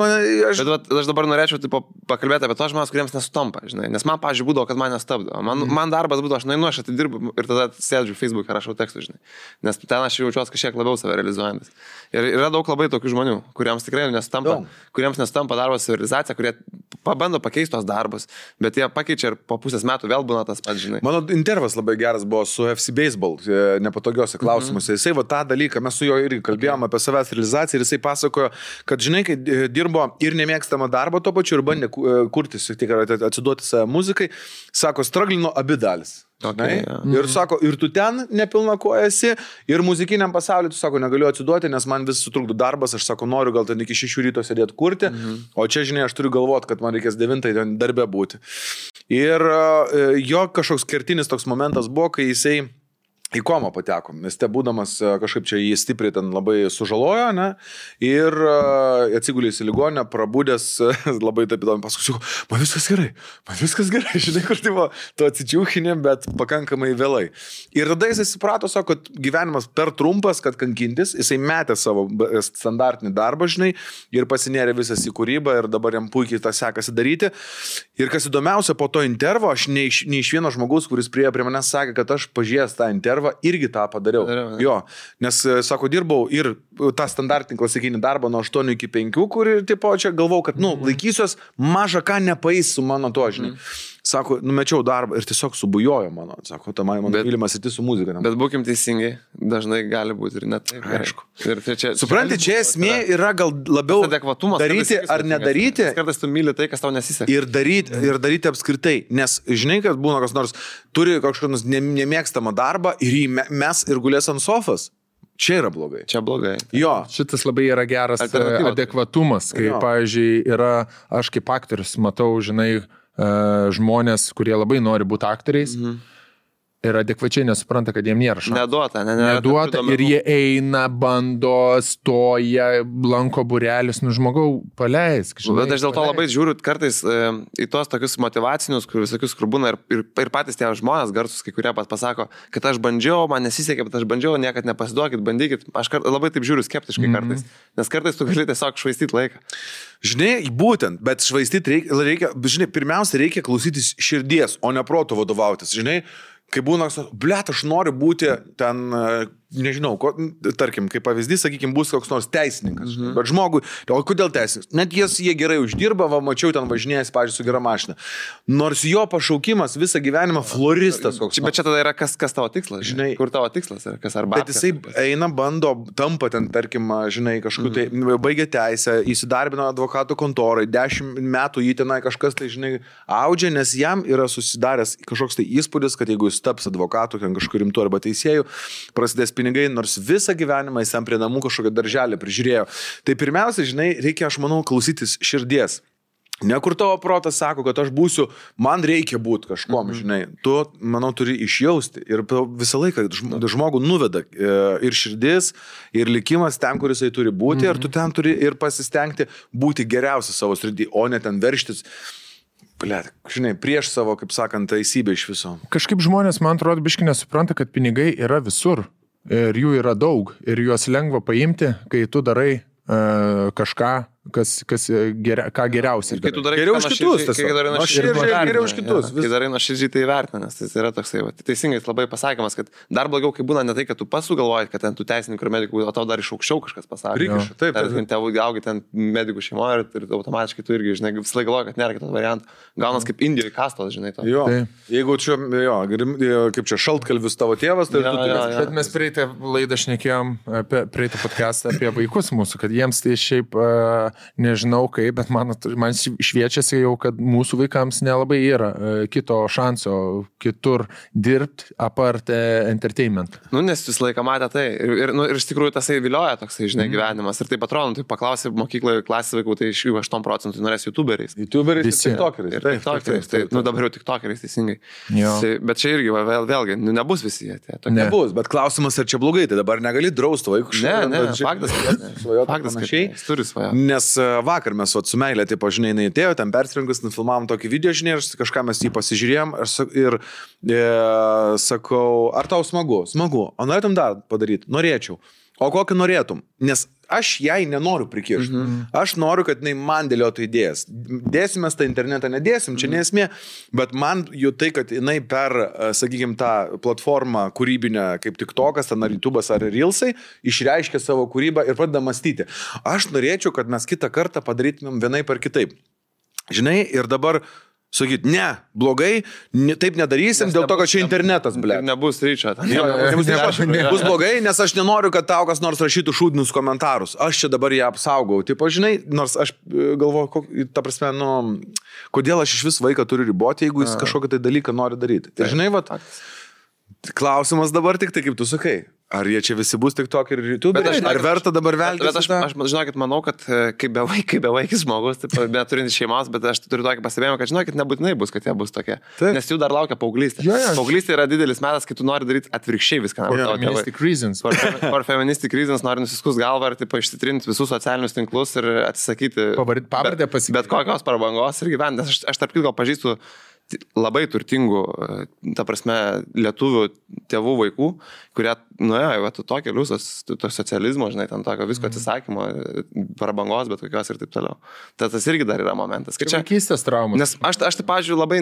Aš dabar norėčiau pakalbėti apie tos žmonės, kuriems nesutampa, žinai. Nes man, pavyzdžiui, būdavo, kad man nestabdo. Man darbas būdavo, aš nueinu, aš atidirbu ir tada sėdžiu Facebook'e, rašau tekstus, žinai. Nes ten aš jaučiuosi kažkiek labiau save realizuojantis. Ir yra daug labai tokių žmonių, kuriems tikrai nesutampa darbo savirealizacija, kurie pabando pakeisti tos darbus, bet jie pakeičia ir po pusės metų vėl būna tas pats, žinai. Mano intervas labai geras buvo su FC Baseball, nepatogiuose klausimuose. Jisai tą dalyką, mes su juo irgi kalbėjome apie savęs realizaciją ir jisai pasakojo, kad žinai, kai dirbo ir nemėgstamą darbą tuo pačiu ir bandė kurtis, tik atsiduoti savo muzikai, sako, straglino abi dalis. Okay, ir sako, ir tu ten nepilna koja esi, ir muzikiniam pasauliu, tu sako, negaliu atsiduoti, nes man vis sutrukdo darbas, aš sako, noriu gal ten iki 6 ryto sėdėti kurti, o čia, žinai, aš turiu galvoti, kad man reikės 9 ten darbe būti. Ir jo kažkoks kertinis toks momentas buvo, kai jisai į komą pateko, nes te būdamas kažkaip čia jį stipriai ten labai sužalojo, ne? Ir atsigulėjus į ligoninę, prabūdęs labai taip įdomi, paskui, man viskas gerai, žinai, kur tai buvo, tu atsičiūchinė, bet pakankamai vėlai. Ir tada jisai suprato, sako, kad gyvenimas per trumpas, kad kankintis, jisai metė savo standartinį darbą, žinai, ir pasinėrė visas į kūrybą ir dabar jam puikiai tą sekasi daryti. Ir kas įdomiausia, po to intervo, aš ne iš vieno žmogaus, kuris prie manęs sakė, kad aš pažiūrėjęs tą intervą, irgi tą padariau. Jo, nes, sako, dirbau ir tą standartinį klasikinį darbą nuo 8 iki 5, kur tipo čia galvau, kad, laikysiuos mažą ką nepaeis su mano to, žinai. Sako, numečiau darbą ir tiesiog subujojo mano. Sako, ta mano mylimas įti su muzika. Bet būkim teisingai, dažnai gali būti ir net taip. Aišku. Supranti, čia esmė yra gal labiau daryti ar nedaryti. Kartais tu myli tai, kas tau nesiseka. Ir daryti apskritai. Nes žinai, kad būna kas nors turi kažkokios nemėgstamą darbą ir jį mes ir gulės ant sofas. Čia yra blogai. Čia blogai. Jo. Šitas labai yra geras adekvatumas, kai, pavyzdžiui, aš kaip aktorius matau, žinai, žmonės, kurie labai nori būti aktoriais ir adekvačiai nesupranta, kad jiem nėra šansų. Neduota ir jie eina, bando, stoja, lanko būrelis, žmogau, paleisk. Bet aš dėl to labai žiūriu kartais į tos tokius motyvacinius, visokius, kur būna ir patys tie žmonės garsus, kai kurie pasako, kad aš bandžiau, man nesisekė, bet aš bandžiau, niekad nepasiduokit, bandykit. Aš labai taip žiūriu skeptiškai kartais, nes kartais tu gali tiesiog švaistyti laiką. Žinai, būtent, bet švaistyti reikia, žinai, pirmiausia reikia klausytis širdies, o ne proto vadovautis, žinai. Kai būna, blėt, aš noriu būti ten, nežinau, tarkim, kaip pavyzdys, sakykime, bus koks nors teisininkas. Bet žmogui, o kodėl teisininkas? Net jie gerai uždirba, mačiau ten važinėjęs, pavyzdžiui, su gera mašina. Nors jo pašaukimas visą gyvenimą floristas koks. Bet čia tada yra kas tavo tikslas, žinai. Kur tavo tikslas yra, kas arba. Bet jisai eina, bando, tampa ten, tarkim, žinai, kažkur tai baigia teisę, įsidarbino advokatų kontorai, 10 metų jį tenai kažkas tai, žinai, audžia, nes jam yra susidaręs kažkoks tai įspūdis, kad jeigu jis taps advokatu, ten kažkur rimtu arba teisėjų, prasidės pinigai, nors visą gyvenimą jis ten prie namų kažkokią darželį prižiūrėjo. Tai pirmiausia, žinai, reikia, aš manau, klausytis širdies. Ne kur tavo protas sako, kad aš būsiu, man reikia būti kažkom, žinai. Tu, manau, turi išjausti. Ir visą laiką žmogų nuveda ir širdis, ir likimas ten, kur jisai turi būti, ir tu ten turi ir pasistengti būti geriausia savo srity, o ne ten verštis. Blet, žinai, prieš savo, kaip sakant, teisybę iš viso. Kažkaip žmonės, man atrodo, biškai nesupranta, kad pinigai yra visur. Ir jų yra daug. Ir juos lengva paimti, kai tu darai kažką, ką geriausiai. Kai tu darai geriau už kitus, kai darai geriau už kitus. Kai darai nuoširdžiai tai vertina, nes tai yra toksai, teisingai labai pasakymas, kad dar blogiau, kai būna ne tai, kad tu pats sugalvoji, kad ten tu teisininkų ir medikų, o tau dar iš aukščiau kažkas pasakė. Prikiša, taip. Tėvų gaugi ten medikų šeimoje ir automatiškai tu irgi, žinai, visą laiką galvoji, kad nėra kitos variantų. Gaunas kaip Indijoje kastos, žinai. To. Jo. Jeigu čia, kaip čia šaltkalvis tavo tėvas, tai Bet mes prieitą laidą šnekėjom, prieitą podcastą apie vaikus mūsų, kad jiems tai šiaip nežinau kaip, bet man šviečiasi jau, kad mūsų vaikams nelabai yra kito šanso kitur dirbti apart entertainment. Nu, nes visą laiką matė tai. Ir iš tikrųjų tasai vilioja toksai, žinai, gyvenimas. Ir taip atrodo, tai paklausė mokykloje klasės vaikų, tai iš jų 8% norės YouTuberiais. YouTuberiais ir TikTokeriais. Ir TikTokeriais. Tai, nu, dabar jau TikTokeriais, teisingai. Tai, bet čia irgi, vėlgi, nebus visi jie. Nebus, bet klausimas, ar čia blogai, tai dabar negali drausti vaikų. Ne, faktas, kad turi svają. Nes vakar mes su meilė, taip, žinai, jinai atėjo, ten persirinkus, nufilmavom tokį video, žinai, ir kažką mes jį pasižiūrėjom ir sakau, ar tau smagu? Smagu. O norėtum dar padaryti? Norėčiau. O kokį norėtum? Nes aš jai nenoriu prikišti. Aš noriu, kad jinai man dėliotų idėjas. Dėsimės tą internetą, nedėsim, čia nesmė, bet man jau tai, kad jinai per, sakykime, tą platformą kūrybinę, kaip TikTokas, ten ar YouTube'as, ar Reelsai, išreiškia savo kūrybą ir pradeda mąstyti. Aš norėčiau, kad mes kitą kartą padarytumėm vienaip ar kitaip. Žinai, ir dabar sakyt, ne, blogai, taip nedarysim, dėl to, kad čia internetas, ble. Nebus ryčio. Bus blogai, nes aš nenoriu, kad tau kas nors rašytų šūdinius komentarus. Aš čia dabar ją apsaugau. Taip, žinai, nors aš galvoju, ta prasme, nu, kodėl aš iš vis vaiką turiu riboti, jeigu jis kažkokį tai dalyką nori daryti. Tai žinai, vat, klausimas dabar tik tai, kaip tu sakai. Ar jie čia visi bus TikTok ir YouTube? Ar verta dabar veltis? Bet aš žinokit, manau, kad kaip bevaikis žmogus, bet turintis šeimos, bet aš turiu tokį pastebėjimą, kad žinokit, nebūtinai bus, kad jie bus tokie. Taip. Nes jų dar laukia paauglystė. Paauglystė yra didelis metas, kai tu nori daryti atvirkščiai viską. Feministic reasons. For feministic reasons nori nusiskus galvą ir išsitrinti visus socialinius tinklus ir atsisakyti pavardę pasakyti. Bet kokios prabangos ir gyventi. Nes aš tarp kitko pažįstu labai turtingų, ta prasme, lietuvių tėvų vaikų, kurie nuėjo to keliu, to socializmo, žinai, ten tokio visko atsisakymo, prabangos, bet kokios ir taip toliau. Tas irgi dar yra momentas. Čia vaikystės traumas. Nes aš tai, pavyzdžiui, labai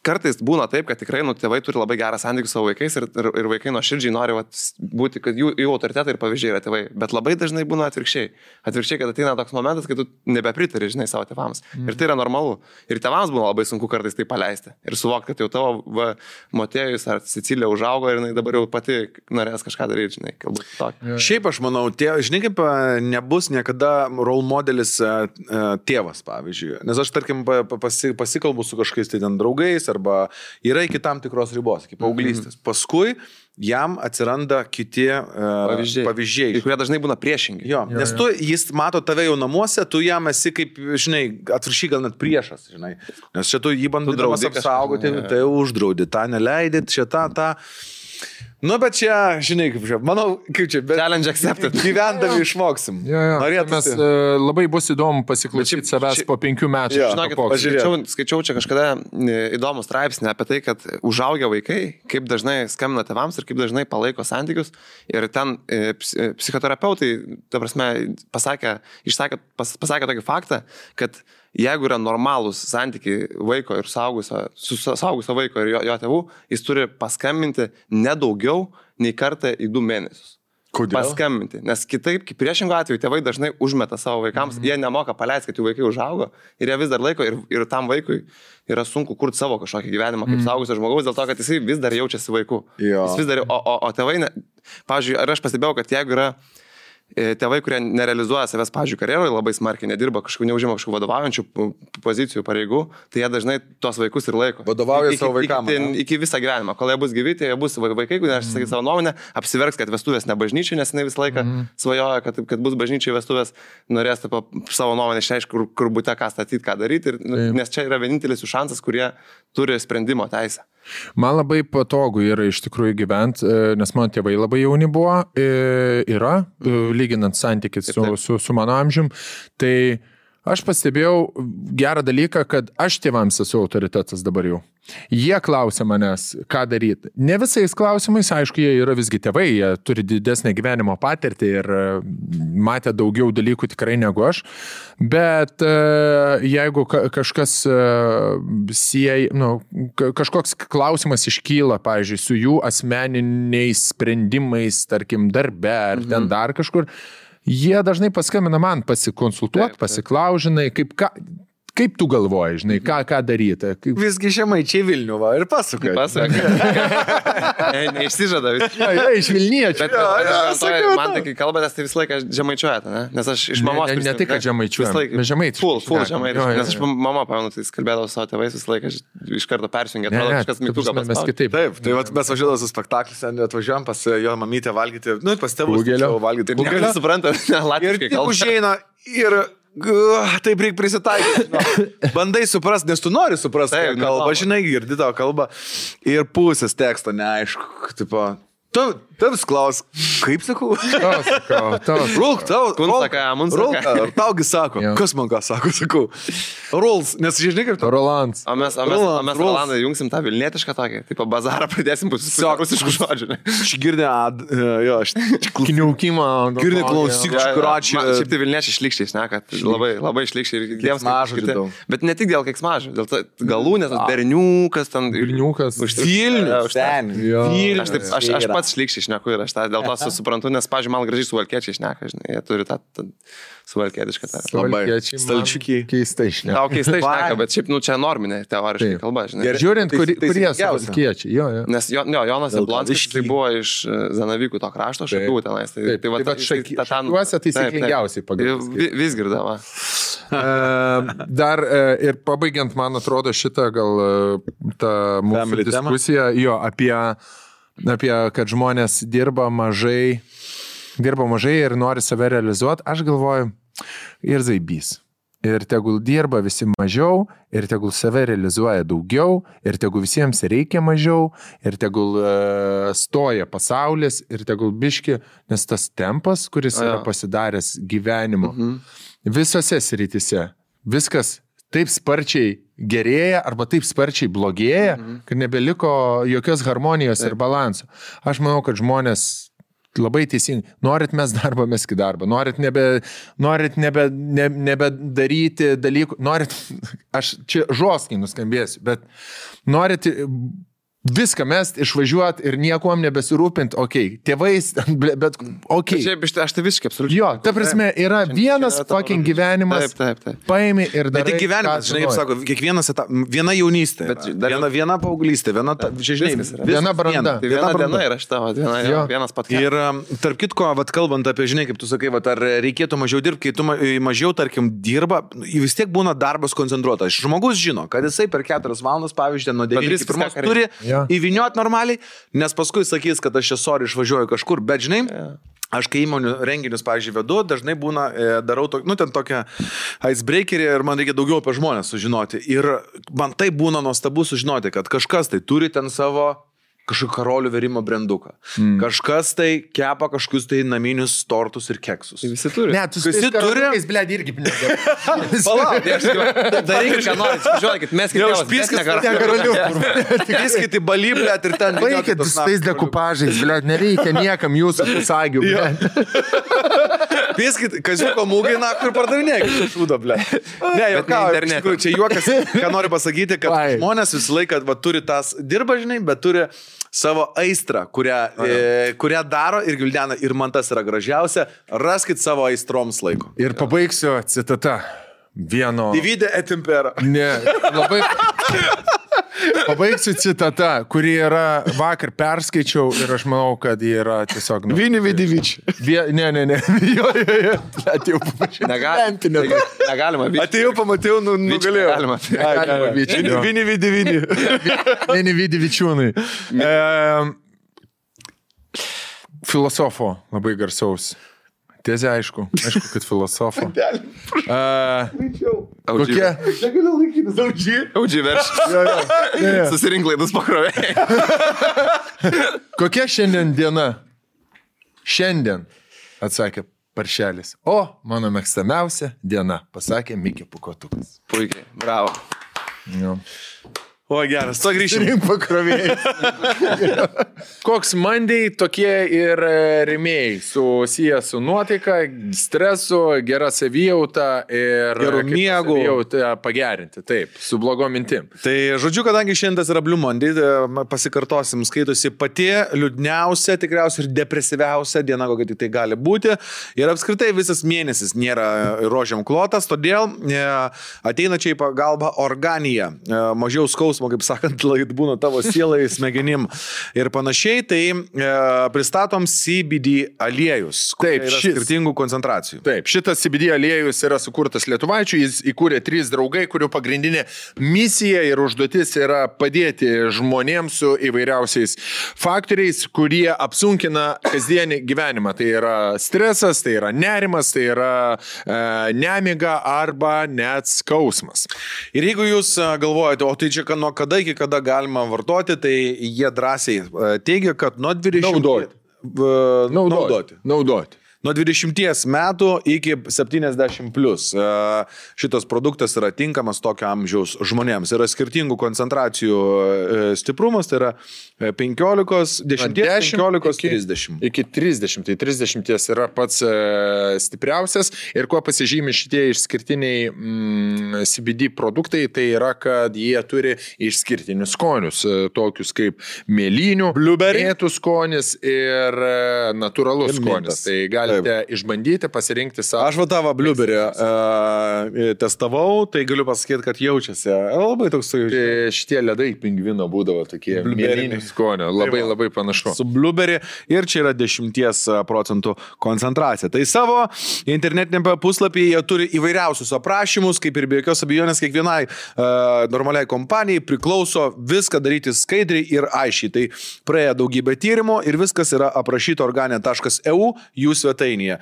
kartais būna taip, kad tikrai tėvai turi labai gerą santykį su savo vaikais ir vaikai nuoširdžiai nori būti, kad jų autoritetai ir pavyzdžiai yra tėvai. Bet labai dažnai būna atvirkščiai. Atvirkščiai, kad ateina toks momentas, kai tu nebepritari, žinai, savo tėvams. Ir tai yra normalu. Ir tėvams būna labai sunku kartais tai paleisti. Ir suvokti, kad jau tavo Motiejus ar Cecilija užaugo ir jinai dabar jau pati norės kažką daryti, žinai, galbūt tokį. Šiaip aš manau, žinai, kaip nebus niekada role modelis tėvas, pavyzdžiui. Nes aš, tarkim, pasikalbu su kažkais tai ten draugais arba yra iki tam tikros ribos, iki paauglystės. Paskui jam atsiranda kiti pavyzdžiai. Kurie dažnai būna priešingi. Jo, nes jis mato tave jau namuose, tu jam esi kaip, žinai, atvirkščiai gal net priešas, žinai. Nes čia tu jį bandydamas apsaugoti, tai uždraudi, tą neleidit, čia tą. Nu, bet čia, žinai, kaip čia, manau, kaip čia, bet challenge accepted. Gyvendami išmoksim. Mes labai bus įdomu pasiklausyti savęs po 5 metų. Žinokit, skaičiau čia kažkada įdomų straipsnį apie tai, kad užaugę vaikai, kaip dažnai skambina tėvams ir kaip dažnai palaiko santykius. Ir ten psichoterapeutai, ta prasme, pasakė tokį faktą, kad jeigu yra normalūs santykiai vaiko ir saugusio vaiko ir jo tėvų, jis turi paskambinti nedaugiau nei kartą į 2 mėnesius. Kodėl? Paskambinti. Nes kitaip, kaip priešingų atveju, tėvai dažnai užmeta savo vaikams, jie nemoka paleisti, kad jų vaikai užaugo ir jie vis dar laiko ir tam vaikui yra sunku kurti savo kažkokį gyvenimą kaip saugusio žmogaus, dėl to, kad jisai vis dar jaučiasi vaiku. Jis vis dar, o tėvai, pavyzdžiui, ar aš pastebėjau, kad jeigu yra tėvai, kurie nerealizuoja savęs, pavyzdžiui, karjeroje, labai smarkiai nedirba, neužima kažkokių vadovaujančių pozicijų, pareigų, tai jie dažnai tos vaikus ir laiko. Vadovauja savo vaikams. Iki visą gyvenimą. Kol jie bus gyvi, tai jie bus vaikai, kurie sakys savo nuomonę, apsiverks, kad vestuvės ne bažnyčiai, nes jinai visą laiką svajoja, kad bus bažnyčiai vestuvės, norės savo nuomonę išreiškti, kur būte, ką statyti, ką daryti, nes čia yra vienintelis jų šansas, kurie turi sprendimo teisę. Man labai patogu yra iš tikrųjų gyventi, nes mano tėvai labai jauni buvo, lyginant santykis su mano amžium. Tai aš pastebėjau gerą dalyką, kad aš tėvams esu autoritetas dabar jau. Jie klausia manęs, ką daryti. Ne visais klausimais, aišku, jie yra visgi tėvai, jie turi didesnę gyvenimo patirtį ir matė daugiau dalykų tikrai negu aš. Bet jeigu kažkas kažkoks klausimas iškyla, pavyzdžiui, su jų asmeniniais sprendimais, tarkim, darbe ar ten dar kažkur, jie dažnai paskambina man pasikonsultuoti, pasiklaužinai, kaip tu galvoji, žinai, ką daryti? Visgi žemaičiai Vilnių, va, ir pasakoja. Neišsižada vis. Iš Vilniečio. Man tai, kai kalbatės, tai visą laiką žemaičiuojate, ne? Nes aš iš mamos... Ne tai, kad žemaičiuojame, mes žemaitiškai. Full žemaitiškai. Nes aš mama, pamenu, tai kalbėdavau savo tėvais visą laiką, iš karto persijungė, atrodo, kažkas mygtuką paspaudė. Taip, tai mes važiuodavome su spektaklis, atvažiuojam pas jo mamytę valgyti, pas tėvus valgyti. Ir suprantat, latviškai kalba. Ir taip reikia prisitaikyti. Bandai suprasti, nes tu nori suprasti kalbą, žinai, girdi tavo kalbą ir pusės teksto neaišku, tipo, tavs klaus, kaip sakau? Rulk, taugi sako, kas man ką sakau? Ruls, nes žinai kaip to? Rolands. O mes Rolandai jungsim tą vilnietišką tokį, tipo bazarą pradėsim rusiškų žodžių. Aš girdė, kniaukimą. Girdė klausyk, škuračių. Šiaip tai vilniečiai šlikščiai šneka, labai šlikščiai ir keiksmažodžių. Bet ne tik dėl keiksmažodžių, dėl to galūnės, berniukas, ten Vilniukas. Vilnius. Aš pats šlikščiai šneku ir aš tą dėl to suprantu, nes, pavyzdžiui, man gražiai suvalkiečiai šneka, žinai, jie turi tą suvalkietišką tą. Labai stalčiukiai. Keistai šneka. Tau keistai šneka, bet šiaip, čia norminė teoriškai kalba, žinai. Žiūrint, kurie suvalkiečiai. Nes Jonas Jablonskis, tai buvo iš Zanavykų to krašto, Šakių tenais. Tai Šakiuose taisyklingiausiai pagal. Visgirdama. Dar ir pabaigiant, man atrodo, šitą gal tą mūsų diskusiją, apie kad žmonės dirba mažai ir nori save realizuoti, aš galvoju, ir zaibys. Ir tegul dirba visi mažiau, ir tegul save realizuoja daugiau, ir tegul visiems reikia mažiau, ir tegul stoja pasaulis, ir tegul biški, nes tas tempas, kuris yra pasidaręs gyvenimo, visose srityse, viskas taip sparčiai gerėja arba taip sparčiai blogėja, kad nebeliko jokios harmonijos ir balanso. Aš manau, kad žmonės labai teisingai, norit mes darbą, meskit darbą, norit nebedaryti dalykų, norit, aš čia žoskai nuskambėsiu, bet norit viską mest, išvažiuoti ir niekuom nebesirūpinti, tėvais, bet Šiaip, aš tai visiškai absoliučiai. Jo, ta prasme, yra vienas fucking gyvenimas, paimi ir darai. Ne tik gyvenimas, žinai, kaip sako, kiekvienas viena jaunystė, viena paauglystė, viena branda. Tai viena diena yra šita, vienas pat. Ir tarp kitko, kalbant apie, žinai, kaip tu sakai, ar reikėtų mažiau dirbti, kai tu mažiau, tarkim, dirba, vis tiek būna darbas koncentruotas. Žmogus žino, kad jisai per 4 valandas, pavyzdžiui, nuo 9 iki 1 turi įviniuot normaliai, nes paskui sakys, kad aš čia išvažiuoju kažkur, bet žinai, aš kai įmonių renginius, pavyzdžiui, vedu, dažnai būna, darau ten tokią icebreakerį ir man reikia daugiau apie žmonės sužinoti. Ir man tai būna nuostabu sužinoti, kad kažkas tai turi ten savo kažkokį karolių verimo branduką. Kažkas tai kepa kažkokius tai naminius tortus ir keksus. Visi turi. Ne, tu visi turi. Blėd, irgi pinigė. Palauk, darykit, ką norit, žiūrėkit, mes Piskit į balį, blėd, ir ten. Baikit su tais dekupažais, blėd, nereikia niekam jūsų pusagių, blėd. Piskit, kaziuko mūgai, kur pardavinėkit šūdą, blėd. Ne, jau čia juokas, ką noriu pasakyti, kad žmonės visą laiką turi tas dirba, žinai, bet turi savo aistrą, kurią daro ir gvildena, ir man tas yra gražiausia, raskit savo aistroms laiko. Ir pabaigsiu citata vieno... Divide et impera. Ne, labai... Pabaigsiu citata, kuri yra vakar perskaičiau ir aš manau, kad ji yra tiesiog... Vini Vidivič. Ne. Jo. Atėjau paprašyti. Negalima. Atėjau, pamačiau, nugalėjau. Negalima. Vini Vidivini. Vini Vidivičiūnai. Filosofo labai garsaus. Tezė, aišku, kad filosofo. Kokia? Negaliu laikytis, Audžiai verš. Susirink laidus pakrovė. Kokia šiandien diena? Šiandien, atsakė Paršelis. O, mano mėgstamiausia diena, pasakė Mikė Pukotukas. Puikiai, bravo. Jo. O, geras, to grįžim. Rink pakrovėjai. Koks Monday, tokie ir rėmėjai, susiję su nuotaika, stresu, gera savijauta ir gerų miegų. Savijauta pagerinti, taip, su blogom mintim. Tai žodžiu, kadangi šiandien yra Blue Monday, pasikartosim, skaitosi pati liūdniausia, tikriausiai ir depresyviausia diena, kokia tik tai gali būti. Ir apskritai visas mėnesis nėra rožiam klotas, todėl ateina čia į pagalbą Organija. Mažiau skausmo, kaip sakant, būna tavo sielai, smegenim ir panašiai, tai pristatom CBD aliejus. Taip, skirtingų koncentracijų. Taip, šitas CBD aliejus yra sukurtas lietuvaičių, jis įkūrė 3 draugai, kurių pagrindinė misija ir užduotis yra padėti žmonėms su įvairiausiais faktoriais, kurie apsunkina kasdienį gyvenimą. Tai yra stresas, tai yra nerimas, tai yra nemiga arba net skausmas. Ir jeigu jūs galvojate, o tai čia nuo kada iki kada galima vartoti, tai jie drąsiai teigia, kad nuo 20... Naudoti. Nuo 20 metų iki 70 plus. Šitas produktas yra tinkamas tokio amžiaus žmonėms. Yra skirtingų koncentracijų stiprumas, tai yra 15, 10, 15, 30. Iki 30. Tai 30 yra pats stipriausias. Ir kuo pasižymi šitie išskirtiniai CBD produktai, tai yra, kad jie turi išskirtinius skonius, tokius kaip mėlynių, mėtų skonis ir natūralus skonis. Tai galite išbandyti, pasirinkti savo. Aš tavo blueberry testavau, tai galiu pasakyti, kad jaučiasi. Labai toks jaučiasi. Šitie ledai pingvino būdavo tokie mėlynių skonio. Labai panašu. Su blueberry ir čia yra 10% koncentracija. Tai savo internetinėme puslapyje jie turi įvairiausius aprašymus, kaip ir be jokios abejonės kiekvienai normaliai kompanijai priklauso viską daryti skaidriai ir aiškiai. Tai praėjo daugybę tyrimų ir viskas yra aprašyta organia.eu jų svetainėje.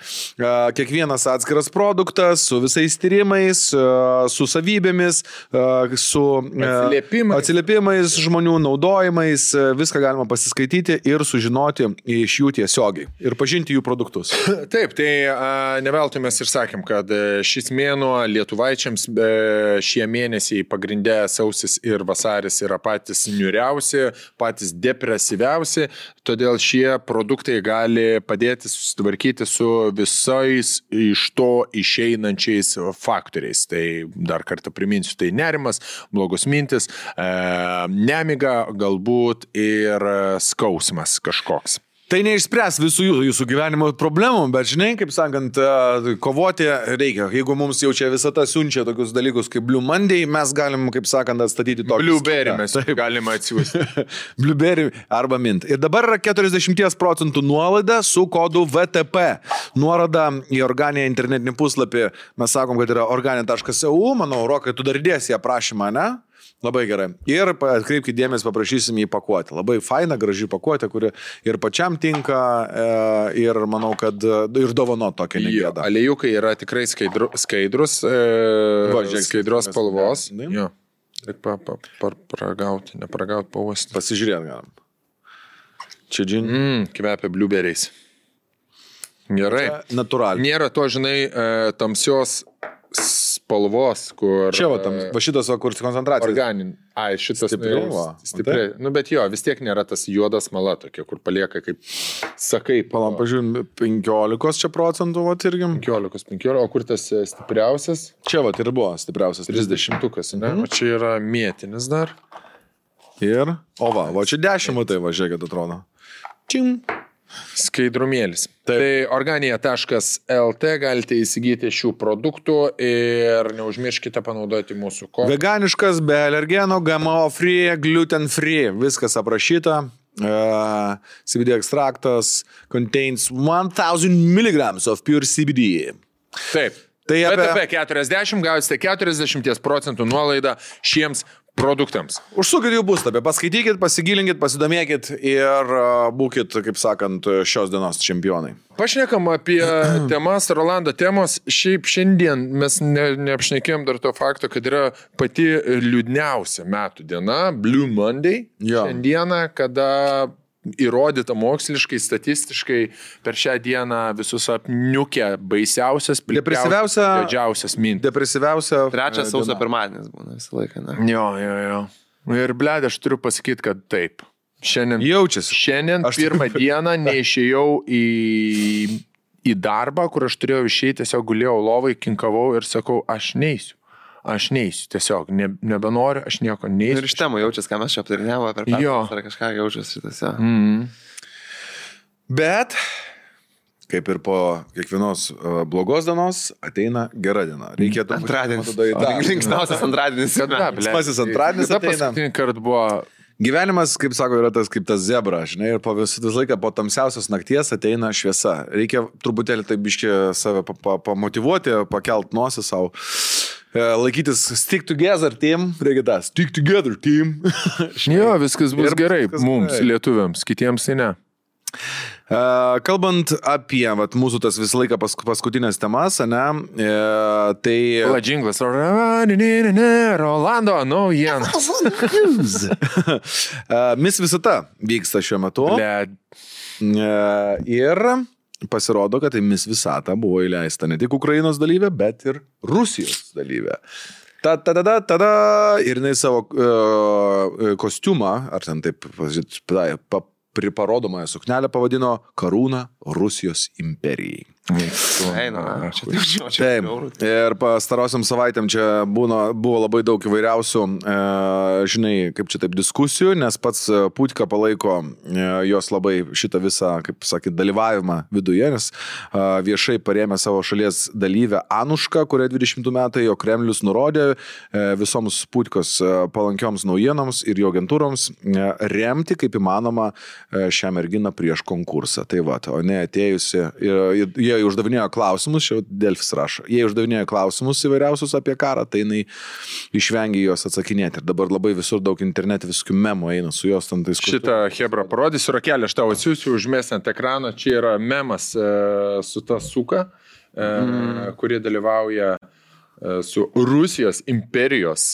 Kiekvienas atskiras produktas su visais tyrimais, su savybėmis, su atsiliepimais žmonių naudojimais, viską galima pasiskaityti ir sužinoti iš jų tiesiogiai ir pažinti jų produktus. Taip, tai neveltui mes ir sakėm, kad šis mėnuo lietuvaičiams šie mėnesiai pagrindė sausis ir vasaris yra patys niūriausi, patys depresyviausi, todėl šie produktai gali padėti susitvarkyti su visais iš to išeinančiais faktoriais. Tai dar kartą priminsiu, tai nerimas, blogos mintis, nemiga, galbūt ir skausmas kažkoks. Tai neišspręs visų jūsų gyvenimo problemų, bet žinai, kaip sakant, kovoti reikia. Jeigu mums jau čia visata siunčia tokius dalykus kaip Blue Monday, mes galim, kaip sakant, atstatyti tokį. Blueberry mes galime atsiųsti. Blueberry arba mint. Ir dabar yra 40% nuolaida su kodu VTP. Nuoroda į Organiją internetinį puslapį. Mes sakom, kad yra organia.eu. Manau, Rokai, tu dar įdėsi aprašymą, ne? Labai gerai. Ir atkreipkite dėmesį, paprašysim į pakuotę. Labai faina, graži pakuotė, kuri ir pačiam tinka, ir manau, kad ir dovano tokia negėda. Aliejukai yra tikrai skaidrus, skaidros spalvos. Jo. Paragauti, neparagauti, pavasti. Pasižiūrėt galim. Čia džin. Kvepia blueberries. Gerai. Natūraliai. Nėra to, žinai, tamsios spalvos, kur... Čia va šitas, kur koncentracija. Organin. Ai, šitas stipriai. Nu, bet jo, vis tiek nėra tas juodas mala tokia, kur palieka kaip sakai. Palam, pažiūrėjom, 15 čia procentų, va, irgi. 15, o kur tas stipriausias? Čia va, ir buvo stipriausias. 30-ukas, ne? O čia yra mėtinis dar. Ir, o va čia 10, tai va, žiūrėkit, atrodo. Čim. Skaidrumėlis. Tai organija.lt galite įsigyti šių produktų ir neužmirškite panaudoti mūsų kodą. Veganiškas, be alergenų, GMO free, gluten free, viskas aprašyta. CBD ekstraktas contains 1000 mg of pure CBD. Taip. Tai apie 40 gausite 40% nuolaidą šiems produktams. Užsukit jų puslapį, paskaitykit, pasigilinkit, pasidomėkit ir būkit, kaip sakant, šios dienos čempionai. Pašnekam apie temas, Rolando temos. Šiaip šiandien mes neapšnekėjom dar to fakto, kad yra pati liūdniausia metų diena, Blue Monday. Jo. Šiandieną, kada įrodyta moksliškai, statistiškai per šią dieną visus apniukę baisiausias, didžiausias mintis. Depresyviausia. 3 sausio pirmadienis būna visą laiką, ne? Jo. Ir blėd, aš turiu pasakyti, kad taip. Šiandien jaučiasi. Šiandien pirmą dieną neišėjau į darbą, kur aš turėjau išeiti, tiesiog gulėjau lovai, kinkavau ir sakau, aš neisiu, tiesiog nebenoriu, aš nieko neisiu. Ir iš temų jaučiasi, ką mes čia aptarinėjome per pertraukas, ar kažką jaučiasi šitose. Bet, kaip ir po kiekvienos blogos dienos, ateina gera diena. Reikėtų Antradienis. Linksmiausias Linksmiausias antradienis. Linksmasis antradienis ateina. Paskutinį kartą buvo... Gyvenimas, kaip sako, yra tas kaip tas zebra, žinai, ir visą laiką po tamsiausios nakties ateina šviesa. Reikia truputėlį taip biškį save pamotivuoti, pakelt nosį savo. Laikytis stick together team, reikia tą stick together team. Jo, viskas bus gerai mums, lietuviams, kitiems tai ne. Kalbant apie mūsų tas visą laiką paskutinės temas, ne, tai... Džinglas, Rolando, naujienas. Miss Visata vyksta šiuo metu. Ir pasirodo, kad tai Miss Visata buvo įleista ne tik Ukrainos dalyvė, bet ir Rusijos dalyvė. Tada ir jinai savo kostiumą, ar ten taip parodomąją suknelę pavadino Karūna Rusijos imperijai. Taip. Ir pastarosiam savaitėm čia buvo labai daug įvairiausių, žinai, kaip čia taip diskusijų, nes pats Putka palaiko jos labai šitą visą, kaip sakyt, dalyvavimą viduje, nes viešai parėmė savo šalies dalyvę Anušką, kurią 20 metai jo Kremlius nurodė visoms Putkos palankioms naujienoms ir jo agentūroms remti kaip įmanoma šią merginą prieš konkursą. Tai va, o ne atėjusi, jie uždavinėjo klausimus, čia Delfis rašo, jie uždavinėjo klausimus įvairiausius apie karą, tai jinai išvengė juos atsakinėti. Ir dabar labai visur daug internete visokių memų eina su jos tam tais. Šitą Hebra parodysiu, Rakelė, aš tau atsiųsiu, užmėsiu ant ekrano, čia yra memas su ta suka, kurie dalyvauja su Rusijos imperijos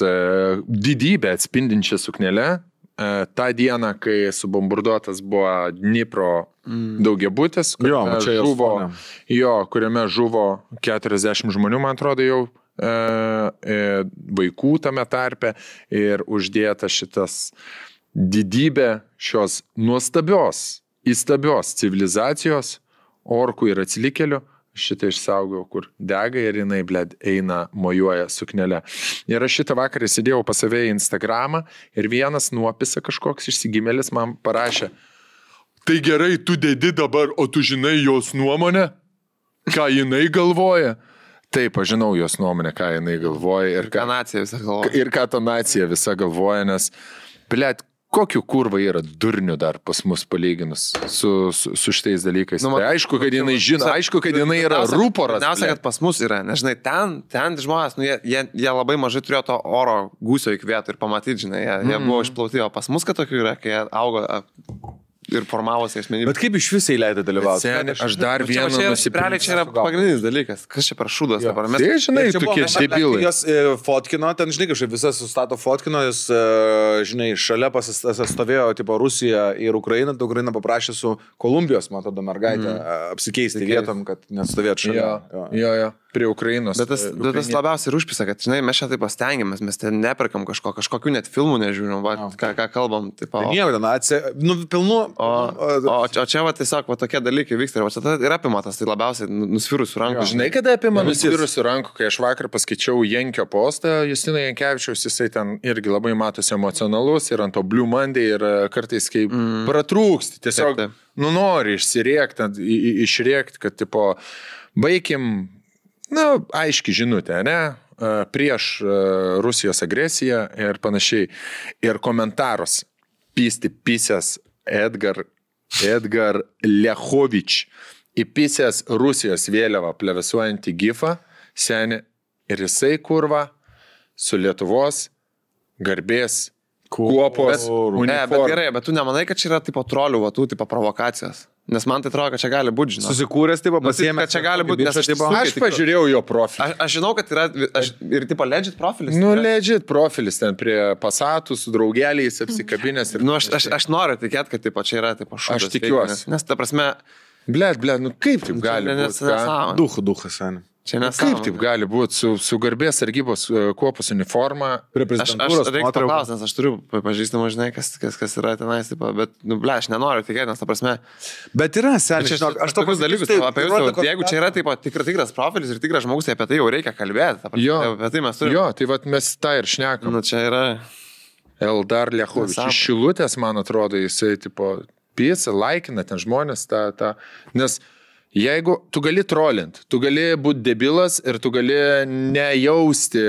didybę atspindinčią suknelę. Ta diena, kai subombarduotas buvo Dnipro daugiabutis, kuriame žuvo 40 žmonių, man atrodo, jau vaikų tame tarpe, ir uždėta šitas didybė šios įstabios civilizacijos, orkų ir atsilikėlių. Šitą išsaugau, kur dega ir jinai, bled, eina, mojuoja suknelę. Ir aš šitą vakarą sėdėjau pas save į Instagramą ir vienas nuopisa kažkoks išsigimėlis man parašė: tai gerai, tu dedi dabar, o tu žinai jos nuomonę? Ką jinai galvoja? Taip, aš žinau jos nuomonę, ką jinai galvoja. Ir ką nacija visa galvoja. Ir ką ta nacija visa galvoja, nes, bled, kokiu kurva yra durnių dar pas mus palyginus su šitais dalykais. Tai aišku, kad jinai žino, aišku, kad jinai yra rūporas. Pirmiausia, kad pas mus yra, nežinai, ten žmonės, jie labai mažai turėjo to oro gūsio įkvėtų ir pamatyti, žinai, jie buvo išplauti, o pas mus, kad tokių yra, kai jie augo ir formavosi asmenybė. Bet kaip iš visai leido dalyvauti? Aš dar vieną nusipirkau. Čia yra pagrindinis dalykas. Kas čia per šūdas dabar? Tai, žinai, tokie debilai. Jos fotkino, ten, žinai, kažkaip visas sustato fotkino, jis, žinai, šalia pasistovėjo, tipo, Rusija ir Ukraina, tai Ukraina paprašė su Kolumbijos, man atrodo, mergaitę apsikeisti vietom, kad nestovėtų šalia. Jo. prie Ukrainos. Bet tas labiausiai ir užpisa, kad, žinai, mes čia taip pastengiamės, mes ten neperkam kažkokių net filmų nežiūrim, ką kalbam. Taip, pilnu. O čia va tiesiog va, tokie dalykai vyksta ir va, čia ir apima tas, tai labiausiai nusvirusių rankų. Žinai, kada apima nusvirusių rankų, kai aš vakar paskaičiau Jankio postą, Justino Jankevičiaus, jisai ten irgi labai matosi emocionalus ir ant to Blue Monday ir kartais kaip pratrūksti, tiesiog nori išsiriekti, išriekti, kad tipo baigim, aiški žinutė, ne? Prieš Rusijos agresiją ir panašiai. Ir komentarus pisęs Edgar Lechovič įpisęs Rusijos vėliavą plevėsuojantį gifą, seni, ir jisai kurva su Lietuvos garbės kuopos uniforma. Bet gerai, bet tu nemanai, kad čia yra tipo trolių, tų tipo provokacijos? Nes man tai atrodo, kad čia gali būti, žinai. Susikūręs, tipo, pasiėmė. Kad čia gali būti, nes aš pažiūrėjau jo profilį. Aš žinau, kad yra ir tipo legit profilis. Legit profilis ten prie Passatų su draugeliais apsikabinės. Aš noriu tikėti, kad tipo, čia yra tipo šūdas. Aš tikiuosi. Nes ta prasme... Blet, kaip taip gali būti? Duchas, seni. Kaip taip gali būti su garbės sargybos kuopos uniforma? Aš reikia paklausti, nes aš turiu pažįstamą, žinai, kas yra tenais, bet, aš nenoriu tikėti, nes ta prasme... Bet yra, seniai, aš tokius dalykus apie jūsų, jeigu čia yra taip, tikras profilis ir tikras žmogus, tai apie tai jau reikia kalbėti. Apie tai mes turime. Jo, tai vat mes tą ir šnekam. Čia yra... Eldar Lechovič. Iš Šilutės, man atrodo, jisai, tipo, pisa, laikina ten žmonės, nes... Jeigu tu gali trolint, tu gali būti debilas ir tu gali nejausti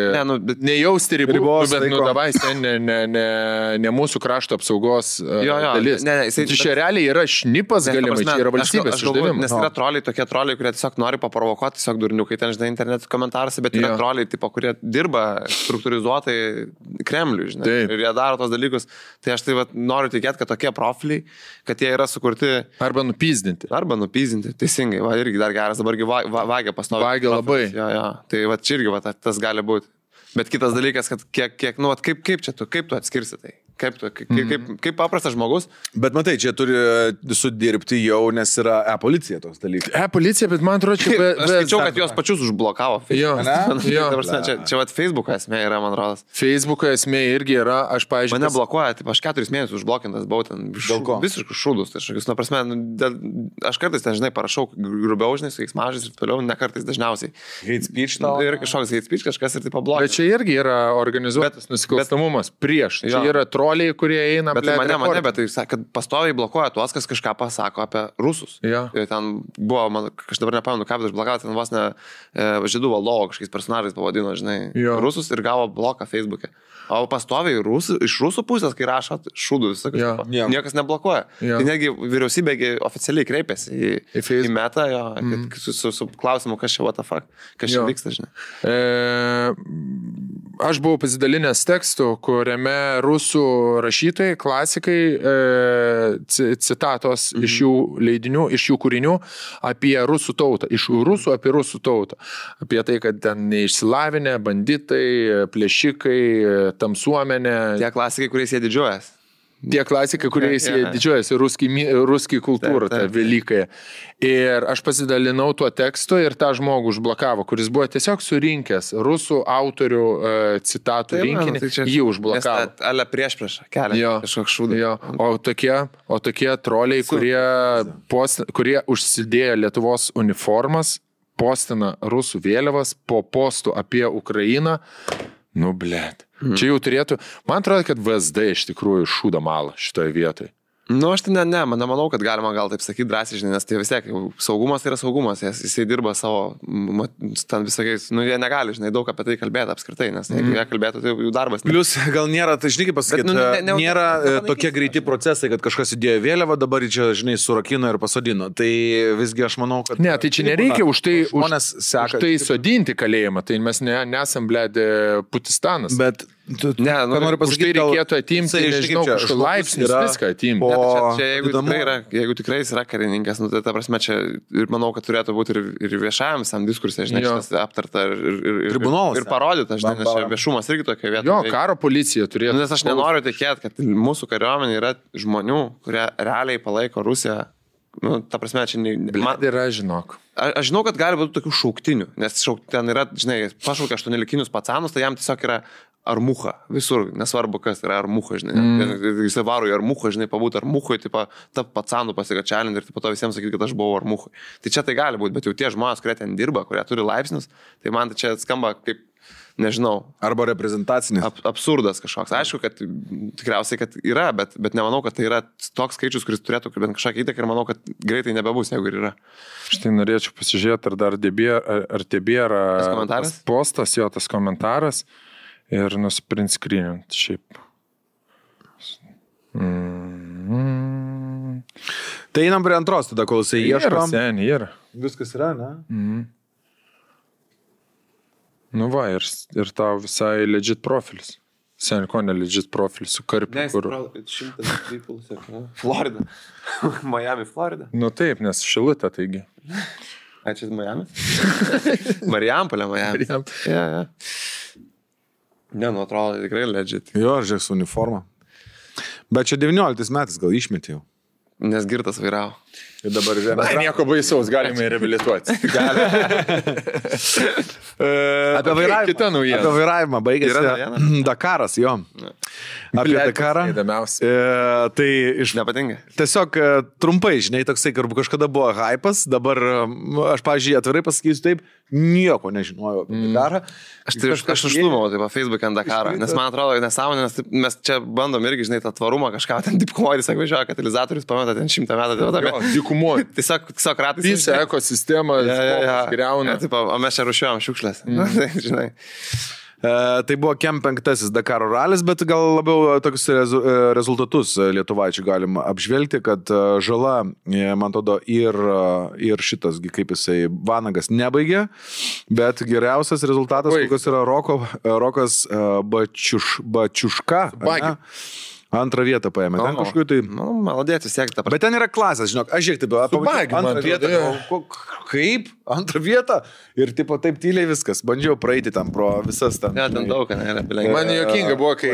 ribos, bet davai, ne mūsų krašto apsaugos dalis. Čia realiai yra šnipas galimai, čia yra valstybės uždavimas. Nes yra troliai, tokie troliai, kurie tiesiog nori paprovokuoti, tiesiog durniukai ten, žinai, interneto komentaruose, bet yra troliai, tipo, kurie dirba struktūrizuotai Kremliui, žinai, ir jie daro tos dalykus. Tai aš tai noriu tikėti, kad tokie profiliai, kad jie yra sukurti... Arba nupyzdinti, teisingai. Va, irgi dar geras, dabargi vagia pastovi. Vagia labai. Jo. Tai va, čia irgi tas gali būti. Bet kitas dalykas, kad kiek kaip tu atskirsi tai? Kaip paprastas žmogus. Bet matai, čia turi sudirbti jau, nes yra e-policija toks dalykas. E-policija, bet man atrodo, čia... Aš skaičiau, kad jos pačius užblokavo. Jo. Čia Facebook'o esmė yra, man rodas. Facebook'o esmė irgi yra, aš paaiškinau. Mane blokuoja, taip, aš 4 mėnesius užblokintas buvau ten. Visiškus šūdus. Tai prasme, aš kartais ten, žinai, parašau grubiau, žinai, su keiksmažais ir toliau, ne kartais dažniausiai. Hate speech tau. Ir kažkoks hate speech, kažkas ir taip pablokina. Bet čia irgi yra organizuotas nusikalstamumas prieš. Čia yra troliai, kurie eina. Bet mane, bet tai, kad pastoviai blokuoja tuos, kas kažką pasako apie rusus. Ja. Ir ten buvo, aš dabar nepamenu, ką, bet aš blokavau, ten vos ne žydų valdovo kažkokiais personažais pavadino, žinai, rusus ir gavo bloką Facebook'e. O pastoviai iš rusų pusės, kai rašo šūdų visą kažką, niekas neblokuoja. Tai negi vyriausybė oficialiai kreipėsi į metą, su klausimu, kas čia what the fuck, kas čia vyksta, žinai. Aš buvau pasidalinęs tekstu, kuriame rusų rašytojai, klasikai, citatos iš jų leidinių, iš jų kūrinių apie rusų tautą, iš rusų apie rusų tautą. Apie tai, kad ten neišsilavinę, banditai, plėšikai, tamsuomenė. Tie klasikai, kuriais jie didžiuojas. Tie klasikai, kuriais jie didžiuojasi, ruski kultūra, ta velykąją. Ir aš pasidalinau tuo tekstu ir tą žmogų užblokavo, kuris buvo tiesiog surinkęs rusų autorių citatų rinkinį, jį užblokavo. Ale prieš kelia kažkoks šūdas. O tokie troliai, kurie užsidėjo Lietuvos uniformas, postina rusų vėliavas po postų apie Ukrainą, blet. Čia jau turėtų, man atrodo, kad VSD iš tikrųjų šūda malą šitoje vietoje. Aš tai nemanau, kad galima gal taip sakyti drąsiai, žinai, nes tai vis tiek saugumas tai yra saugumas, jisai dirba savo, ten visokiais, jie negali, žinai, daug apie tai kalbėti apskritai, nes jeigu jie kalbėtų, tai jų darbas. Plius gal nėra, tai žinai, kaip pasakyti, nėra tokie greiti procesai, kad kažkas įdėjo vėliavą, dabar čia, žinai, surakino ir pasodino. Tai visgi aš manau, kad... Ne, tai čia nereikia už tai sodinti kalėjimą, tai mes nesam, bled, Putistanas. Bet noriu pasakyti, tai reikėtų atimti, nežinau, kažkokį laipsnį, viską atimti. Jeigu tikrai jis yra karininkas, tai ta prasme čia ir manau, kad turėtų būti ir viešajam visam diskursė, žinai, šitas aptarta ir parodyta, žinai, nes viešumas irgi tokia vieta. Jo, karo policija turėtų. Nes aš nenoriu tikėti, kad mūsų kariuomenė yra žmonių, kurie realiai palaiko Rusiją Nu, ta prasme, čia Yra, žinok. Aš žinau, kad gali būti tokių šauktinių, nes ten yra, žinai, pašaukia 8-likinius pacanus, tai jam tiesiog yra armucha, visur, nesvarbu kas yra armucha, žinai. Jis varo į armuchą, žinai, pabūti armuchui, ta pacanų pasikačialint ir po to visiems sakyti, kad aš buvau armuchui. Tai čia tai gali būti, bet jau tie žmonės, kurie ten dirba, kurie turi laipsnius, tai man tai čia skamba kaip, nežinau. Arba reprezentacinis. Absurdas kažkoks. Aišku, kad tikriausiai, kad yra, bet nemanau, kad tai yra toks skaičius, kuris turėtų bent kažką įtaką ir manau, kad greitai nebebus, jeigu ir yra. Štai norėčiau pasižiūrėti, ar dar tebėra postas, jo tas komentaras ir nusprint screenint šiaip. Tai einam prie antros, tada kol jisai ieškom. Yra. Viskas yra, ne? Nu va, ir tau visai legit profilis. Sen, ko ne legit profilis su karpiu, kur... 100 people, Florida. Miami, Florida. Nu taip, nes Šilutė, taigi. Čia Miami? Marijampolė, Miami. Ja. Ne, nu atrodo, tikrai legit. Jo, žiūrėk su uniforma. Bet čia 19 metais gal išmetė jau. Nes girtas vairavo. Ir dabar nieko baisaus, galime reabilituoti. Apie vairavimą baigėsi Dakaras, jo. Apie Dakarą. Tai nepatinka. Tiesiog trumpai, žinai, toksai, kažkada buvo hypas, dabar aš, pavyzdžiui, atvirai pasakysiu taip, nieko nežinojau apie Dakarą. Aš užtumau taip, Facebook'e ant Dakarą, nes man atrodo, nesąmonė, nes mes čia bandom irgi, žinai, tą tvarumą kažką, ten dipkomoris, sako, važiuoja, katalizatorius pameta ten 100 metų. Dykumoji. Tiesiog ratais. Visa ekosistema griauna. O mes čia rušiuojam šiukšlės. Žinai. Tai buvo Kem 5 Dakaro ralis, bet gal labiau tokius rezultatus lietuvaičių galima apžvelgti, kad žala, man atrodo, ir šitas, kaip jisai, Vanagas nebaigė, bet geriausias rezultatas, kokios yra Rokas Bačiuška. Antrą vietą paėmė. Ten kažkur tai... Malodėti siekti. Bet ten yra klasės, žinok. Aš žiūrėk, taip, antrą vietą. Kaip? Antrą vietą? Ir taip tyliai viskas. Bandžiau praeiti tam pro visas ten. Ne, ten daug, ne. Man juokinga buvo, kai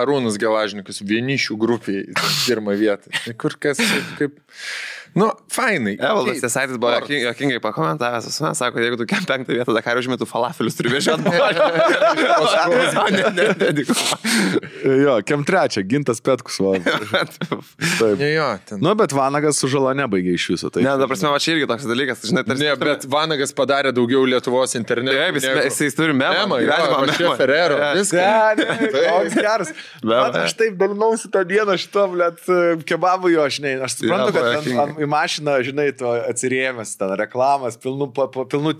Arūnas Gelažnikas vienišių grupiai pirmą vietą. Kur kas kaip... Nu, fainai. Evaldas Jasaitis buvo juokingai pakomentavęs, sako, jeigu tu Kem 5 vietą Dakarą užmėtų falafelius, turi vežioti. Jo, Kem 3, Gintas Petkus. Nu, bet Vanagas su žala nebaigė iš viso. Ne, da prasme, va čia irgi toks dalykas. Ne, bet Vanagas padarė daugiau Lietuvos internetu. Jis turi memą. Čia Ferrero. Toks geras. Aš taip dalinausi tą dieną šito, blėt, kebabų jo, aš suprantu, kad į mašiną, žinai, tu atsirėmęs, ten reklamas, pilnų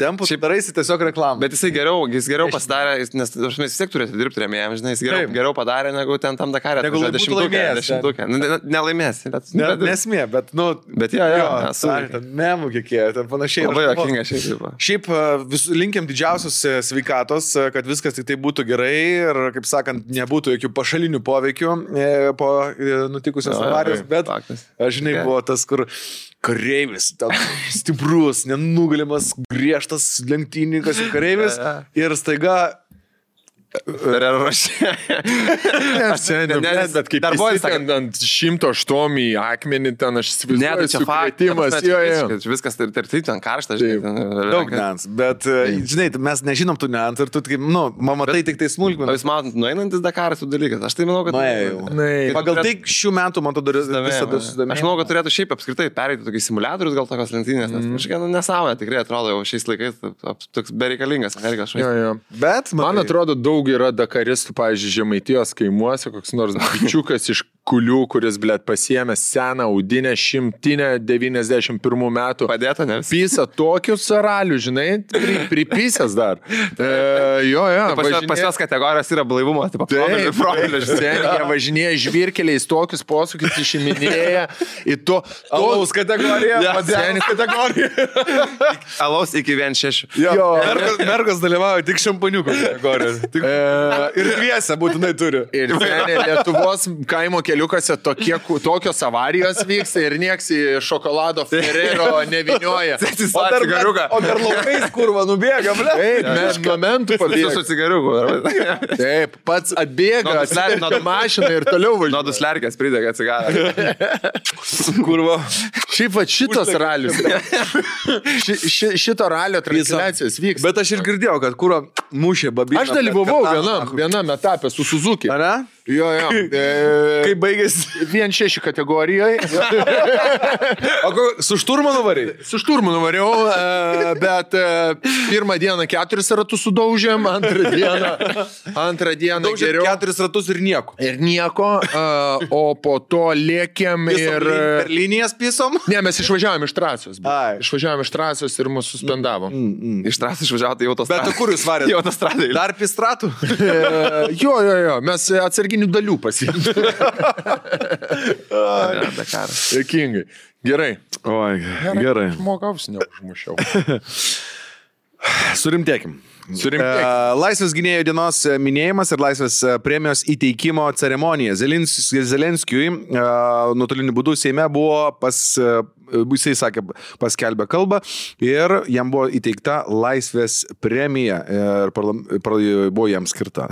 tempų, tu daraisi tiesiog reklamą. Bet jis geriau pasidarė, nes mes vis tiek turėtų dirbti rėmėjams, žinai, jis geriau padarė, negu ten tam Dakarė. Negu dešimtukę. Nelaimės. Nesmė, bet, nu... Bet jo, ten memų kiekėjo, ten panašiai. Labai jokinga šiaip. Šiaip linkiam didžiausios sveikatos, kad viskas tik tai būtų gerai ir, kaip sakant, nebūtų jokių pašalinių poveikių po nutikusios avarijos, bet, žinai, buvo tas, kur kareivis, stiprus, nenugalimas, griežtas lenktynininkas ir kareivis ir staiga Ferrero Rocher. Bet kaip jis ant 108 į akmenį, ten aš įsivaizduoju sukrėtimas. Viskas ir tai ten karšta, žinai. Daug nians, bet, žinai, mes nežinom tų nians ir tu, matai tik tai smulkmeną. Jūs matot, nueinantis Dakaras tų dalykas. Aš tai manau, kad... Pagal tai šių metų, man atrodo, visada susidomė. Aš manau, kad turėtų šiaip apskritai pereiti tokius simuliatorius, gal tokios lenktynės, nes kažkiek nesąmonė tikrai atrodo jau šiais laikais toks bereikalingas. Bet man atrodo, daug yra dakaristų, pavyzdžiui, Žemaitijos kaimuose, koks nors bičiukas iš Kulių, kuris, blėt, pasiėmė seną audinę 191 metų. Padėta, ne? Pisa tokius saralių, žinai, pripisęs dar. Jo. Pas jos kategorijos yra blaivumo, tipo, profilio. Jie važinėja žvirkeliais, tokius posūkius išiminėja į to... Alaus kategoriją. Padėnis kategoriją. Alaus iki 1,6. Jo. Mergos dalyvauja tik šampaniuko kategoriją. Tik Ir dviese būtinai turi. Ir Lietuvos kaimo keliukose tokios avarijos vyksta ir nieks į šokolado Ferrero nevinioja. O dar laukais kurva nubėga, ble. Taip, momentų pabėga. Su cigariuku. Taip, pats atbėga, atsiverkia mašiną ir toliau važiuoja. Nuo duslerkės pridega cigarą. Kurva. Šiaip va šitos ralius. Šito ralio transliacijos vyks. Bet aš ir girdėjau, kad kurva mušė babiną. Aš dalyvavau vienam etapė su Suzuki. Ar ne? Jo. Kaip baigėsi? 1.6 kategorijoje. O su šturmanu variai? Su šturmanu variau, bet pirmą dieną 4 ratus sudaužėm, antrą dieną geriau. 4 ratus ir nieko. Ir nieko, o po to lėkėm ir... Per linijas pisom? Ne, mes išvažiavom iš trasos. Ai. Išvažiavom iš trasos ir mus suspendavo. Iš trasos išvažiavo, tai autostradai. Bet kur jūs varėte? Į autostradai. Dar pistratų? Jo, mes atsarginių dalių pasiimtų. Dėkingai. Gerai. Oi, gerai. Žmogaus neužmušiau. Surimtėkim. Laisvės gynėjų dienos minėjimas ir Laisvės premijos įteikimo ceremonija. Zelenskiui nuotoliniu būdu Seime buvo jisai sakė, paskelbė kalbą ir jam buvo įteikta Laisvės premija ir buvo jam skirta.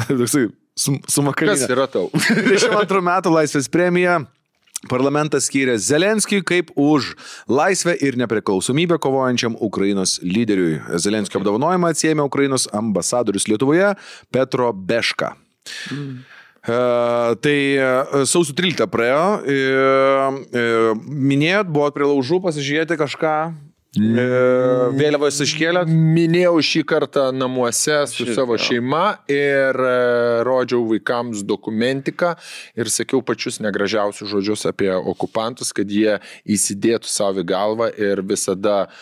Sumakalinė. Kas yra tau? 22 metų Laisvės premija. Parlamentas skyrė Zelenskiui kaip už laisvę ir nepriklausomybę kovojančiam Ukrainos lyderiui. Zelenskio apdovanojimą atsiėmė Ukrainos ambasadorius Lietuvoje Petro Beška. Tai sausio 13 praėjo. Minėjot, buvot prie laužų pasižiūrėti kažką? Vėliavos iškėlėt? Minėjau šį kartą namuose su savo šeima ir rodžiau vaikams dokumentiką ir sakiau pačius negražiausius žodžius apie okupantus, kad jie įsidėtų savo į galvą ir visada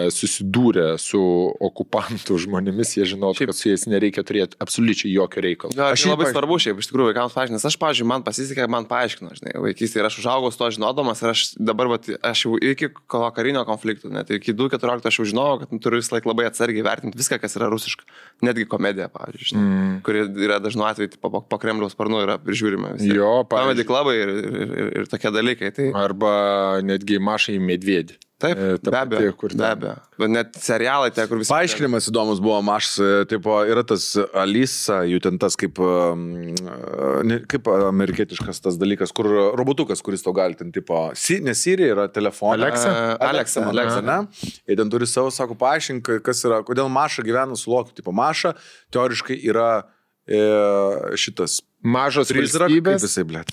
susidūrė su okupantų žmonėmis, jie žinotų, kad su jais nereikia turėti absoliučiai jokio reikalo. Aš labai svarbu šiaip, iš tikrųjų, vaikams paaiškinti, nes aš, pavyzdžiui, man pasisekė, man paaiškino, žinai, vaikystėje ir aš užaugau su to žinodamas ir aš dabar, aš jau iki karinio konflikto, net iki 2.14 aš jau žinojau, kad turiu visą laiką labai atsargiai vertinti viską, kas yra rusiška. Netgi komedija, pavyzdžiui, kuri yra dažnu atveju po Kremliaus sparnu yra prižiūrima. Jo, komedija klabai ir tokie dalykai. Tai... Arba netgi Mašai Medvedį. Taip, be abejo. Bet net serialai, kur visi... Paaiškinimas įdomus buvo Mašas, tipo, yra tas Alisa, jų ten tas kaip amerikietiškas tas dalykas, kur robotukas, kuris to gali ten, tipo, ne Siri, yra telefonas. Alexa, ne? Ir ten turi savo, sako, paaiškink, kas yra, kodėl Maša gyvena su Lokiu, tipo, Maša teoriškai yra šitas... Mažos prizrak, valstybės. Kaip jisai, blėt?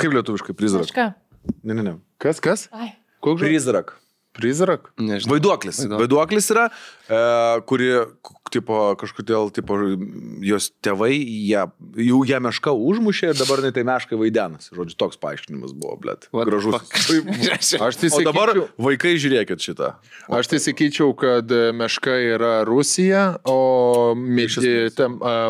Kaip lietuviškai prizrak? Ne. Kas? Ai. Prizrak. Nežinau. Vaiduoklis yra, kuri, tipo, kažkodėl, tipo, jos tėvai, ją mešką užmušė ir dabar tai meškai vaidenas. Žodžiu, toks paaiškinimas buvo, blėt. Gražus. O dabar vaikai žiūrėkit šitą. Aš tai sakyčiau, kad meška yra Rusija, o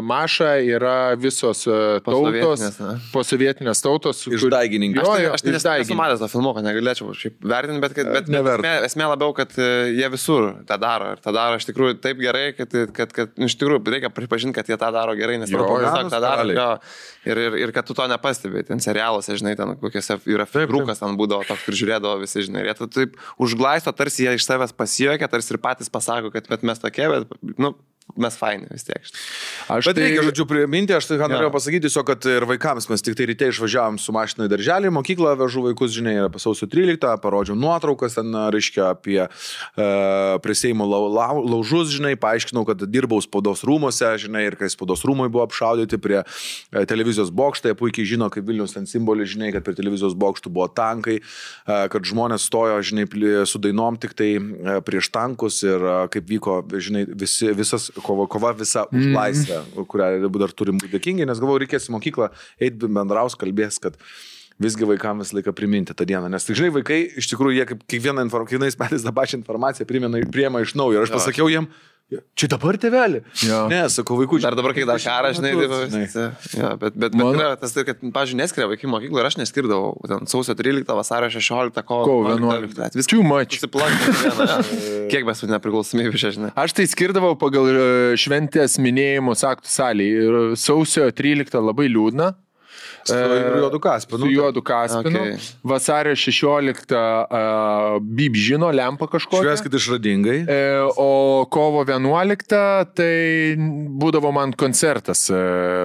Maša yra visos tautos, posovietinės tautos. Išdaigininkas. Aš nesu matęs to filmuko, negalėčiau vertinti, bet esmė labiau, kad jie visur tą daro. Ir tą daro iš tikrųjų taip gerai, kad iš tikrųjų reikia pripažinti, kad jie tą daro gerai, nes tiesiog tą daro. Ir kad tu to nepastebėjai. Ten serialuose, žinai, ten kokiuose yra filmukas, ten būdavo toks, kur žiūrėdavo visi, žinai. Ir jie taip užglaisto, tarsi jie iš savęs pasijuokia, tarsi ir patys pasako, kad mes tokie, bet, mes faini vis tiek. Bet reikia, žodžiu, priminti, aš tai norėjau pasakyti tiesiog, kad ir vaikams mes tik tai ryte išvažiavom su mašina į darželį, mokyklą vežu vaikus, žinai, apie sausio 13, parodžiau nuotraukas, ten, reiškia, apie prie Seimo laužus, žinai, paaiškinau, kad dirbau spaudos rūmose, žinai, ir kai spaudos rūmai buvo apšaudyti prie televizijos bokštai, puikiai žino, kaip Vilnius ten simbolis, žinai, kad prie televizijos bokštų buvo tankai, kad žmonės stojo, žinai, su dainom tik tai prieš tankus ir kaip vyko, žinai, visas kova visa už laisvę, kurią dar turim būti dėkingi, nes galvoju, reikės į mokyklą eiti bendraus, kalbės, kad visgi vaikams visą laiką priminti tą dieną. Nes, žinai, vaikai, iš tikrųjų, jie kaip kiekvienais metais tą pačią informaciją priima iš naujo. Ir aš pasakiau jiem, Čia dabar tėvelį? Jo. Ne, sakau, vaikų. Dar dabar, kai dar karas, žinai, ja, bet yra tas tai, kad, pavyzdžiui, neskiria vaikų mokyklą ir aš neskirdavau. Ten sausio 13, vasario 16, kovo 11. Viskas Too much. Kiek mes nepriklausomybė čia, žinai. Aš tai skirdavau pagal šventės minėjimus aktų salėje. Ir sausio 13 labai liūdna. Su juodu Kaspinu. Su juodu Kaspinu. Okay. Vasario 16 Bib žino, lempa kažkokia. Švęskit išradingai. O kovo 11 tai būdavo man koncertas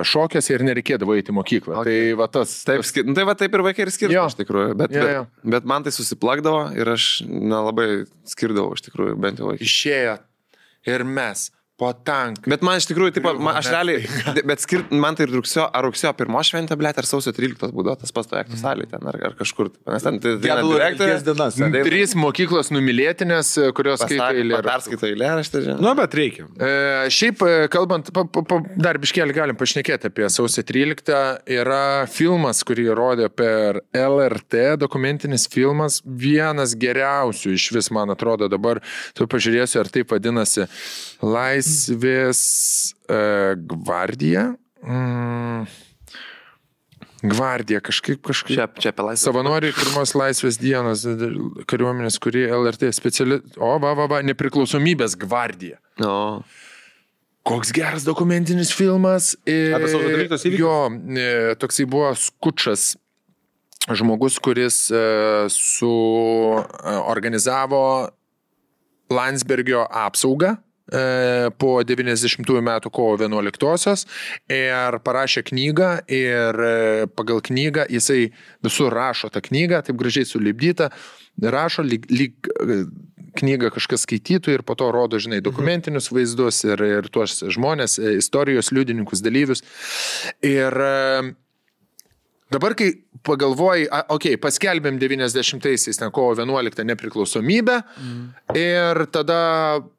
šokės ir nereikėdavo eiti į mokyklą. Okay. Tai va tas. Taip, tai va taip ir vaikai ir skirdavo, iš tikrųjų. Bet man tai susiplakdavo ir aš nelabai skirdavau, iš tikrųjų, bent jau vaikai. Išėjo ir mes. Po tanką. Bet man iš tikrųjų, taip, aš realiai, bet man tai rugsėjo 1 šventė, blėt, ar sausio 13 būdavo tas pats aktų salėje ten, ar kažkur. Nes ten direktorės dienas. 3 mokyklos numylėtinės, kurios skaito eilėraštį. Perskaito eilėraštį, žinai. Nu, bet reikia. Šiaip, kalbant, dar biškelį galim pašnekėti apie sausio 13. Yra filmas, kurį rodė per LRT, dokumentinis filmas, vienas geriausių iš vis, man atrodo, dabar, tu pažiūrėsiu, ar taip vadinasi, Laisvės gvardija. Gvardija, kažkaip. Čia apie laisvę. Savanoriai pirmos laisvės dienos kariuomenės, kurie LRT speciali... nepriklausomybės gvardija. No. Koks geras dokumentinis filmas. Apie sausio 13 įvykius? Jo, toksai buvo Skučas žmogus, kuris organizavo Landsbergio apsaugą po 90 metų kovo 11-osios ir parašė knygą ir pagal knygą jisai visur rašo tą knygą, taip gražiai sulipdyta, rašo lyg knygą kažkas skaitytų ir po to rodo, žinai, dokumentinius vaizdus ir tuos žmonės, istorijos liudininkus, dalyvius. Ir dabar, kai pagalvoji, paskelbėm 90-aisiais, ten kovo 11 nepriklausomybę ir tada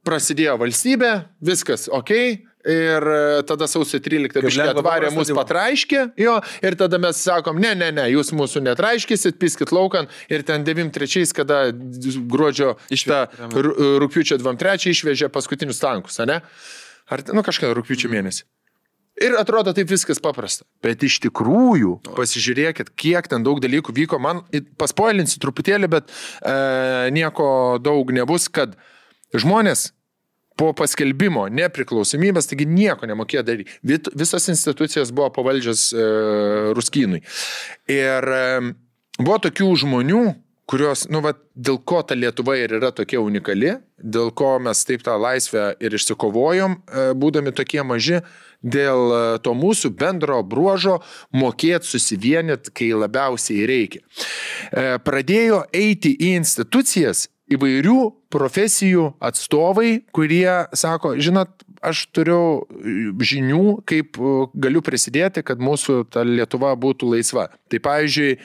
prasidėjo valstybė, viskas ir tada sausio 13 biškė atvarė mus patraiškė, ir tada mes sakom, ne, jūs mūsų netraiškysit, piskit laukan ir ten 93, kada gruodžio rugpjūčio 23 išvežė paskutinius tankus, ne? Ar, kažką rugpjūčio mėnesį. Ir atrodo taip viskas paprasta. Bet iš tikrųjų, pasižiūrėkit, kiek ten daug dalykų vyko. Man paspoilinsiu truputėlį, bet nieko daug nebus, kad žmonės po paskelbimo nepriklausomybės, taigi nieko nemokėjo daryti. Visas institucijas buvo pavaldžios Ruskynui. Ir buvo tokių žmonių, kurios, dėl ko ta Lietuva ir yra tokia unikali, dėl ko mes taip tą laisvę ir išsikovojom, būdami tokie maži, dėl to mūsų bendro bruožo mokėti susivienyti, kai labiausiai reikia. Pradėjo eiti į institucijas įvairių profesijų atstovai, kurie sako, žinot, aš turiu žinių, kaip galiu prisidėti, kad mūsų ta Lietuva būtų laisva. Tai pavyzdžiui,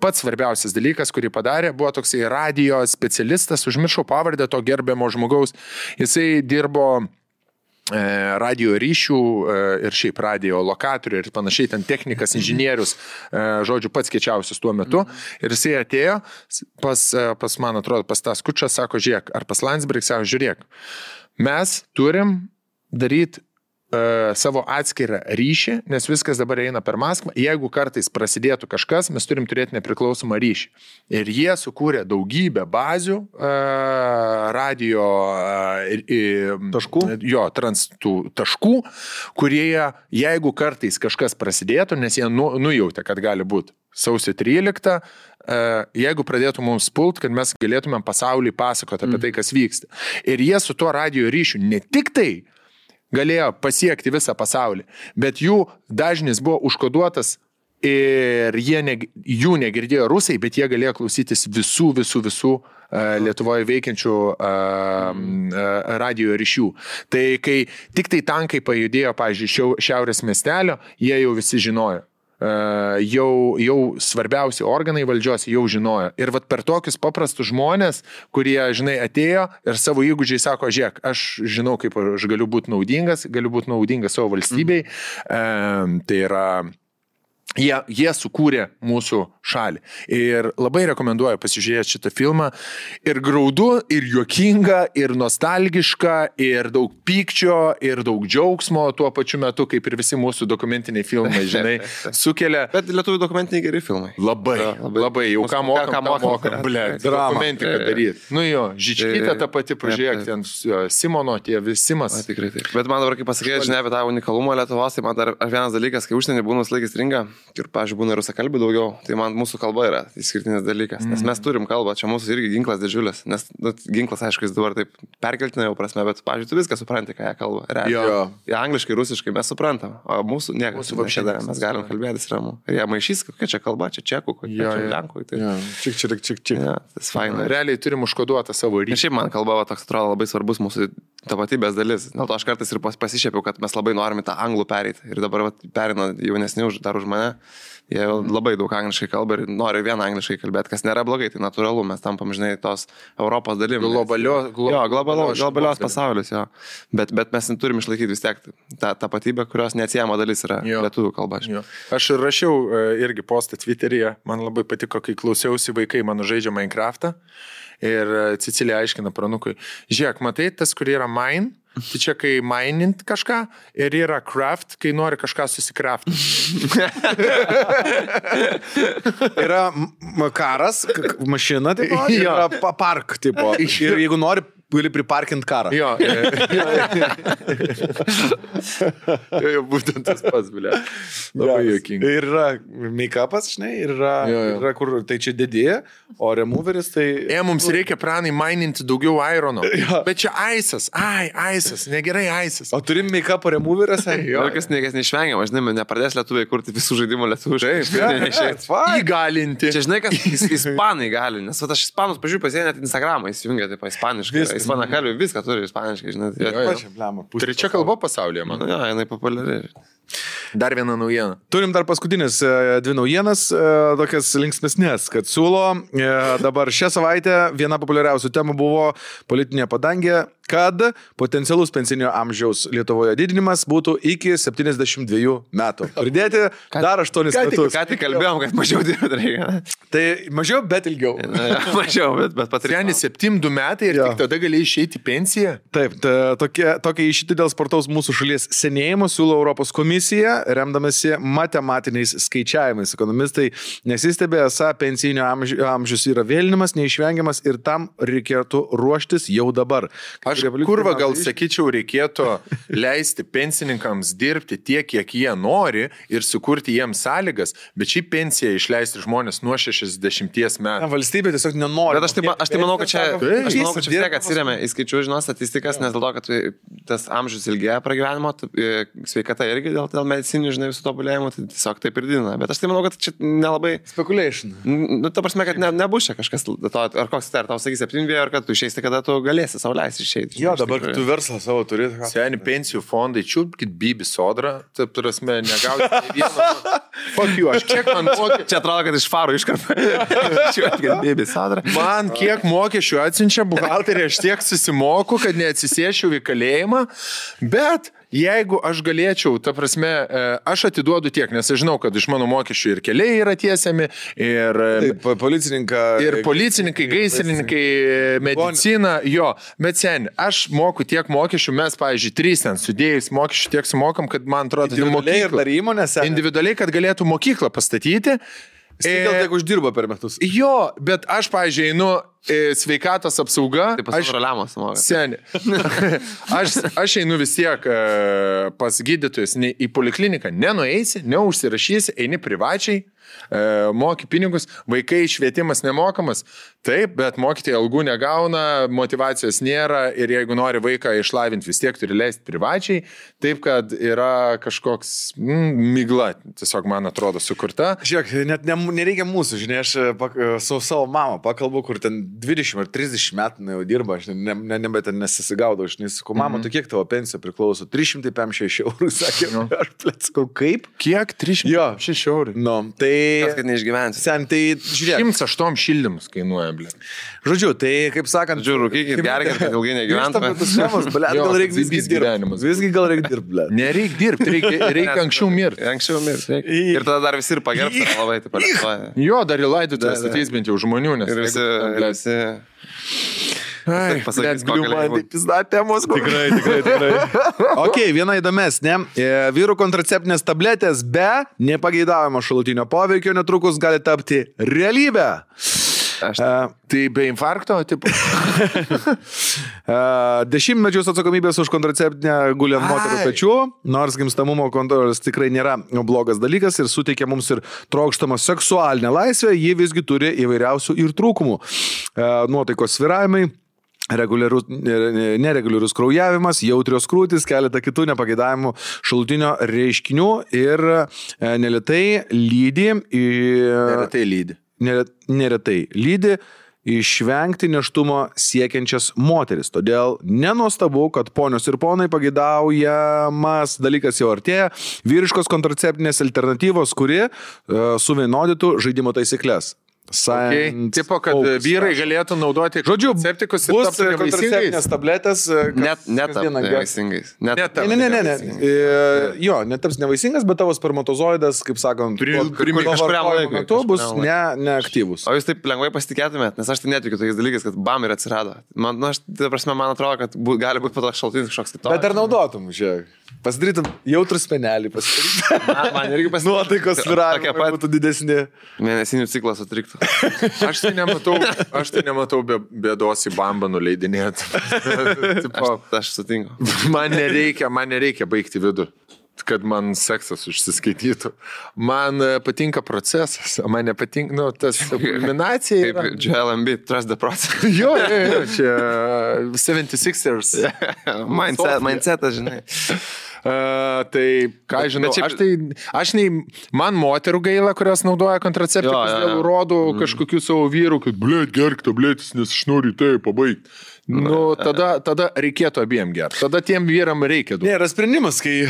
pats svarbiausias dalykas, kurį padarė, buvo toksai radijo specialistas, užmiršau pavardę to gerbiamo žmogaus, jisai dirbo radio ryšių ir šiaip radio lokatorių ir panašiai, ten technikas, inžinierius, žodžiu, pats kiečiausias tuo metu. Ir jisai atėjo pas man atrodo, pas tą Skučą, sako, žiūrėk, ar pas Landsbergį, sako, žiūrėk, mes turim daryti savo atskirą ryšį, nes viskas dabar eina per Maskvą. Jeigu kartais prasidėtų kažkas, mes turim turėti nepriklausomą ryšį. Ir jie sukūrė daugybę bazių radio taškų, taškų, kurie, jeigu kartais kažkas prasidėtų, nes jie nujautė, kad gali būti sausio 13, jeigu pradėtų mums pult, kad mes galėtumėm pasauliui pasakoti apie tai, kas vyksta. Ir jie su tuo radio ryšiu ne tik tai galėjo pasiekti visą pasaulį, bet jų dažnis buvo užkoduotas ir jų negirdėjo rusai, bet jie galėjo klausytis visų Lietuvoje veikiančių radio ryšių. Tai kai tik tai tankai pajudėjo, pavyzdžiui, šiaurės miestelio, jie jau visi žinojo. Jau svarbiausi organai valdžios jau žinojo. Ir vat per tokius paprastus žmonės, kurie, žinai, atėjo ir savo įgūdžiai sako, žiūrėk, aš žinau, kaip aš galiu būti naudingas savo valstybei. Tai yra Jie sukūrė mūsų šalį. Ir labai rekomenduoju pasižiūrėti šitą filmą. Ir graudu, ir juokinga, ir nostalgiška, ir daug pykčio, ir daug džiaugsmo tuo pačiu metu, kaip ir visi mūsų dokumentiniai filmai, žinai, sukelia. Bet lietuvių dokumentiniai geri filmai. Labai. Jau ką mokam, blėt, dokumentiką daryti. Nu jo, Žičkytė ta pati, pažiūrėk, ten Simono, tie visimas. Tikrai taip. Bet man dabar, kaip pasakė, žinai, apie tą unikalumą Lietuvos, tai man dar vienas dalykas, kai užsienį būna laikas stringa. Ir, pavyzdžiui, būna rusakalbių daugiau, tai man mūsų kalba yra išskirtinis dalykas, nes mes turim kalbą, čia mūsų irgi ginklas didžiulis, nes ginklas, aišku, jis dabar taip perkeltina jau prasme, bet, pavyzdžiui, tu viską supranti, ką jie kalba. Jie angliškai, rusiškai mes suprantam, o mūsų niekas nedarė, mes galim kalbėtis ramu. Ir jie maišys, kokia čia kalba, čia čekų, kokia čia lenkų. Tai... Čik. Tas faina. Realiai turim užkoduotą savo ryšį. Ir šiaip man kalba toks atrodo labai svarbus mūsų tapatybės dalis. Dėl to aš kartais ir pasišėpiau, kad mes labai norime tą anglų pereiti. Ir dabar perina jaunesni dar už mane. Jie labai daug angliškai kalba ir nori vien angliškai kalbėti, kas nėra blogai, tai natūralu, mes tampam, žinai, tos Europos dalim. Globalios pasaulis, jo. Bet mes turim išlaikyti vis tiek tą tapatybę, kurios neatsiejama dalis yra lietuvių kalba. Aš rašiau irgi postą Twitteryje, man labai patiko, kai klausiausi vaikai mano žaidžia Minecraftą ir Cecilija aiškina pranukui, žiūrėk, matai, tas, kur yra mine, tai čia kai minint kažką ir yra craft, kai nori kažką susikraft. Yra karas, mašina, tipo, yra park, tipo. Ir jeigu nori, gali priparkint karą. Jo, būtent tas pats, blė. Labai juokinga. Ir yra make-upas, žinai, ir yra kur tai čia didėja, o removeris tai... Mums reikia pranai maininti daugiau irono. Bet čia aisas, aisas, negerai aisas. O turim make-upo removeriuose? Jokas neišvengiama, žinai, nepradės lietuviai kurti visų žaidimų lietuviškai. Įgalinti. Čia žinai, kas ispanai gali, nes aš ispanus, pažiūrėjau, pasiekia net Instagramą, įsijungia taip ispaniškai. Ispanakalbė viską turi ispaniškai, žinai. Trečia kalba pasaulyje, man. Jo, jinai populiari. Dar viena naujiena. Turim dar paskutinis dvi naujienas, tokias linksmesnės, kad siūlo dabar šią savaitę viena populiariausių temų buvo politinė padangė, kad potencialus pensinio amžiaus Lietuvoje didinimas būtų iki 72 metų. Pridėti dar 8 metus. Ką tik kalbėjom, kad mažiau dirbti reikia. Tai mažiau, bet ilgiau. Mažiau, bet patrėni 72 metai ir tik tada gali išeiti pensiją. Taip, tokia išeiti dėl spartaus mūsų šalies senėjimo siūlo Europos komisija, remdamasi matematiniais skaičiavimais. Ekonomistai nesistebė, esą pensijinio amžius yra vėlinimas, neišvengiamas ir tam reikėtų ruoštis jau dabar. Kurva gal sakyčiau, reikėtų leisti pensininkams dirbti tiek, kiek jie nori ir sukurti jiems sąlygas, bet šį pensiją išleisti žmonės nuo 60 metų. Valstybė tiesiog nenori. Bet aš tai manau, kad čia vis tiek atsiremia į skaičių, žinau, statistikas, nes dėl to, kad tas amžius ilgėja pragyvenimo, sveikata irgi dėl medicininių, žinai, visų tobulėjimų, tai tiesiog taip ir didina. Bet aš tai manau, kad čia nelabai... Speculation. Nu, ta prasme, kad nebus čia kažkas, ar koks tai, ar tau sakys 7, ar kad tu išeisi, kada tu galėsi sau leisti išeiti. Jo, dabar tu verslą savo turi. Seni pensijų fondai, čiūpkit Bibi Sodrą, taip turasme, negauti vieno. Fuck you, aš kiek man mokesčių... Čia atrodo, kad iš farų iškarpa. Čiūpkit Bibi Sodrą. Man kiek mokesčių atsiunčia buhalterį, aš tiek susimoku, kad neatsisėšiu į kalėjimą, bet... Jeigu aš galėčiau, ta prasme, aš atiduodu tiek, nes aš žinau, kad iš mano mokesčių ir keliai yra tiesiami, ir policininkai, gaisrininkai, medicina, jo, bet sen, aš moku tiek mokesčių, mes, pavyzdžiui, 3 ten sudėjus mokesčių tiek sumokam, kad man atrodo, individualiai, kad galėtų mokyklą pastatyti. Gal tiek uždirba per metus. Jo, bet aš, pavyzdžiui, einu sveikatos apsauga. Tai pasiroliamos mokas. Seni. Aš einu vis tiek pas gydytojus į polikliniką. Nenueisi, neužsirašysi, eini privačiai, moki pinigus, vaikai švietimas nemokamas. Taip, bet mokytojai algų negauna, motivacijos nėra ir jeigu nori vaiką išlavinti, vis tiek turi leisti privačiai. Taip, kad yra kažkoks migla, tiesiog man atrodo, sukurta. Žiūrėk, net nereikia mūsų, žinai, aš su savo mama pakalbu, kur ten 20 ar 30 metų jau dirba, aš nebet nesisigaudau, aš nesakau, mama, tu kiek tavo pensija priklauso? 356 eurų, sakė, aš plėt, sakau, kaip? Kiek? 356 eurų? Nu, tai Kas, kad neišgyvensi. Sen, tai žiūrėk. 108 šildymus kainuoja, ble. Žodžiu, tai kaip sakant... Žiūrėk, rūkykit, gerkit, kad ilgai negyventumėt. Gal reikia visgi dirbti. Visgi gal reikia dirbti. Nereikia dirbti, reikia anksčiau mirti. Anksčiau mirti. Ir tada dar visi ir pagerbti labai, taip pat. Jo, dar į laidotuvės ateis bent jau žmonių, nes... Ir visi... Ai, pasakys, temos. Tikrai. Ok, viena įdomesnė. Vyrų kontraceptinės tabletės be nepageidavimo šalutinio poveikio netrukus gali tapti realybę. Tai be infarkto, tipo. Dešimtmečius atsakomybės už kontraceptinę guli ant moterų pečių, nors gimstamumo kontrolės tikrai nėra blogas dalykas ir suteikia mums ir trokštamą seksualinę laisvę, ji visgi turi įvairiausių ir trūkumų. Nuotaikos svyravimai, nereguliarus kraujavimas, jautrios krūtis, keletą kitų nepageidavimų šalutinio reiškinių ir neretai lydi išvengti nėštumo siekiančias moteris. Todėl nenuostabu, kad ponios ir ponai pageidaujamas dalykas jau artėja, vyriškos kontraceptinės alternatyvos, kuri suvienodytų žaidimo taisyklės. Tipo, kad vyrai galėtų naudoti kontraceptikus ir tapti kontraceptinės tabletės. Netaps nevaisingais. Ne. Jo, netaps nevaisingas, bet tavo spermatozoidas, kaip sakant, kažkuriam laikui bus neaktyvus. O jūs taip lengvai pasitikėtumėt, nes aš tai netikiu tokiais dalykais, kad bam ir atsirado. Man atrodo, kad gali būti po to šaltinis kažkoks kitoks. Bet ar naudotum, žiūrėk? Pasidarytum jautrų spenelį, man irgi pasidarytum. Nuotaikos svyravimai būtų didesni. Mėnesinių ciklas sutriktų. Aš tai nematau bėdos į bambą nuleidinėti. Aš sutinku. Man nereikia baigti vidų, kad man seksas užsiskaitytų. Man patinka procesas, man nepatinka, tas kulminacija. Kaip Joel Embiid, trust the process. Jo, čia 76ers. Mindsetas, žinai. Tai, ką žinau, man moterų gaila, kurios naudoja kontraceptikus dėl rodų kažkokių savo vyrų, kad, blėt, gerk tabletis, nes aš noriu tai pabaigti. Tada reikėtų abiem gerti. Tada tiem vyram reikia daug. Nėra sprendimas, kai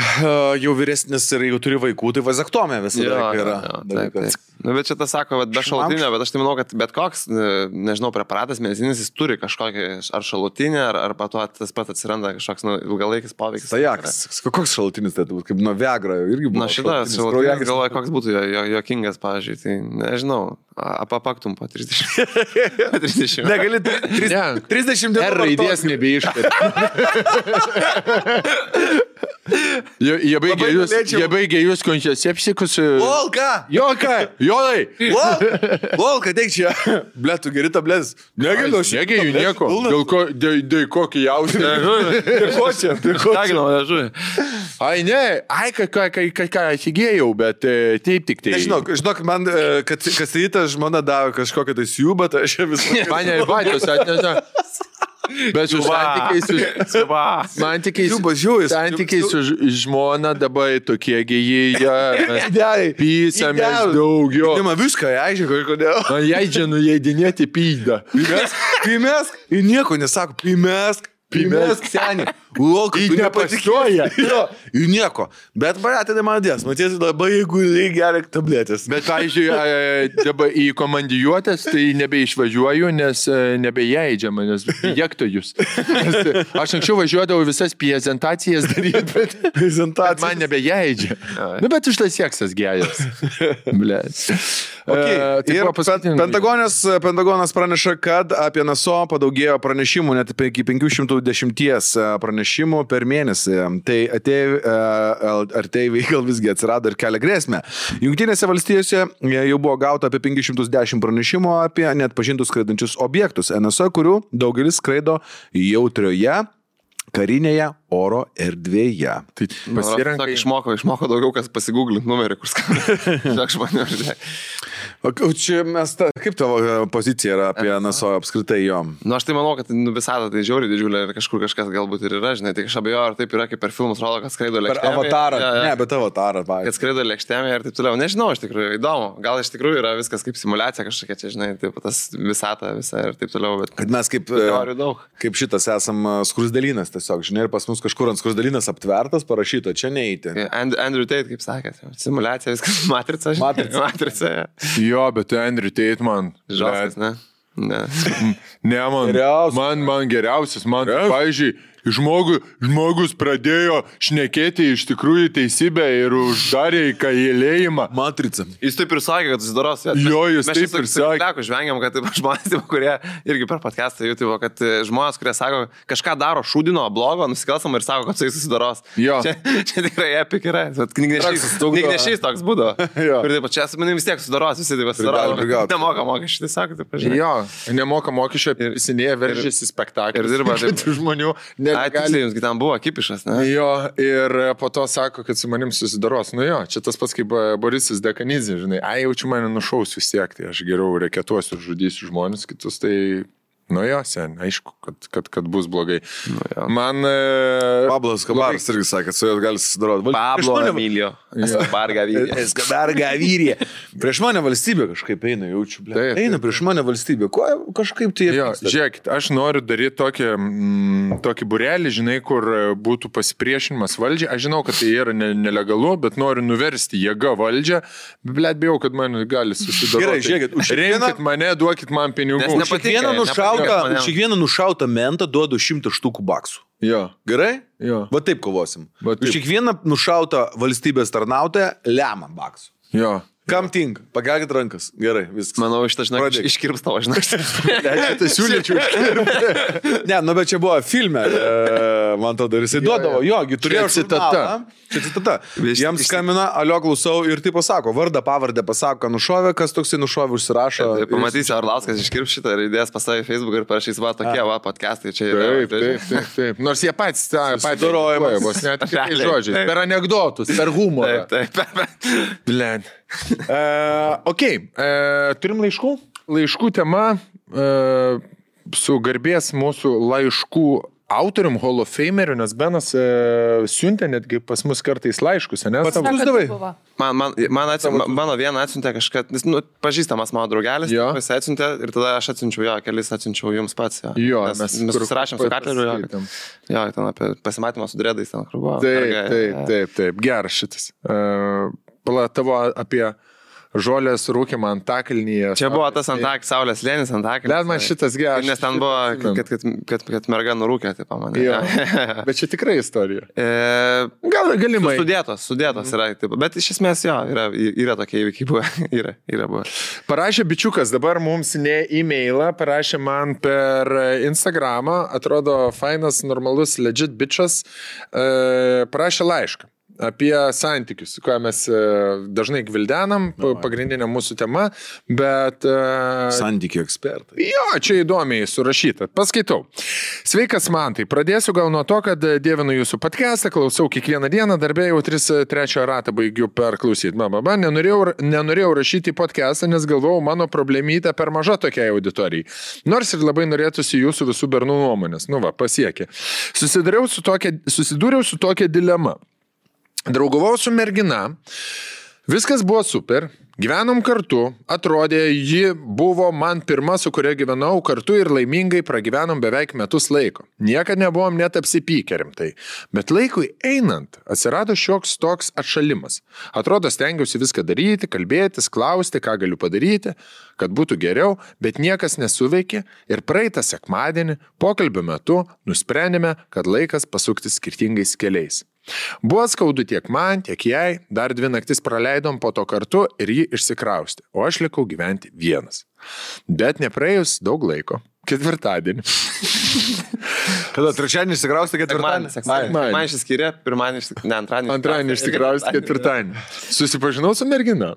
jau vyresnis ir jau turi vaikų, tai vazektomė visada yra. Taip. Bet čia tas sako, be šalutinio, bet aš tai manau, kad bet koks, nežinau, preparatas medicininis, jis turi kažkokį ar šalutinį, ar pato tas pat atsiranda kažkoks ilgalaikis poveikis. Tai koks šalutinis tai būtų, kaip nuo Viagra irgi buvo. Na šitas šalutinis galvoja, koks būtų jokingas, pavyzdžiui, tai nežinau, apapaktum po 30. Negali 30 dienų. R raidės nebeiškart. Jie baigė jūs kontraceptikus. Volka! Jolai! Volka, teik čia. Ble, tu geri tabletas. Negaliu aš. Negaliu nieko. Dėl kokį jausmą. Ko čia? Ai, ne. Ai, ką atsigėjau, bet taip tik tai. Žinok, man, kad rytą žmona davė kažkokią tai siūbą, tai aš visą. Mane ir bačios atneša. Bet su santykiai su žmona dabar tokie gėjai, pysamės daugiau. Man viską aišku, kodėl. Man jaidžia nuleidinėti pydą. Pimesk, ir nieko nesako, pimesk senį. Volka, tu nepatikėji. Ir nieko. Bet baratinė man dės. Matėsi labai, jeigu geria tabletės. Bet, pavyzdžiui, dabar į komandijuotės, tai nebeišvažiuoju, nes nebejaidžiama, nes jekto jūs. Aš anksčiau važiuodavau visas prezentacijas daryti, bet man nebejaidžia. Nu, bet už tas seksas geras. Blėt. Ir Pentagonas praneša, kad apie NSO padaugėjo pranešimų net iki 510 pranešimų per mėnesį. Tai ateiviai gal visgi atsirado ir kelia grėsmę. Jungtinėse valstijose jau buvo gauta apie 510 pranešimų apie neatpažintus skraidančius objektus NSO, kurių daugelis skraido jautrioje karinėje oro erdvėje. Tai pasirenka. Išmoko daugiau, kas pasigūglint numerį, kur skamba. O čia kaip tavo pozicija yra apie NSO apskritai jom? Nu, aš tai manau, kad visata tai žiauriai didžiulė ir kažkur kažkas galbūt ir yra, žinai, tai aš abejoju, ar taip yra, kaip per filmus rodo, kad skraido lėkštėje. Per Avatarą, ne, bet Avatarą, kad skraido lėkštėje ir taip toliau. Nežinau, iš tikrųjų, įdomu. Gal iš tikrųjų yra viskas kaip simulacija kažkokia, čia, žinai, taip, tas visata visa ir taip toliau, bet... Kad mes kaip šitas esam skrusdelynas tiesiog, žinai, ir pas mus kažkur ant skrusdelynas aptvertas, parašyta, čia neįti. Andrew Tate, kaip sakėt, simulacija, viskas matrica, žinai. Matrica. Jo, bet Andrew Tate man. Žalskas, ne? Ne, man geriausias. Man, pavyzdžiui, žmogus pradėjo šnekėti iš tikrųjų teisybę ir uždarė į kalėjimą. Matrica. Jis taip ir sakė, kad susidaros. Jo, jis taip ir sakė. Mes žvengiam, kad žmonės, kurie irgi per podcastą YouTube, kad žmonės, kurie sako, kažką daro šūdino, blogo, nusikalstamą ir sako, kad su jais susidaros. Jo. Čia tikrai epik yra. Knygnešys toks būdo. Ir taip, čia su manim vis tiek susidaros, visi taip susidaro. Nemoka mokesčių, tai sako, taip pažiūrėjau. Jo, nemoka mokesčių, įsinėja, veržėsi spektaklį. Ir dirba žmonių. Tiksliai, jums ten buvo kipišas, ne? Jo, ir po to sako, kad su manim susidaros. Nu jo, čia tas pats kaip Borisas Dekanizė, žinai, jaučiu mane nušausiu vis tiek, tai aš geriau reketuosiu ir žudysiu žmonės kitus, tai... Nu jo, sen, aišku, kad bus blogai. Nu, man... Pablas Kabaras irgi sakė, kad su juos gali susidaroti. Pablo Emilio. Escobar Gaviria. Prieš mane valstybė kažkaip eina, jaučiu. Eina prieš mane valstybė. Ko kažkaip tai... Jo, žiūrėkit, aš noriu daryti tokį burelį, žinai, kur būtų pasipriešinimas valdžiai. Aš žinau, kad tai yra nelegalu, bet noriu nuversti jėgą valdžią. Bet bijau, kad man gali susidaroti. Gerai, žiūrėkit, remkit mane, duokit man pinigų. Už kiekvieną nušautą mentą duodu 100 štukų baksų. Jo. Gerai? Jo. Va taip kovosim. Už kiekvieną nušautą valstybės tarnautoją lemą baksų. Jo. Kam tinka? Pakelkit rankas. Gerai, viskas. Manau, šitą, žinok, iškirps tavo, žinok. Tai siūlyčiau iškirpti. Ne, nu bet čia buvo filme, man tada ir jisai duodavo, jogi, turėjo citata. Čia citata. Jam skambina, alio klausau ir taip pasako, vardą, pavardę pasako, ką nušovė, kas toksai nušovė, užsirašo. Pamatysi, Arlauskas iškirps šitą ir įdės pas save į Facebook ir parašys, va, tokie, va, podcastai čia yra. Taip. Nors jie patys darojamos, vos net kitais žodžiais, per anekdotus, per humorą. Taip. Turim laiškų? Laiškų tema su garbės mūsų laiškų autorium, Hall of Fameriu, nes Benas siuntė netgi pas mus kartais laiškus, ne? Pats davai? Mano vieną atsiuntė kažkas, pažįstamas mano draugelis, jis atsiuntė ir tada aš atsiunčiau kelis atsiunčiau jums pats. Jo, mes susirašėm su Katleriu. Jo, ten apie pasimatymą su dredais ten kur buvo. Taip, geras šitas. Tavo apie žolės rūkimą Antakalnyje. Čia buvo tas Saulės slėnis Antakalnyje. Bet man šitas geras. Nes ten buvo, kad merga nurūkė, taip pamanė. Bet čia tikrai istorija. Galimai. Sudėtos yra. Taip, bet iš esmės yra tokie įvykiai buvo. Yra buvo. Parašė bičiukas, dabar mums ne e-mailą, parašė man per Instagramą, atrodo fainas, normalus, legit bičas, parašė laišką apie santykius, ką mes dažnai gvildenam, pagrindinė mūsų tema, bet... Santykių ekspertai. Jo, čia įdomiai surašyta. Paskaitau. Sveikas, Mantai. Pradėsiu gal nuo to, kad dievinu jūsų podcastą, klausau kiekvieną dieną, darbė jau 3 ratą baigiu perklausyti. Nenorėjau rašyti į podcastą, nes galvojau, mano problemytė per maža tokiai auditorijai. Nors ir labai norėtųsi jūsų visų bernų nuomonės. Nu va, pasiekė. Susidūriau su tokia dilema. Draugavau su mergina, viskas buvo super, gyvenom kartu, atrodė, ji buvo man pirma, su kuria gyvenau kartu ir laimingai pragyvenom beveik metus laiko. Niekad nebuvom net apsipykę rimtai, bet laikui einant atsirado šioks toks atšalimas. Atrodo, stengiausi viską daryti, kalbėtis, klausti, ką galiu padaryti, kad būtų geriau, bet niekas nesuveikė ir praeitą sekmadienį pokalbio metu nusprendėme, kad laikas pasukti skirtingais keliais. Buvo skaudu tiek man, tiek jai, dar 2 naktis praleidom po to kartu ir ji išsikraustė, o aš likau gyventi vienas. Bet nepraėjus daug laiko, ketvirtadienį. Kada trečiadienį išsikraustė, ketvirtadienį? Man išsiskyrė, antradienį išsikraustė, ketvirtadienį. Susipažinau su mergina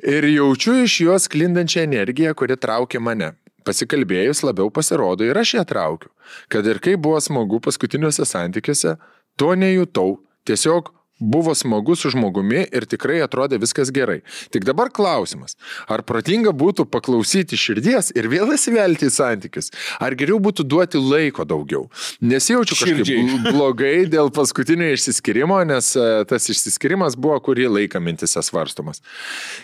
ir jaučiu iš jos sklindančią energiją, kuri traukė mane. Pasikalbėjus labiau pasirodo ir aš ją traukiu. Kad ir kaip buvo smagu paskutiniuose santykiuose, to nejutau, tiesiog buvo smagu su žmogumi ir tikrai atrodė viskas gerai. Tik dabar klausimas, ar protinga būtų paklausyti širdies ir vėl įsivelti į santykius, ar geriau būtų duoti laiko daugiau. Nesijaučiu kažkaip blogai dėl paskutinio išsiskirimo, nes tas išsiskirimas buvo kurį laiką mintise svarstomas.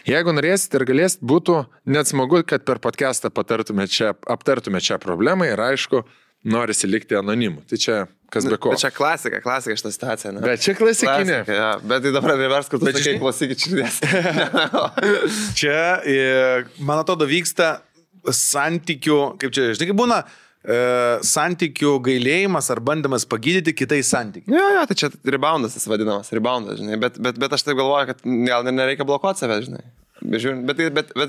Jeigu norėsit ir galėsit, būtų net smagu, kad per podcastą aptartume šią problemą ir aišku, norisi likti anonimu. Tai čia kas be ko. Bet čia klasika šitą situaciją, ne? Bet čia klasikinė. Klasika, ja. Bet tai dabar revers, kur tu sakai, klausykit širdies. Čia, man atrodo, vyksta santykių, kaip čia, žinai, kaip būna, santykių gailėjimas ar bandymas pagydyti kitais santykiais. Jo, tai čia reboundas tas vadinamas, reboundas, žinai. Bet aš taip galvoju, kad gal nereikia blokuoti save, žinai. Bet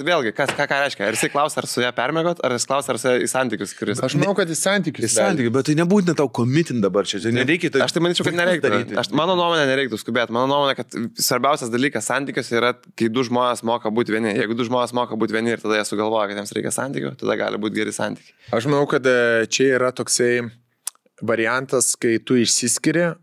vėlgi, ką reiškia? Ar jisai klausia, ar su ją permėgot, ar jis klausia, ar su ją į santykius, kuris... Aš manau, kad į santykius. Į santykius, bet tai nebūtina tau komitin dabar čia. Nereikia tai... Aš tai manyčiau, kad nereiktų. Mano nuomonė nereiktų skubėti. Mano nuomonė, kad svarbiausias dalykas santykiuose yra, kai du žmonės moka būti vieni. Jeigu du žmonės moka būti vieni ir tada jie sugalvoja, kad jiems reikia santykių, tada gali būti geri santykiai. Aš manau, kad čia yra toksai variantas, kai tu išsiskiri,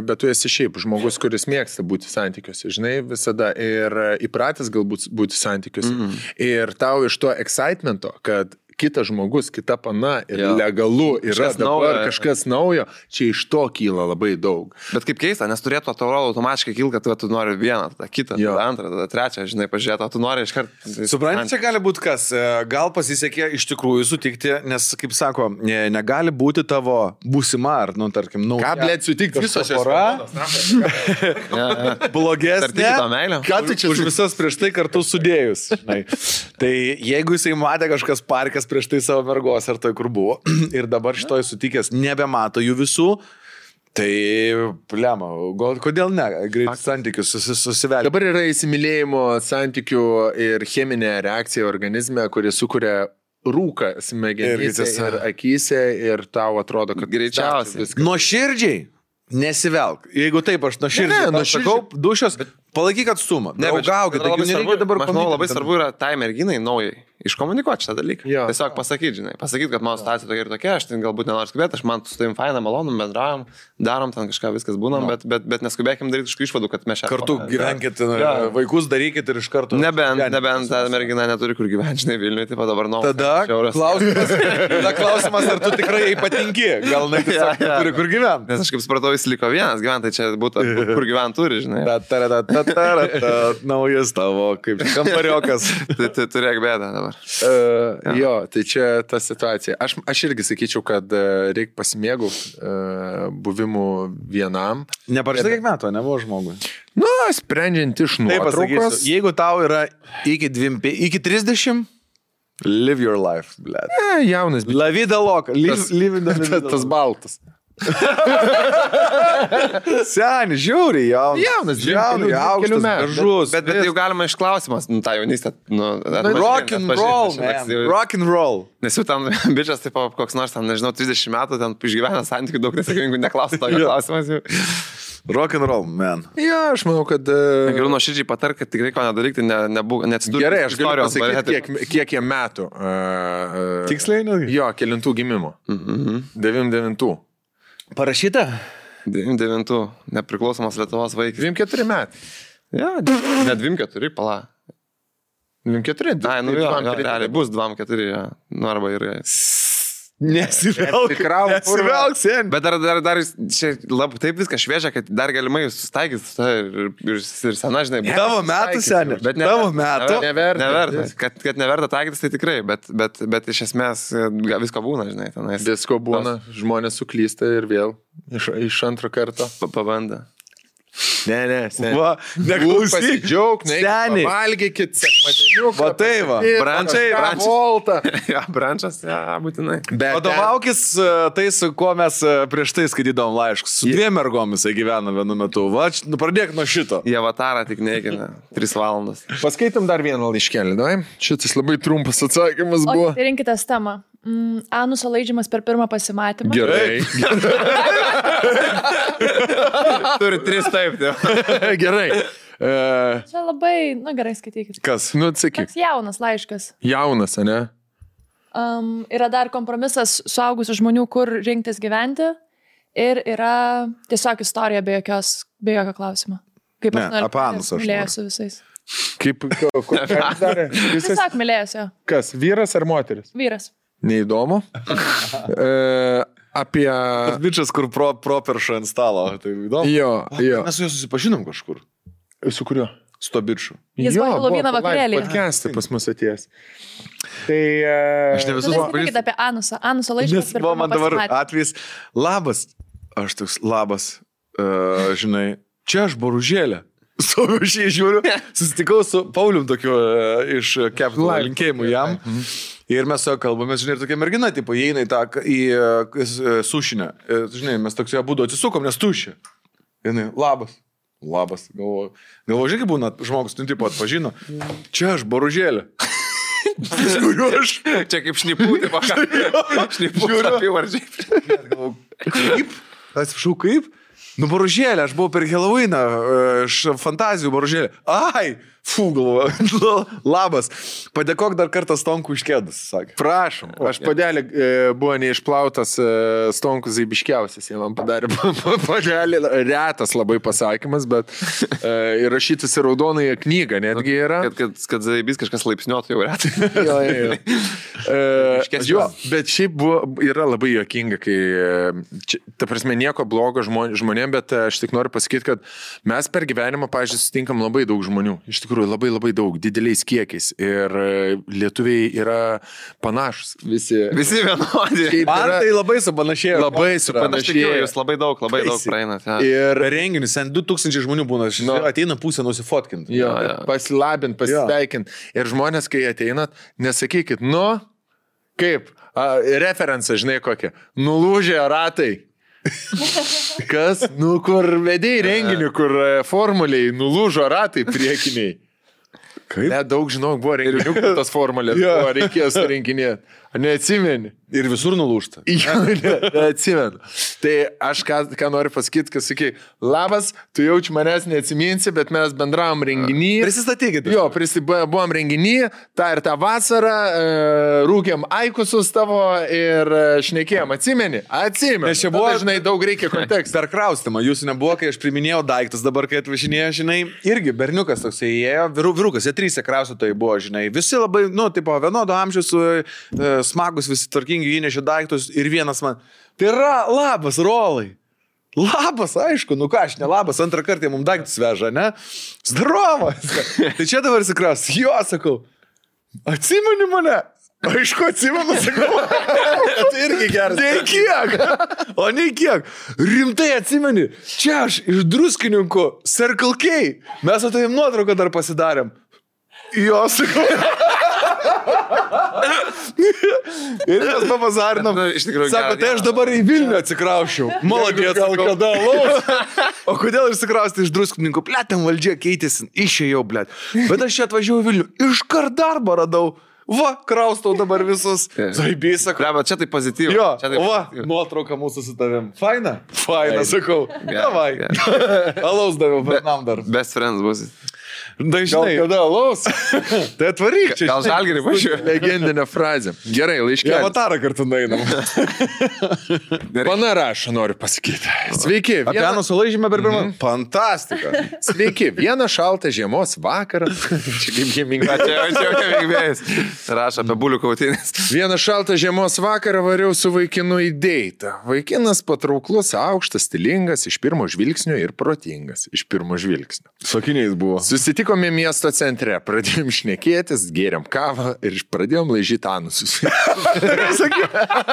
bet tu esi šiaip žmogus, kuris mėgsta būti santykiuose, žinai, visada ir įpratęs galbūt būti santykiuose. Ir tau iš to excitemento, kad kitas žmogus, kita pana ir legalu yra dabar kažkas naujo, čia iš to kyla labai daug. Bet kaip keista, nes turėtų atrodo automatiškai kilti, kad tu nori vieną, tada kitą, tada antrą, tada trečią, žinai, pažiūrėti, o tu nori iškart... Supranti, čia gali būti kas, gal pasisekė iš tikrųjų sutikti, nes, kaip sako, negali būti tavo būsima ar, nu, tarkim, nauja. Ką, blėt, sutikti visos pora? Blogesnė. Ką tu čia už visas prieš tai kartu sudėjus? Tai jeigu jisai matė kažkas parkas prieš tai savo mergos ar tai kur buvo ir dabar šitoj sutikęs nebemato jų visų, tai plema, kodėl ne, greit santykius susivelti. Dabar yra įsimylėjimo santykių ir cheminė reakcija organizme, kuri sukuria rūką smegenyse ir akyse ir tau atrodo, kad greičiausiai. Nuoširdžiai nesivelk. Jeigu taip, aš nuoširdžiai sakau, dušios, palaikyk atstumą. Draugaukit, labai svarbu yra tai merginai naujai iškomunikuoti šitą dalyką. Jo. Tiesiog pasakyti, žinai, kad mano situacija tokia ir tokia, aš ten galbūt nenoriu skubėti, aš man su tavim faina, malonu, bendraujam, darom ten kažką, viskas būnam, bet neskubėkim daryti iš išvadų, kad mes čia kartu gyvenkit, vaikus darykit ir iš karto. Nebent ta mergina neturi kur gyventi, žinai, Vilniuje, taip dabar noriu. Tada klausimas, ar tu tikrai patinki, gal ne tiesiog turi kur gyventi. Nes aš kaip supratau, jis liko vienas gyventi, tai čia būtų kur gyventi turi, žinai. Naujas tavo, kaip kambariokas. Turėk bėdą dabar. Jo, tai čia ta situacija. Aš irgi sakyčiau, kad reikia pasimėgauti buvimu vienam. Neparašyta kiek metų, nebuvo žmogui. Nu, sprendžiant iš nuotraukos. Jeigu tau yra iki 30, live your life, blėt. Jaunas. La vida loca. Tas baltas. Seni, žiūri, jaunas, aukštas, gražus. Bet jau galima iš klausimas, tą jaunystę. Rock and roll, man. Rock and roll. Nes jau ten bičias, taip, koks nors, ten, nežinau, 30 metų, ten išgyvena santykių daug nesėkmingų, neklausia tokio klausimas jau. Rock and roll, man. Jo, aš manau, kad... Geriau nuoširdžiai patark, kad tikrai ko nedarykti, neatsidūrė. Gerai, aš galiu pasakyti, kiek jie metų. Tiksliai, ne? Jo, kelintų gimimo. 99. Parašyta? 99, nepriklausomas Lietuvos vaikas. 24 metai. Ja, ne 24, pala. 24? Ai, nu jo, realiai bus 24, ja. Nu arba ir... Nesivelk, sen. Bet dar čia taip viskas šviežia, kad dar galimai susitaikys ir sena, žinai. Tavo metų, seni. Bet tavo metų. Neverta. Kad neverta taikytis, tai tikrai, bet iš esmės visko būna, žinai. Visko būna, žmonės suklysta ir vėl iš antro karto. Pabanda. Ne, va, neklausyk, džiaug, valgykit, sekmadieniuką. Va tai va, brančas, būtinai. Vadovaukis tai, su kuo mes prieš tai skaitydavom laiškus. Su 2 mergomis gyvena vienu metu. Va, pradėk nuo šito. Jie avatarą tik neikina, 3 valandas. Paskaitom dar vieną laiškelį, davai? Šitas labai trumpas atsakymas buvo. O, rinkitės temą. Anuso laidžiamas per pirmą pasimatymą. Gerai. Turi 3 taip. Gerai. Čia labai, gerai skaitykit. Kas? Nu, atsakyk. Toks jaunas laiškas. Jaunas, ne? Yra dar kompromisas suaugusių žmonių, kur rinktis gyventi. ir yra tiesiog istorija be jokio klausimo. Kaip Ne, apie Anusą aš mylėjusi visais. Kaip, ką jis darė? Tiesiog mylėjusi. Kas, vyras ar moteris? Vyras. Neįdomu. Apie... Tas bičias, kur pro perša ant stalo. Tai įdomu. Jo. Mes su juo susipažinom kažkur. Su kuriuo? Su to bičiu. Jis buvo Helovyno vakarėlyje. Podcast'ai pas mus atėjęs. Tai... Aš ne visus pažįstu. Apie Anusą. Anuso laiškas. Nes man dabar atvejs. Labas. Aš toks labas. Žinai, čia aš Boružėlė. Stoviu šiai žiūriu. Susitikau su Paulium tokiu iš Capital linkėjimų jam. Ir mes su jo kalbamės, žinai, ir tokia mergina, tipo, įeina į sušinę. Žinai, mes toks ją būdu atsisukom, nes tušia. Jinai, labas. Galvoju, žinai, kaip būna žmogus, tu tipo atpažino. Čia aš Boružėlė. Žiūriu aš. Čia kaip šnipų, tipo, šnipų apyvardžiai. Galvoju, kaip? Atsiprašau, kaip? Nu, Boružėlė, aš buvau per Halloweeną, iš fantazijų Boružėlė. Ai, galvoju, labas. Padėkok dar kartą Stonku iš kėdus, sakė. Prašom, aš padelį buvo neišplautas Stonkus Zaibiškiausias, jie man padarė padelį, retas labai pasakymas, bet įrašytas į raudonąją knygą netgi yra. Kad Zaibis kažkas laipsniuotų jau retai. Jo, bet šiaip yra labai juokinga, kai, ta prasme, nieko blogo žmonėm, bet aš tik noriu pasakyti, kad mes per gyvenimą, pavyzdžiui, sutinkam labai daug žmonių. Iš tikrųjų, labai labai daug, dideliais kiekiais. Ir lietuviai yra panašus. Visi vienodi. Man tai labai supanašėjo. Labai supanašėjo. Jūs labai daug praeinat. Ja. Ir renginius, 2000 žmonių būna, ateina pusę nusifotkinti. Jo, pasilabint, pasveikint. Ir žmonės, kai ateinat, nesakykit, kaip, referencą, žinai kokią, nulūžė ratai. Kas? Kur vedėjai renginių, kur formuliai nulūžo ratai priekiniai. Kaip? Daug žinau, buvo renginių, kur tas formulės buvo, reikėjo surinkinėti. Neatsimeni. Ir visur nulūžta. Neatsimenu. Tai aš ką noriu pasakyti, kad sakai, labas, tu jaučiu manęs neatsiminsi, bet mes bendravom renginį. Prisistatykite. Jo, buvom renginį, tą ir tą vasarą, rūkėm aikusus tavo ir šnekėjom. Atsimeni? Atsimenu. Nes čia buvo, žinai, daug reikia kontekstą. Per kraustimą, jūsų nebuvo, kai aš priminėjau daiktus, dabar, kai atvažinėjo, žinai, irgi berniukas toks įėjo, vyrukas, jie 3 kraustytojai buvo, žinai, visi labai, tipo, vienodo amžiaus, smagus, visi tvarkingi, įnešė daiktus ir vienas man, tai yra labas, Rolai. Labas, aišku, ką aš ne labas, antrą kartą mums daiktus veža, ne? Zdarovas. Tai čia dabar įsikraus. Jo, sakau, atsimeni mane? Aišku, atsimenu, sakau. Tai irgi geras. Nei kiek. O nei kiek. Rimtai atsimeni. Čia aš iš Druskininkų Circle K. Mes su tavim nuotrauką dar pasidarėm. Jo, sakau. Ir mes papazarinom. Sako, tai aš dabar į Vilnių atsikraušiau. Maladės, sakau. Kada laus. O kodėl išsikrausti iš Druskininkų? Ten valdžia keitėsi, išėjau, blėt. Bet aš čia atvažiavau į Vilnių. Iškart darbą radau. Va, kraustau dabar visus. Zaibys, sakau. Bet čia tai pozityvu. Jo, nuotrauka mūsų su tavim. Faina? Faina, sakau. Davai. Alaus daviau, Bernam dar. Best friends bus. Dažnai. Gal kada alaus? Tai atvaryk čia. Gal Žalgirį važiuoju. Legendinė frazė. Gerai, laiškelį. Avatarą kartu nainam. Pana rašo, noriu pasakyti. Sveiki. Apie Anusą laižymę per pirmą. Fantastika. Sveiki. Vieną šaltą žiemos vakarą. Čia kaip gimingas. Čia veikvėjas. Rašo apie bulių kautinės. Vieną šaltą žiemos vakarą variau su vaikinu į deitą. Vaikinas patrauklus, aukštas, stilingas, iš pirmo žvilgsnio ir protingas. Iš pirmo žvilgsnio. Sakiniais buvo. Susitikome miesto centre, pradėjom šnekėtis, gėrėm kavą ir pradėjom laižyti anusus.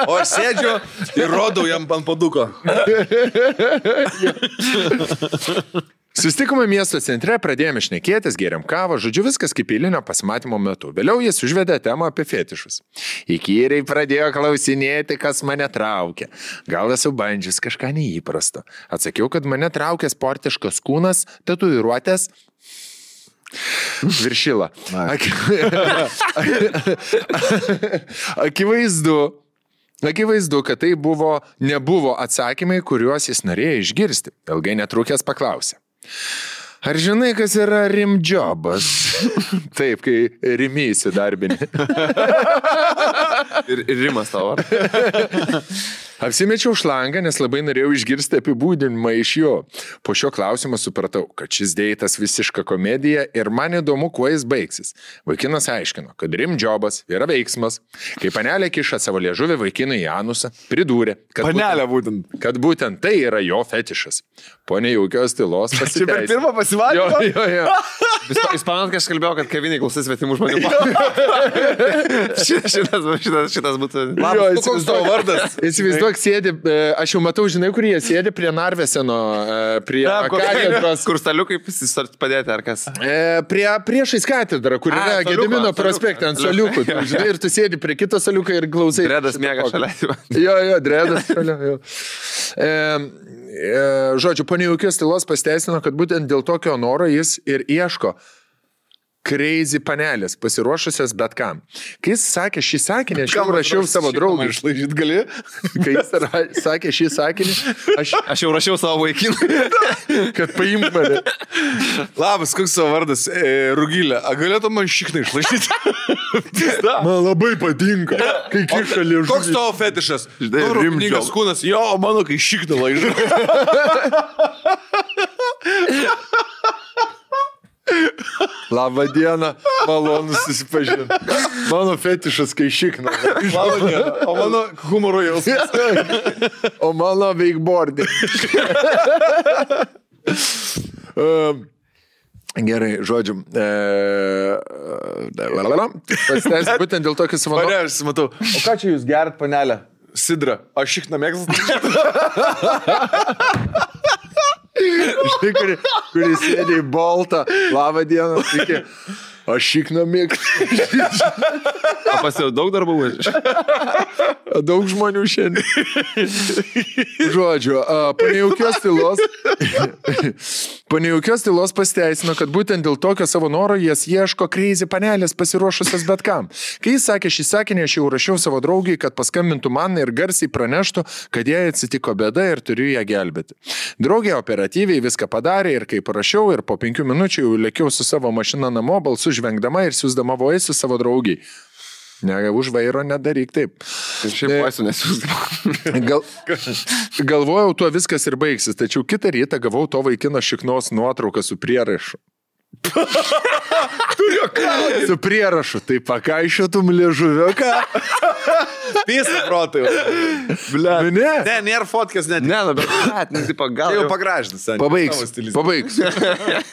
O aš sėdžiu ir rodau jam ant paduko. Susitikome miesto centre, pradėjome šnekėtis, gėrėm kavą, žodžiu viskas kaip eilinio pasimatymo metu. Vėliau jis užvedė temą apie fetišus. Įkyriai pradėjo klausinėti, kas mane traukia. Gal esu bandžius kažką neįprasto. Atsakiau, kad mane traukia sportiškas kūnas, tatuiruotės. Viršila. Akivaizdu, kad tai nebuvo atsakymai, kuriuos jis norėjo išgirsti. Ilgai netrukęs paklausė. Ar žinai, kas yra rimdžobas? Taip, kai rimi įsidarbini. Ir rimas tavo. Apsimečiau šlangą, nes labai norėjau išgirsti apibūdinimą iš jo. Po šio klausimo supratau, kad šis deitas visiška komedija ir man įdomu, kuo jis baigsis. Vaikinas aiškino, kad rimdžobas yra veiksmas. Kai panelė kiša savo liežuvį vaikinui į anusą, pridūrė, kad būtent tai yra jo fetišas. Po nejaukios tylos pasiteisino. Čia per pirmą pasimatymą? Jo. Jūs pamenat, kai aš kalbėjau, kad kaviniai klausys svetimų žmonių. šitas būtų... Labas, koks tavo vardas? Įsivaizduok, sėdi, aš jau matau, žinai, kur jie sėdi prie Narveseno, prie katedros. Kur staliukai padėti, ar kas? Priešais katedrą, kur yra Gedimino prospekte ant staliukų. Žinai, ir tu sėdi prie kito staliuko ir klausai. Dredas miega šalia. Jo, Dredas šalia. Žodžiu, po nejaukios tylos pasiteisino, kad būtent dėl tokio noro jis ir ieško crazy panelės, pasiruošusios bet kam. Kai jis sakė šį sakinį, aš jau rašiau savo draugui. Išlaižyt gali? Kai jis sakė šį sakinį, aš jau rašiau savo vaikinui, kad paimk mane. Labas, koks savo vardas? Rugilė, galėtų man šiknai išlaižyti? Man labai patinka, kai kiša liežuvį. Koks tavo fetišas? Rimdžobas kūnas. Jo, mano, kai šiknai laižu. Labą dieną, malonu susipažinti. Mano fetišas, kai šikna. Labą dieną, o mano humoro jausmas. O mano wakeboarding. Gerai, žodžiu. Pasiteis būtent dėl tokio savo... Aš matau. O ką čia jūs gerat, panelė? Sidra. Aš šikna mėgstat? Štai, kuri sėdė į boltą. Labą dieną, sveiki. Aš šikna mėgstu. O pas jau daug darbų? Daug žmonių šiandien. Žodžiu, po nejaukios tylos pasiteisino, kad būtent dėl tokio savo noro jas ieško crazy panelės pasiruošusios bet kam. Kai jis sakė šį sakinį, aš jau rašiau savo draugiai, kad paskambintų man ir garsiai praneštų, kad jai atsitiko bėda ir turiu ją gelbėti. Draugė operatyviai viską padarė ir kai parašiau ir po 5 minučių jau lėkiau su savo mašina namo, balsu žvengdama ir siūsdama voice savo draugiai. Ne, už vairo nedaryk taip. Šiaip voice nesiūsdama. Galvojau, tuo viskas ir baigsis, tačiau kitą rytą gavau to vaikino šiknos nuotrauką su prierašu. Su prierašu, tai pakaišiotum liežuviuką. Pisa protai. Ble. Ne, nėra fotkės net. Ne, bet gal jau pagražinus. Pabaigs.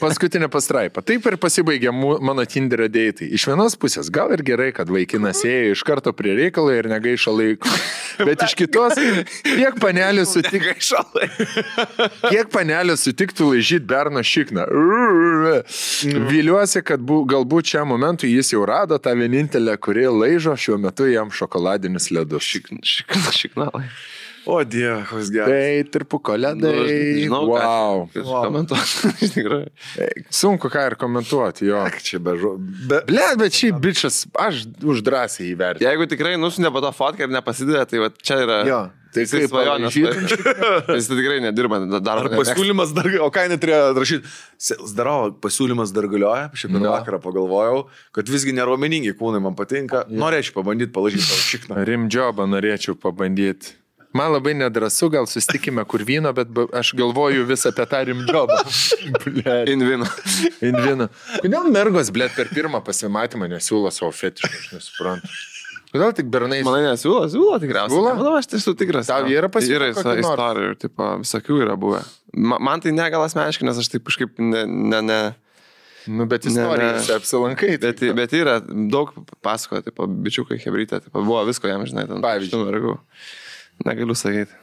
Paskutinė pastraipa. Taip ir pasibaigė mano Tinderio deitai. Iš vienos pusės gal ir gerai, kad vaikinas ėjo iš karto prie reikalo ir negaišo laiko. Bet iš kitos, kiek panelė sutiktų laižyti berno šikną. Viliuosi, kad galbūt šiam momentui jis jau rado tą vienintelę, kuri laižo šiuo metu jam šokoladinius ledus. Šiknalai. O Dieve, koks geras. Tai tirpuko ledai. Wow. Komentuoti. Tikrai. Sunku ką ir komentuoti, jo. Čia bežu. Bet šį bičas aš už drąsiai įvertinu. Jeigu tikrai nusinė po tą fotką ir nepasidėjo, tai va, čia yra... Jo. Tai kaip svajonės. Jis tikrai nedirba dar. Ar pasiūlymas dar, o ką neturėjo rašyti? Zdarau, pasiūlymas dar galioja, šiandien vakarą pagalvojau, kad visgi neraumeningi kūnai man patinka. Norėčiau pabandyti palaižyti savo šikną. Rimdžobą norėčiau pabandyti. Man labai nedrasu, gal susitikime kur vyno, bet aš galvoju vis apie tą rimdžobą. Invino. Kodėl mergos, per pirmą pasimatymą nesiūlo savo fetišą, aš nesuprantu. Kodėl tik bernai... Manai nesiūlo tikriausiai. Manau, aš tai esu tikras. Tau yra Yra istorijų ir visokių yra buvę. Man tai ne gal asmeniškai, nes aš taip kažkaip ne... Nu, bet istorijose apsilankai. Bet yra daug pasakoja, bičiukai, hebrytė, buvo visko jam, žinai, ten. Pavyzdžiui. Negaliu sakyti.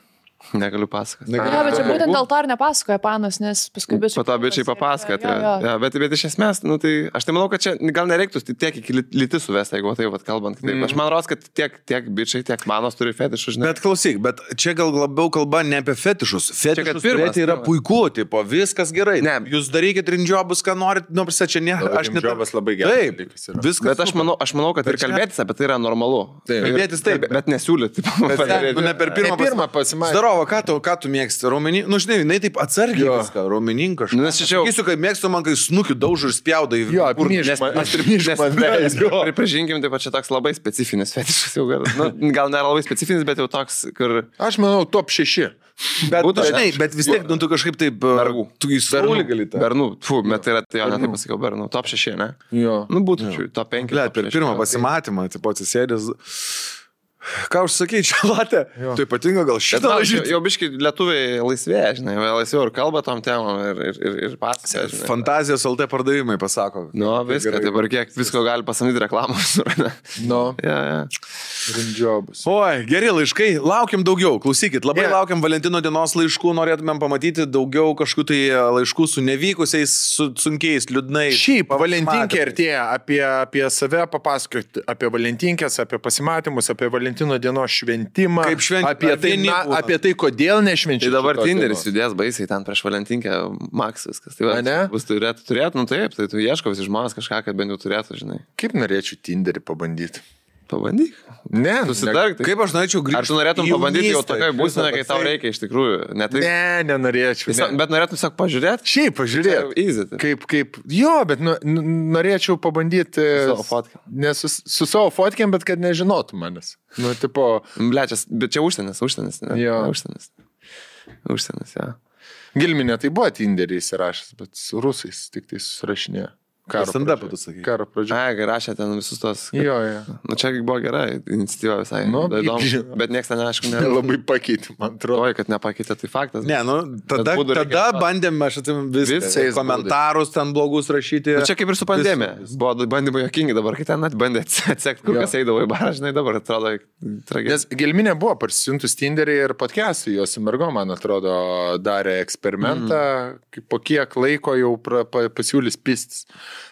Negaliu pasakoti. Ja, bet čia būtent dėl to ir nepasakoja panas, nes paskui bičiai... Po to bičiai papasakoja. Ja, bet iš esmės, nu, tai aš tai manau, kad čia gal nereiktų tiek iki lytis suvesti, jeigu taip kalbant. Aš man rodos, kad tiek bičiai, tiek manos turi fetišus. Bet klausyk, bet čia gal labiau kalba ne apie fetišus. Fetišus turėti yra puiku, tipo, viskas gerai. Ne, jūs darykit rimdžobus, ką norit, nu, prisa, čia ne... Rimdžobas labai gerai. Taip, viskas. Bet aš manau, kad ir kalbėtis apie tai yra normalu. Kalbėtis taip. Bet nesiūlyti. Ne per pirmą pasimatymą. Žiūrovo, ką tu mėgsti? Raumenį? Nu, žinai, jinai taip atsargiai viską, raumeninką. Nes čia jau... Sakysiu, kad mėgstu man, kai snukiu daužu ir spjauda į... Jo, pripažinkim, taip pat čia toks labai specifinis fetišas jau gal. Nu, gal nėra labai specifinis, bet jau toks, kur... Aš manau, top 6. Bet, žinai, bet vis tiek, nu, tu kažkaip taip... Bergų. Tu į saulį gali tą. Bernų. Bet tai yra, tai jo, ne taip pasakiau, Bernų. Top 6, ne? Jo. Nu, būtų top 5. Per pirmą pasimatymą, tipo atsisėdęs... Ką užsakai, čia latė? Tai ypatinga gal šitą lažyti. Jau biškai lietuviai laisvėja, žinai, laisviau ir kalba tom temom ir pasakė. Fantazijos LT pardavimai pasako. Nu, viską, dabar kiek visko gali pasamdyti reklamos. Nu, ja. Rimdžiobus. Oi, geri laiškai, laukiam daugiau, klausykit, labai laukiam Valentino dienos laiškų, norėtumėm pamatyti daugiau kažkokių tai laiškų su nevykusiais, su sunkiais, liūdnais. Šiaip, Valentinkė artėja, apie save papasakoti, apie Valentinkės, apie pasimatymus, apie Valentino dienos šventimą, kaip apie tai, kodėl nešvenčiu. Tai dabar Tinderis judės baisiai ten prieš Valentinkę, Max viskas. Tai va, bus turėtų, nu taip, tai tu ieško visi žmonės kažką, kad bent jau turėtų, žinai. Kaip norėčiau Tinderį pabandyti? Pabandyk. Ne, susitark. Kaip aš norėčiau grįžti. Ar tu norėtum pabandyti jau tokiai būsenai, kai tau reikia iš tikrųjų? Ne, nenorėčiau. Bet norėtum tiesiog pažiūrėti? Šiaip pažiūrėti. Easy. Jo, bet norėčiau pabandyti su savo fotkėm. Ne su savo fotkėm, bet kad nežinotų manęs. Nu, tipo... Blečias, bet čia užsienis. Jo. Užsienis, ja. Gilminė tai buvo Tinderį įsirašęs, bet su rusais tik tai susirašinėjo. Karo pradžioje. Ai, rašė ten visus tos. Jo. Nu, čia buvo gera iniciatyva visai. Nu, įdomu, bet niekas ten, aišku, labai pakeitė, man atrodo. Oi, kad nepakeitė, tai faktas. Ne, nu, tada bandėme, aš atsimenu, visais komentarus ten blogus rašyti. Nu, čia kaip ir su pandemija. Buvo bandymai jokingi dabar, kai ten bandė atsekti, kur kas eidavo į barą, žinai, dabar atrodo tragiškai. Nes Gilminė buvo parsisiuntus Tinderį ir podcast'ui, jos su mergo, man atrodo, darė eksperimentą, po kiek laiko jau pasiūlys pistis.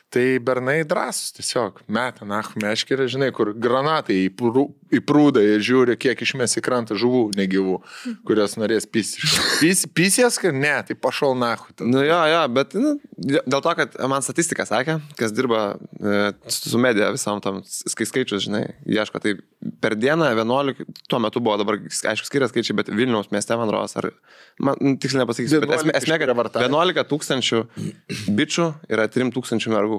Tai bernai drąsus tiesiog, meta, meškerė, žinai, kur granatai į prūdą ir žiūri, kiek išmes į krantą žuvų negyvų, kurios norės pisti. Pisės, kad ne, tai pašol nahu. Nu jo, bet dėl to, kad man statistika sakė, kas dirba su medija visam tam skaičius, žinai, ieško, tai per dieną 11, tuo metu buvo dabar, aišku, skirias skaičiai, bet Vilniaus mieste, man rodos, ar, man tiksliai nepasakysiu, bet esmė, kad 11 000 bičių yra 3 000 mergų.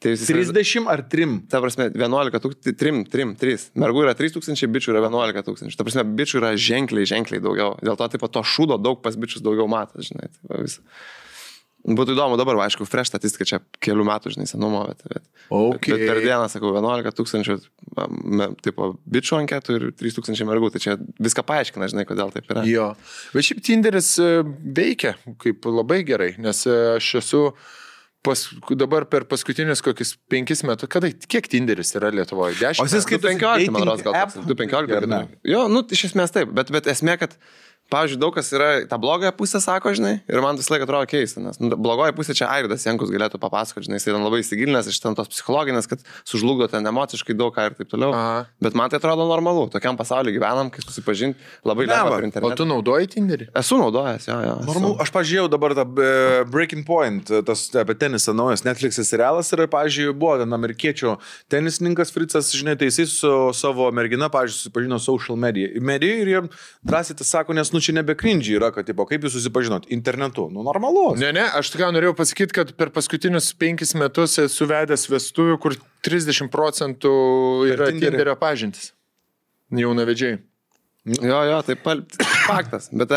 30 ar 3? Ta prasme, 11 000, 3. Mergų yra 3 000, bičių yra 11 000. Ta prasme, bičių yra ženkliai daugiau. Dėl to, taip, to šūdo daug pas bičius daugiau matas, žinai. Taip, būtų įdomu dabar, aišku, fresh statistika čia kelių metų, žinai, senumo, bet per dieną, sakau, 11 000 tipo bičių anketų ir 3 000 mergų. Tai čia viską paaiškina, žinai, kodėl taip yra. Jo. Bet šiaip Tinderis veikia kaip labai gerai, nes aš esu dabar per paskutinius kokius 5 metus, kiek Tinderis yra Lietuvoje? 10? O jis kaip 15, man rodos, gal 2-15. Jo, nu, iš esmės taip, bet esmė, kad pavyzdžiui, daug kas yra tą blogąją pusę, sako, žinai, ir man visą laiką atrodo keista, nes blogoji pusė čia Airidas Jankus galėtų papasakoti, žinai, jis ten labai įsigilinęs iš ten tos psichologinės, kad sužlugdo ten emociškai daug ką ir taip toliau. Bet man tai atrodo normalu, tokiam pasaulyje gyvenam, kai susipažinti labai lengva per internetą. O tu naudoji Tinderį? Esu naudojęs, jo. Normalu, aš pažiūrėjau dabar tą Breaking Point, tas apie tenisą naujas Netflix'as serialas ir, pavyzdžiui, buvo ten amerikiečių tenisininkas Fritzas, žinai, tai jis su savo mergina, pavyzdžiui, susipažino social media ir jie drąsiai tas sako, nes čia nebe cringe yra, kad, tipo, kaip jūs susipažinot internetu, nu normalu. Ne, aš tik norėjau pasakyti, kad per paskutinius 5 metus esu vedęs vestuvių, kur 30% yra Tinderio pažintis. Jaunavedžiai. Jo, tai faktas. Bet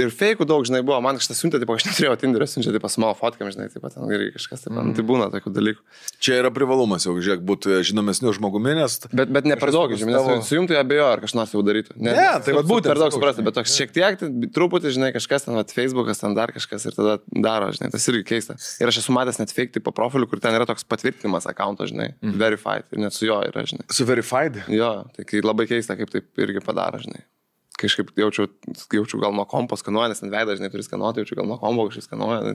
ir feikų daug, žinai, buvo. Man kažkas siuntė, aš neturėjau Tinderio, siunčia, taip, su mano fotkėm, žinai, taip, ten ir kažkas, taip, tai būna tokių dalykų. Čia yra privalumas, jau, žiūrėk, būti žinomesniu žmogumi, nes... Bet ne per daug, žinai, nes sujungtų ją abejo, ar kažkas jau darytų. Ne, tai va būtent. Per daug suprasti, bet toks šiek tiek, truputį, žinai, kažkas ten, Facebookas, ten dar kažkas ir tada daro, žinai, tas irgi keista. Ir aš esu matęs net fake tipo profilių, kur ten yra toks patvirtinimas accounto, žinai, verified, ir net su jo yra, žinai. Su verified? Jo, tai labai keista, kaip taip irgi padaro, žinai. Kažkaip jaučiu gal nuo kompo skanuoja, nes ant veidą, žinai, turi skanuoti, jaučiu gal nuo kompo kažkaip skanuoja.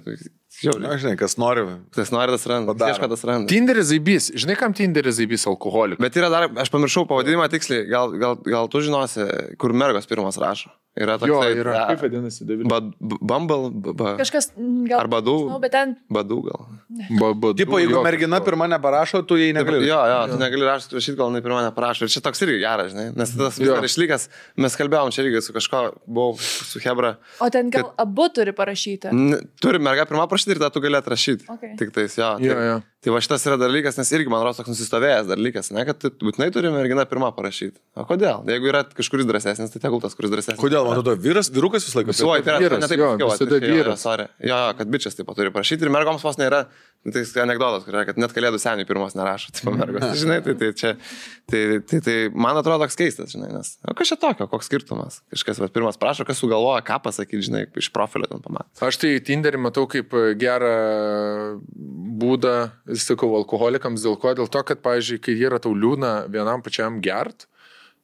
Žinai, kas nori. Tas nori, tas randa. Ieško, tas randa. Tinderis zaibys. Žinai, kam Tinderis zaibys alkoholikų? Bet yra dar, aš pamiršau pavadinimą tiksliai, gal tu žinosi, kur mergos pirmas rašo. Yra toks. Jo, yra. Kaip vadinasi, David? Bumble. Kažkas gal. Ar Badų. Bet ten. Badų gal. Tipo, jeigu mergina pirma neparašo, tu jai negali. Jo, tu negali rašyti, gal jinai pirma neparašo. Ir čia toks irgi geras, žinai, nes tas vis dar išlikęs. Mes kalbėjom čia irgi su kažko, buvau su Hebra. O ten gal abu turi parašyti? Turi merga pirmą parašyti ir tada tu gali atrašyti. Okay. Tik tais, jo. Tai va šitas yra dalykas, nes irgi, man rodos, toks nusistovėjęs dalykas, ne, kad būtinai turi mergina pirmą parašyti. O kodėl? Jeigu yra kažkuris drąsesnis, tai tegul tas, kuris drąsesnis. Kodėl, man atrodo, vyrukas visą laiką? Visuoj, tai yra, ne taip, visada vyras. Jo, kad bičias taip pat turi parašyti ir mergoms vos nėra, tai anekdotas, kad net kalėdų seniai pirmos nerašo, tipo mergos. Žinai, tai man atrodo toks keistas, žinai, nes, o kas čia tokio, koks skirtumas? Kažkas pirmas prašo, kas sugalvoja, ką pasakyti, žinai, iš profilio ten pamatė. Aš tai Tinderį matau kaip gerą būdą, sakau, alkoholikams, dėl ko? Dėl to, kad, pavyzdžiui, kai yra tau liūna vienam pačiam gert,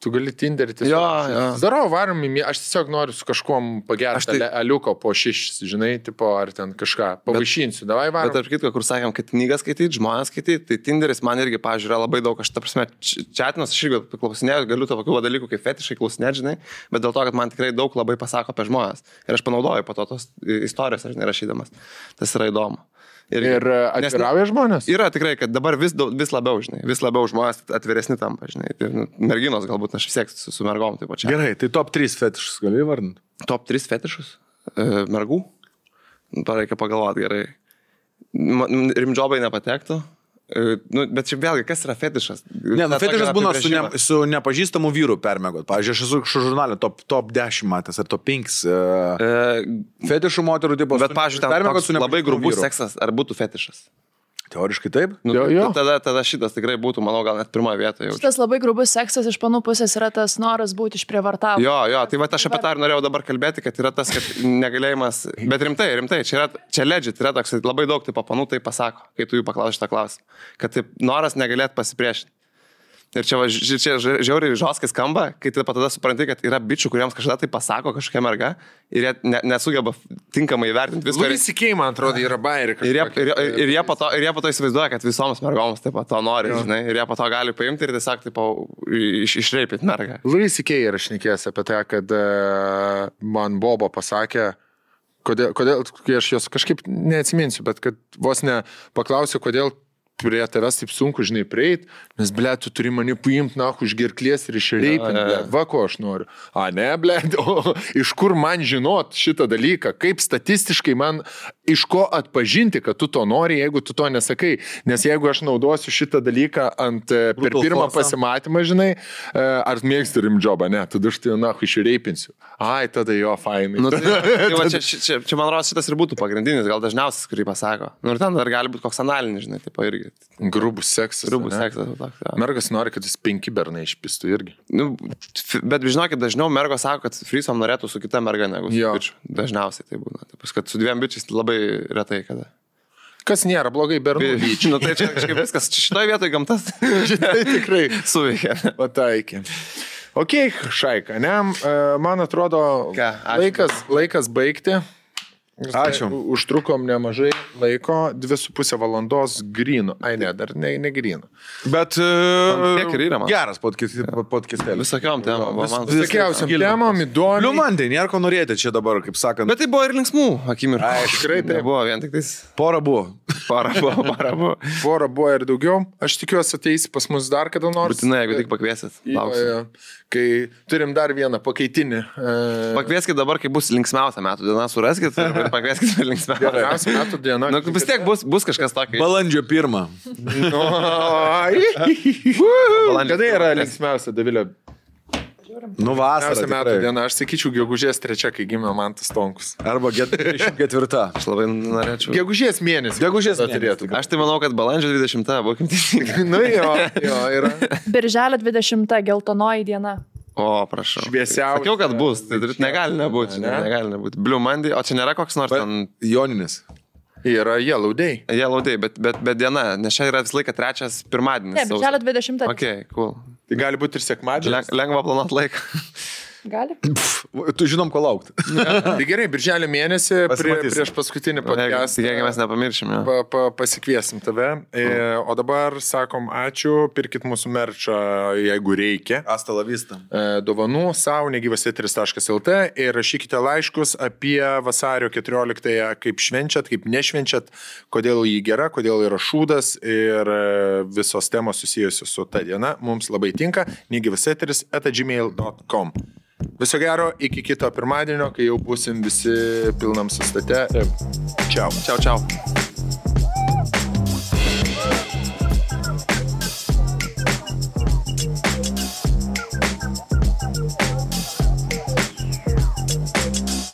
tu gali Tinderį tiesiog. Darau, varom, aš tiesiog noriu su kažkuom pagerti aliuko po 6, žinai, tipo, ar ten kažką pavaišinsiu, davai varom. Bet tarp kitko, kur sakėm, kad knygas skaityti, žmonės skaityti, tai Tinderis man irgi, pavyzdžiui, yra labai daug, aš ta prasme, čatinas, aš irgi klausinėjau, galiu tokių dalykų kaip fetišai klausinėti, žinai, bet dėl to, kad man tikrai daug labai pasako apie žmonės. Ir aš panaudoju po to tos istorijos, aš nerašydamas. Tas yra įdomu. Ir atvirauja žmonės? Yra tikrai, kad dabar vis labiau, žinai, vis labiau žmonės atviresni tampa, žinai. Tai, merginos galbūt aš vis tiek su mergom taip pačiai. Gerai, tai top 3 fetišus gali vardinti? Top 3 fetišus? Mergų? Reikia pagalvoti gerai. Rimdžobai nepatektų. Bet čia vėlgi, kas yra fetišas? Ne, fetišas būna su nepažįstamu vyru permėgot. Pavyzdžiui, aš esu žurnalė top 10 matęs ar top 5 fetišų moterų tipo. Bet, pavyzdžiui, labai grubus seksas, ar būtų fetišas? Teoriškai taip. Tada šitas tikrai būtų, manau, gal net pirmoje vietoje. Šitas labai grubus seksas iš panų pusės yra tas noras būti išprievartavęs. Jo, tai va aš apie tą ir norėjau dabar kalbėti, kad yra tas, kad negalėjimas, bet rimtai, čia legit, yra toks, labai daug tipo panų tai pasako, kai tu jų paklausi šitą klausimą, kad taip noras negalėt pasipriešinti. Ir čia žiauriai žoskai skamba, kai tu tada supranti, kad yra bičių, kuriems kažkada tai pasako kažkokia merga ir jie nesugeba tinkamai įvertinti viską. Louis, man atrodo, yra bairika. Ir jie po to įsivaizduoja, kad visoms mergoms taip pat to nori, žinai, ir jie po to gali paimti ir tiesiog taip išreipyti mergą. Louis yra šnekėjęs apie tai, kad man Bobo pasakė, kodėl, kai aš jos kažkaip neatsiminsiu, bet kad vos ne paklausiu, kodėl prie tavęs taip sunku, žinai, prieit, nes, ble, tu turi mane paimti, už gerklės ir išreipinti, ble, va, ko aš noriu. Ne, ble, iš kur man žinot šitą dalyką, kaip statistiškai man, iš ko atpažinti, kad tu to nori, jeigu tu to nesakai, nes jeigu aš naudosiu šitą dalyką per pirmą pasimatymą, žinai, ar mėgsti rimdžobą, ne, tada aš tai, išreipinsiu. Tada jo, fainai. Čia man rodos šitas ir būtų pagrindinis, gal dažniausias, kurį pasako. Ir ten dar gali būti koks analinis, žinai, tipo irgi. Grubus seksas. Mergas nori, kad jis 5 bernai išpistų irgi. Bet žinokit, dažniau mergos sako, kad frisom norėtų su kita merga negu su bičiu. Dažniausiai tai būna. Taip, kad su 2 bičiais labai retai kada. Kas nėra blogai bernų lyčių. Tai čia kažkaip viskas šitoje vietoje gamtas. Šitai tikrai suveikia. Pataikė. Ok, Šaika, ne? Man atrodo, laikas baigti. Ačiū. Užtrukom nemažai laiko, 2,5 valandos grynų. Ne, dar ne grynų. Bet kiek ir yra, man. Geras podcastėlis. Visokiom temom. Visokiausiam temom, įdomu. Liumandai, nėra ko norėti čia dabar, kaip sakant. Bet tai buvo ir linksmų akimirkų. Tikrai tai buvo vien tik tais. Pora buvo. Pora buvo ir daugiau. Aš tikiuosi ateisi pas mus dar kada nors. Būtinai, jeigu tik pakviesit. Lauksiu. Kai turim dar vieną pakaitinį. Pakvieskit dabar, kai bus linksmiausia metų diena, suraskit ir pakvieskit per linksmiausią metų dieną. Vis tiek bus kažkas tokio. Balandžio 1. Kada yra linksmiausia, Davilė? Vasarą metų diena, aš sakyčiau, gegužės 3, kai gimė Mantas Tonkus. Arba 4. Aš labai norėčiau. Gegužės mėnesį. Turėtų. Aš tai manau, kad balandžio 20, būkim teisingai. Jo, yra. Birželio 20, geltonoji diena. O, prašau. Šviesiausia. Sakiau, kad bus. Tai negali nebūti. Blue Monday, o čia nėra koks nors ten... Joninis. Yra Yellow Day. Bet diena, nes čia yra visą laiką 3 pirmadienis. Ne, birželio 20. Ok, cool. Tai gali būti ir sekmadienis. Lengva planuoti laiką. Gali? Tu žinom, ko laukti. Tai gerai, birželio mėnesį Pasimatysim. prieš paskutinį podcastą Jeigu mes nepamiršim, jo. pasikviesim tave. O dabar sakom ačiū, pirkit mūsų merčą, jeigu reikia. Asta la vista. Dovanų savo negyvas.lt ir rašykite laiškus apie vasario 14-ąją, kaip švenčiat, kaip nešvenčiat, kodėl jį gera, kodėl yra šūdas ir visos temos susijusios su ta diena. Mums labai tinka. negyvas@gmail.com. Viso gero, iki kito pirmadienio, kai jau būsim visi pilnam sustate. Čiau. Čiau, čiau.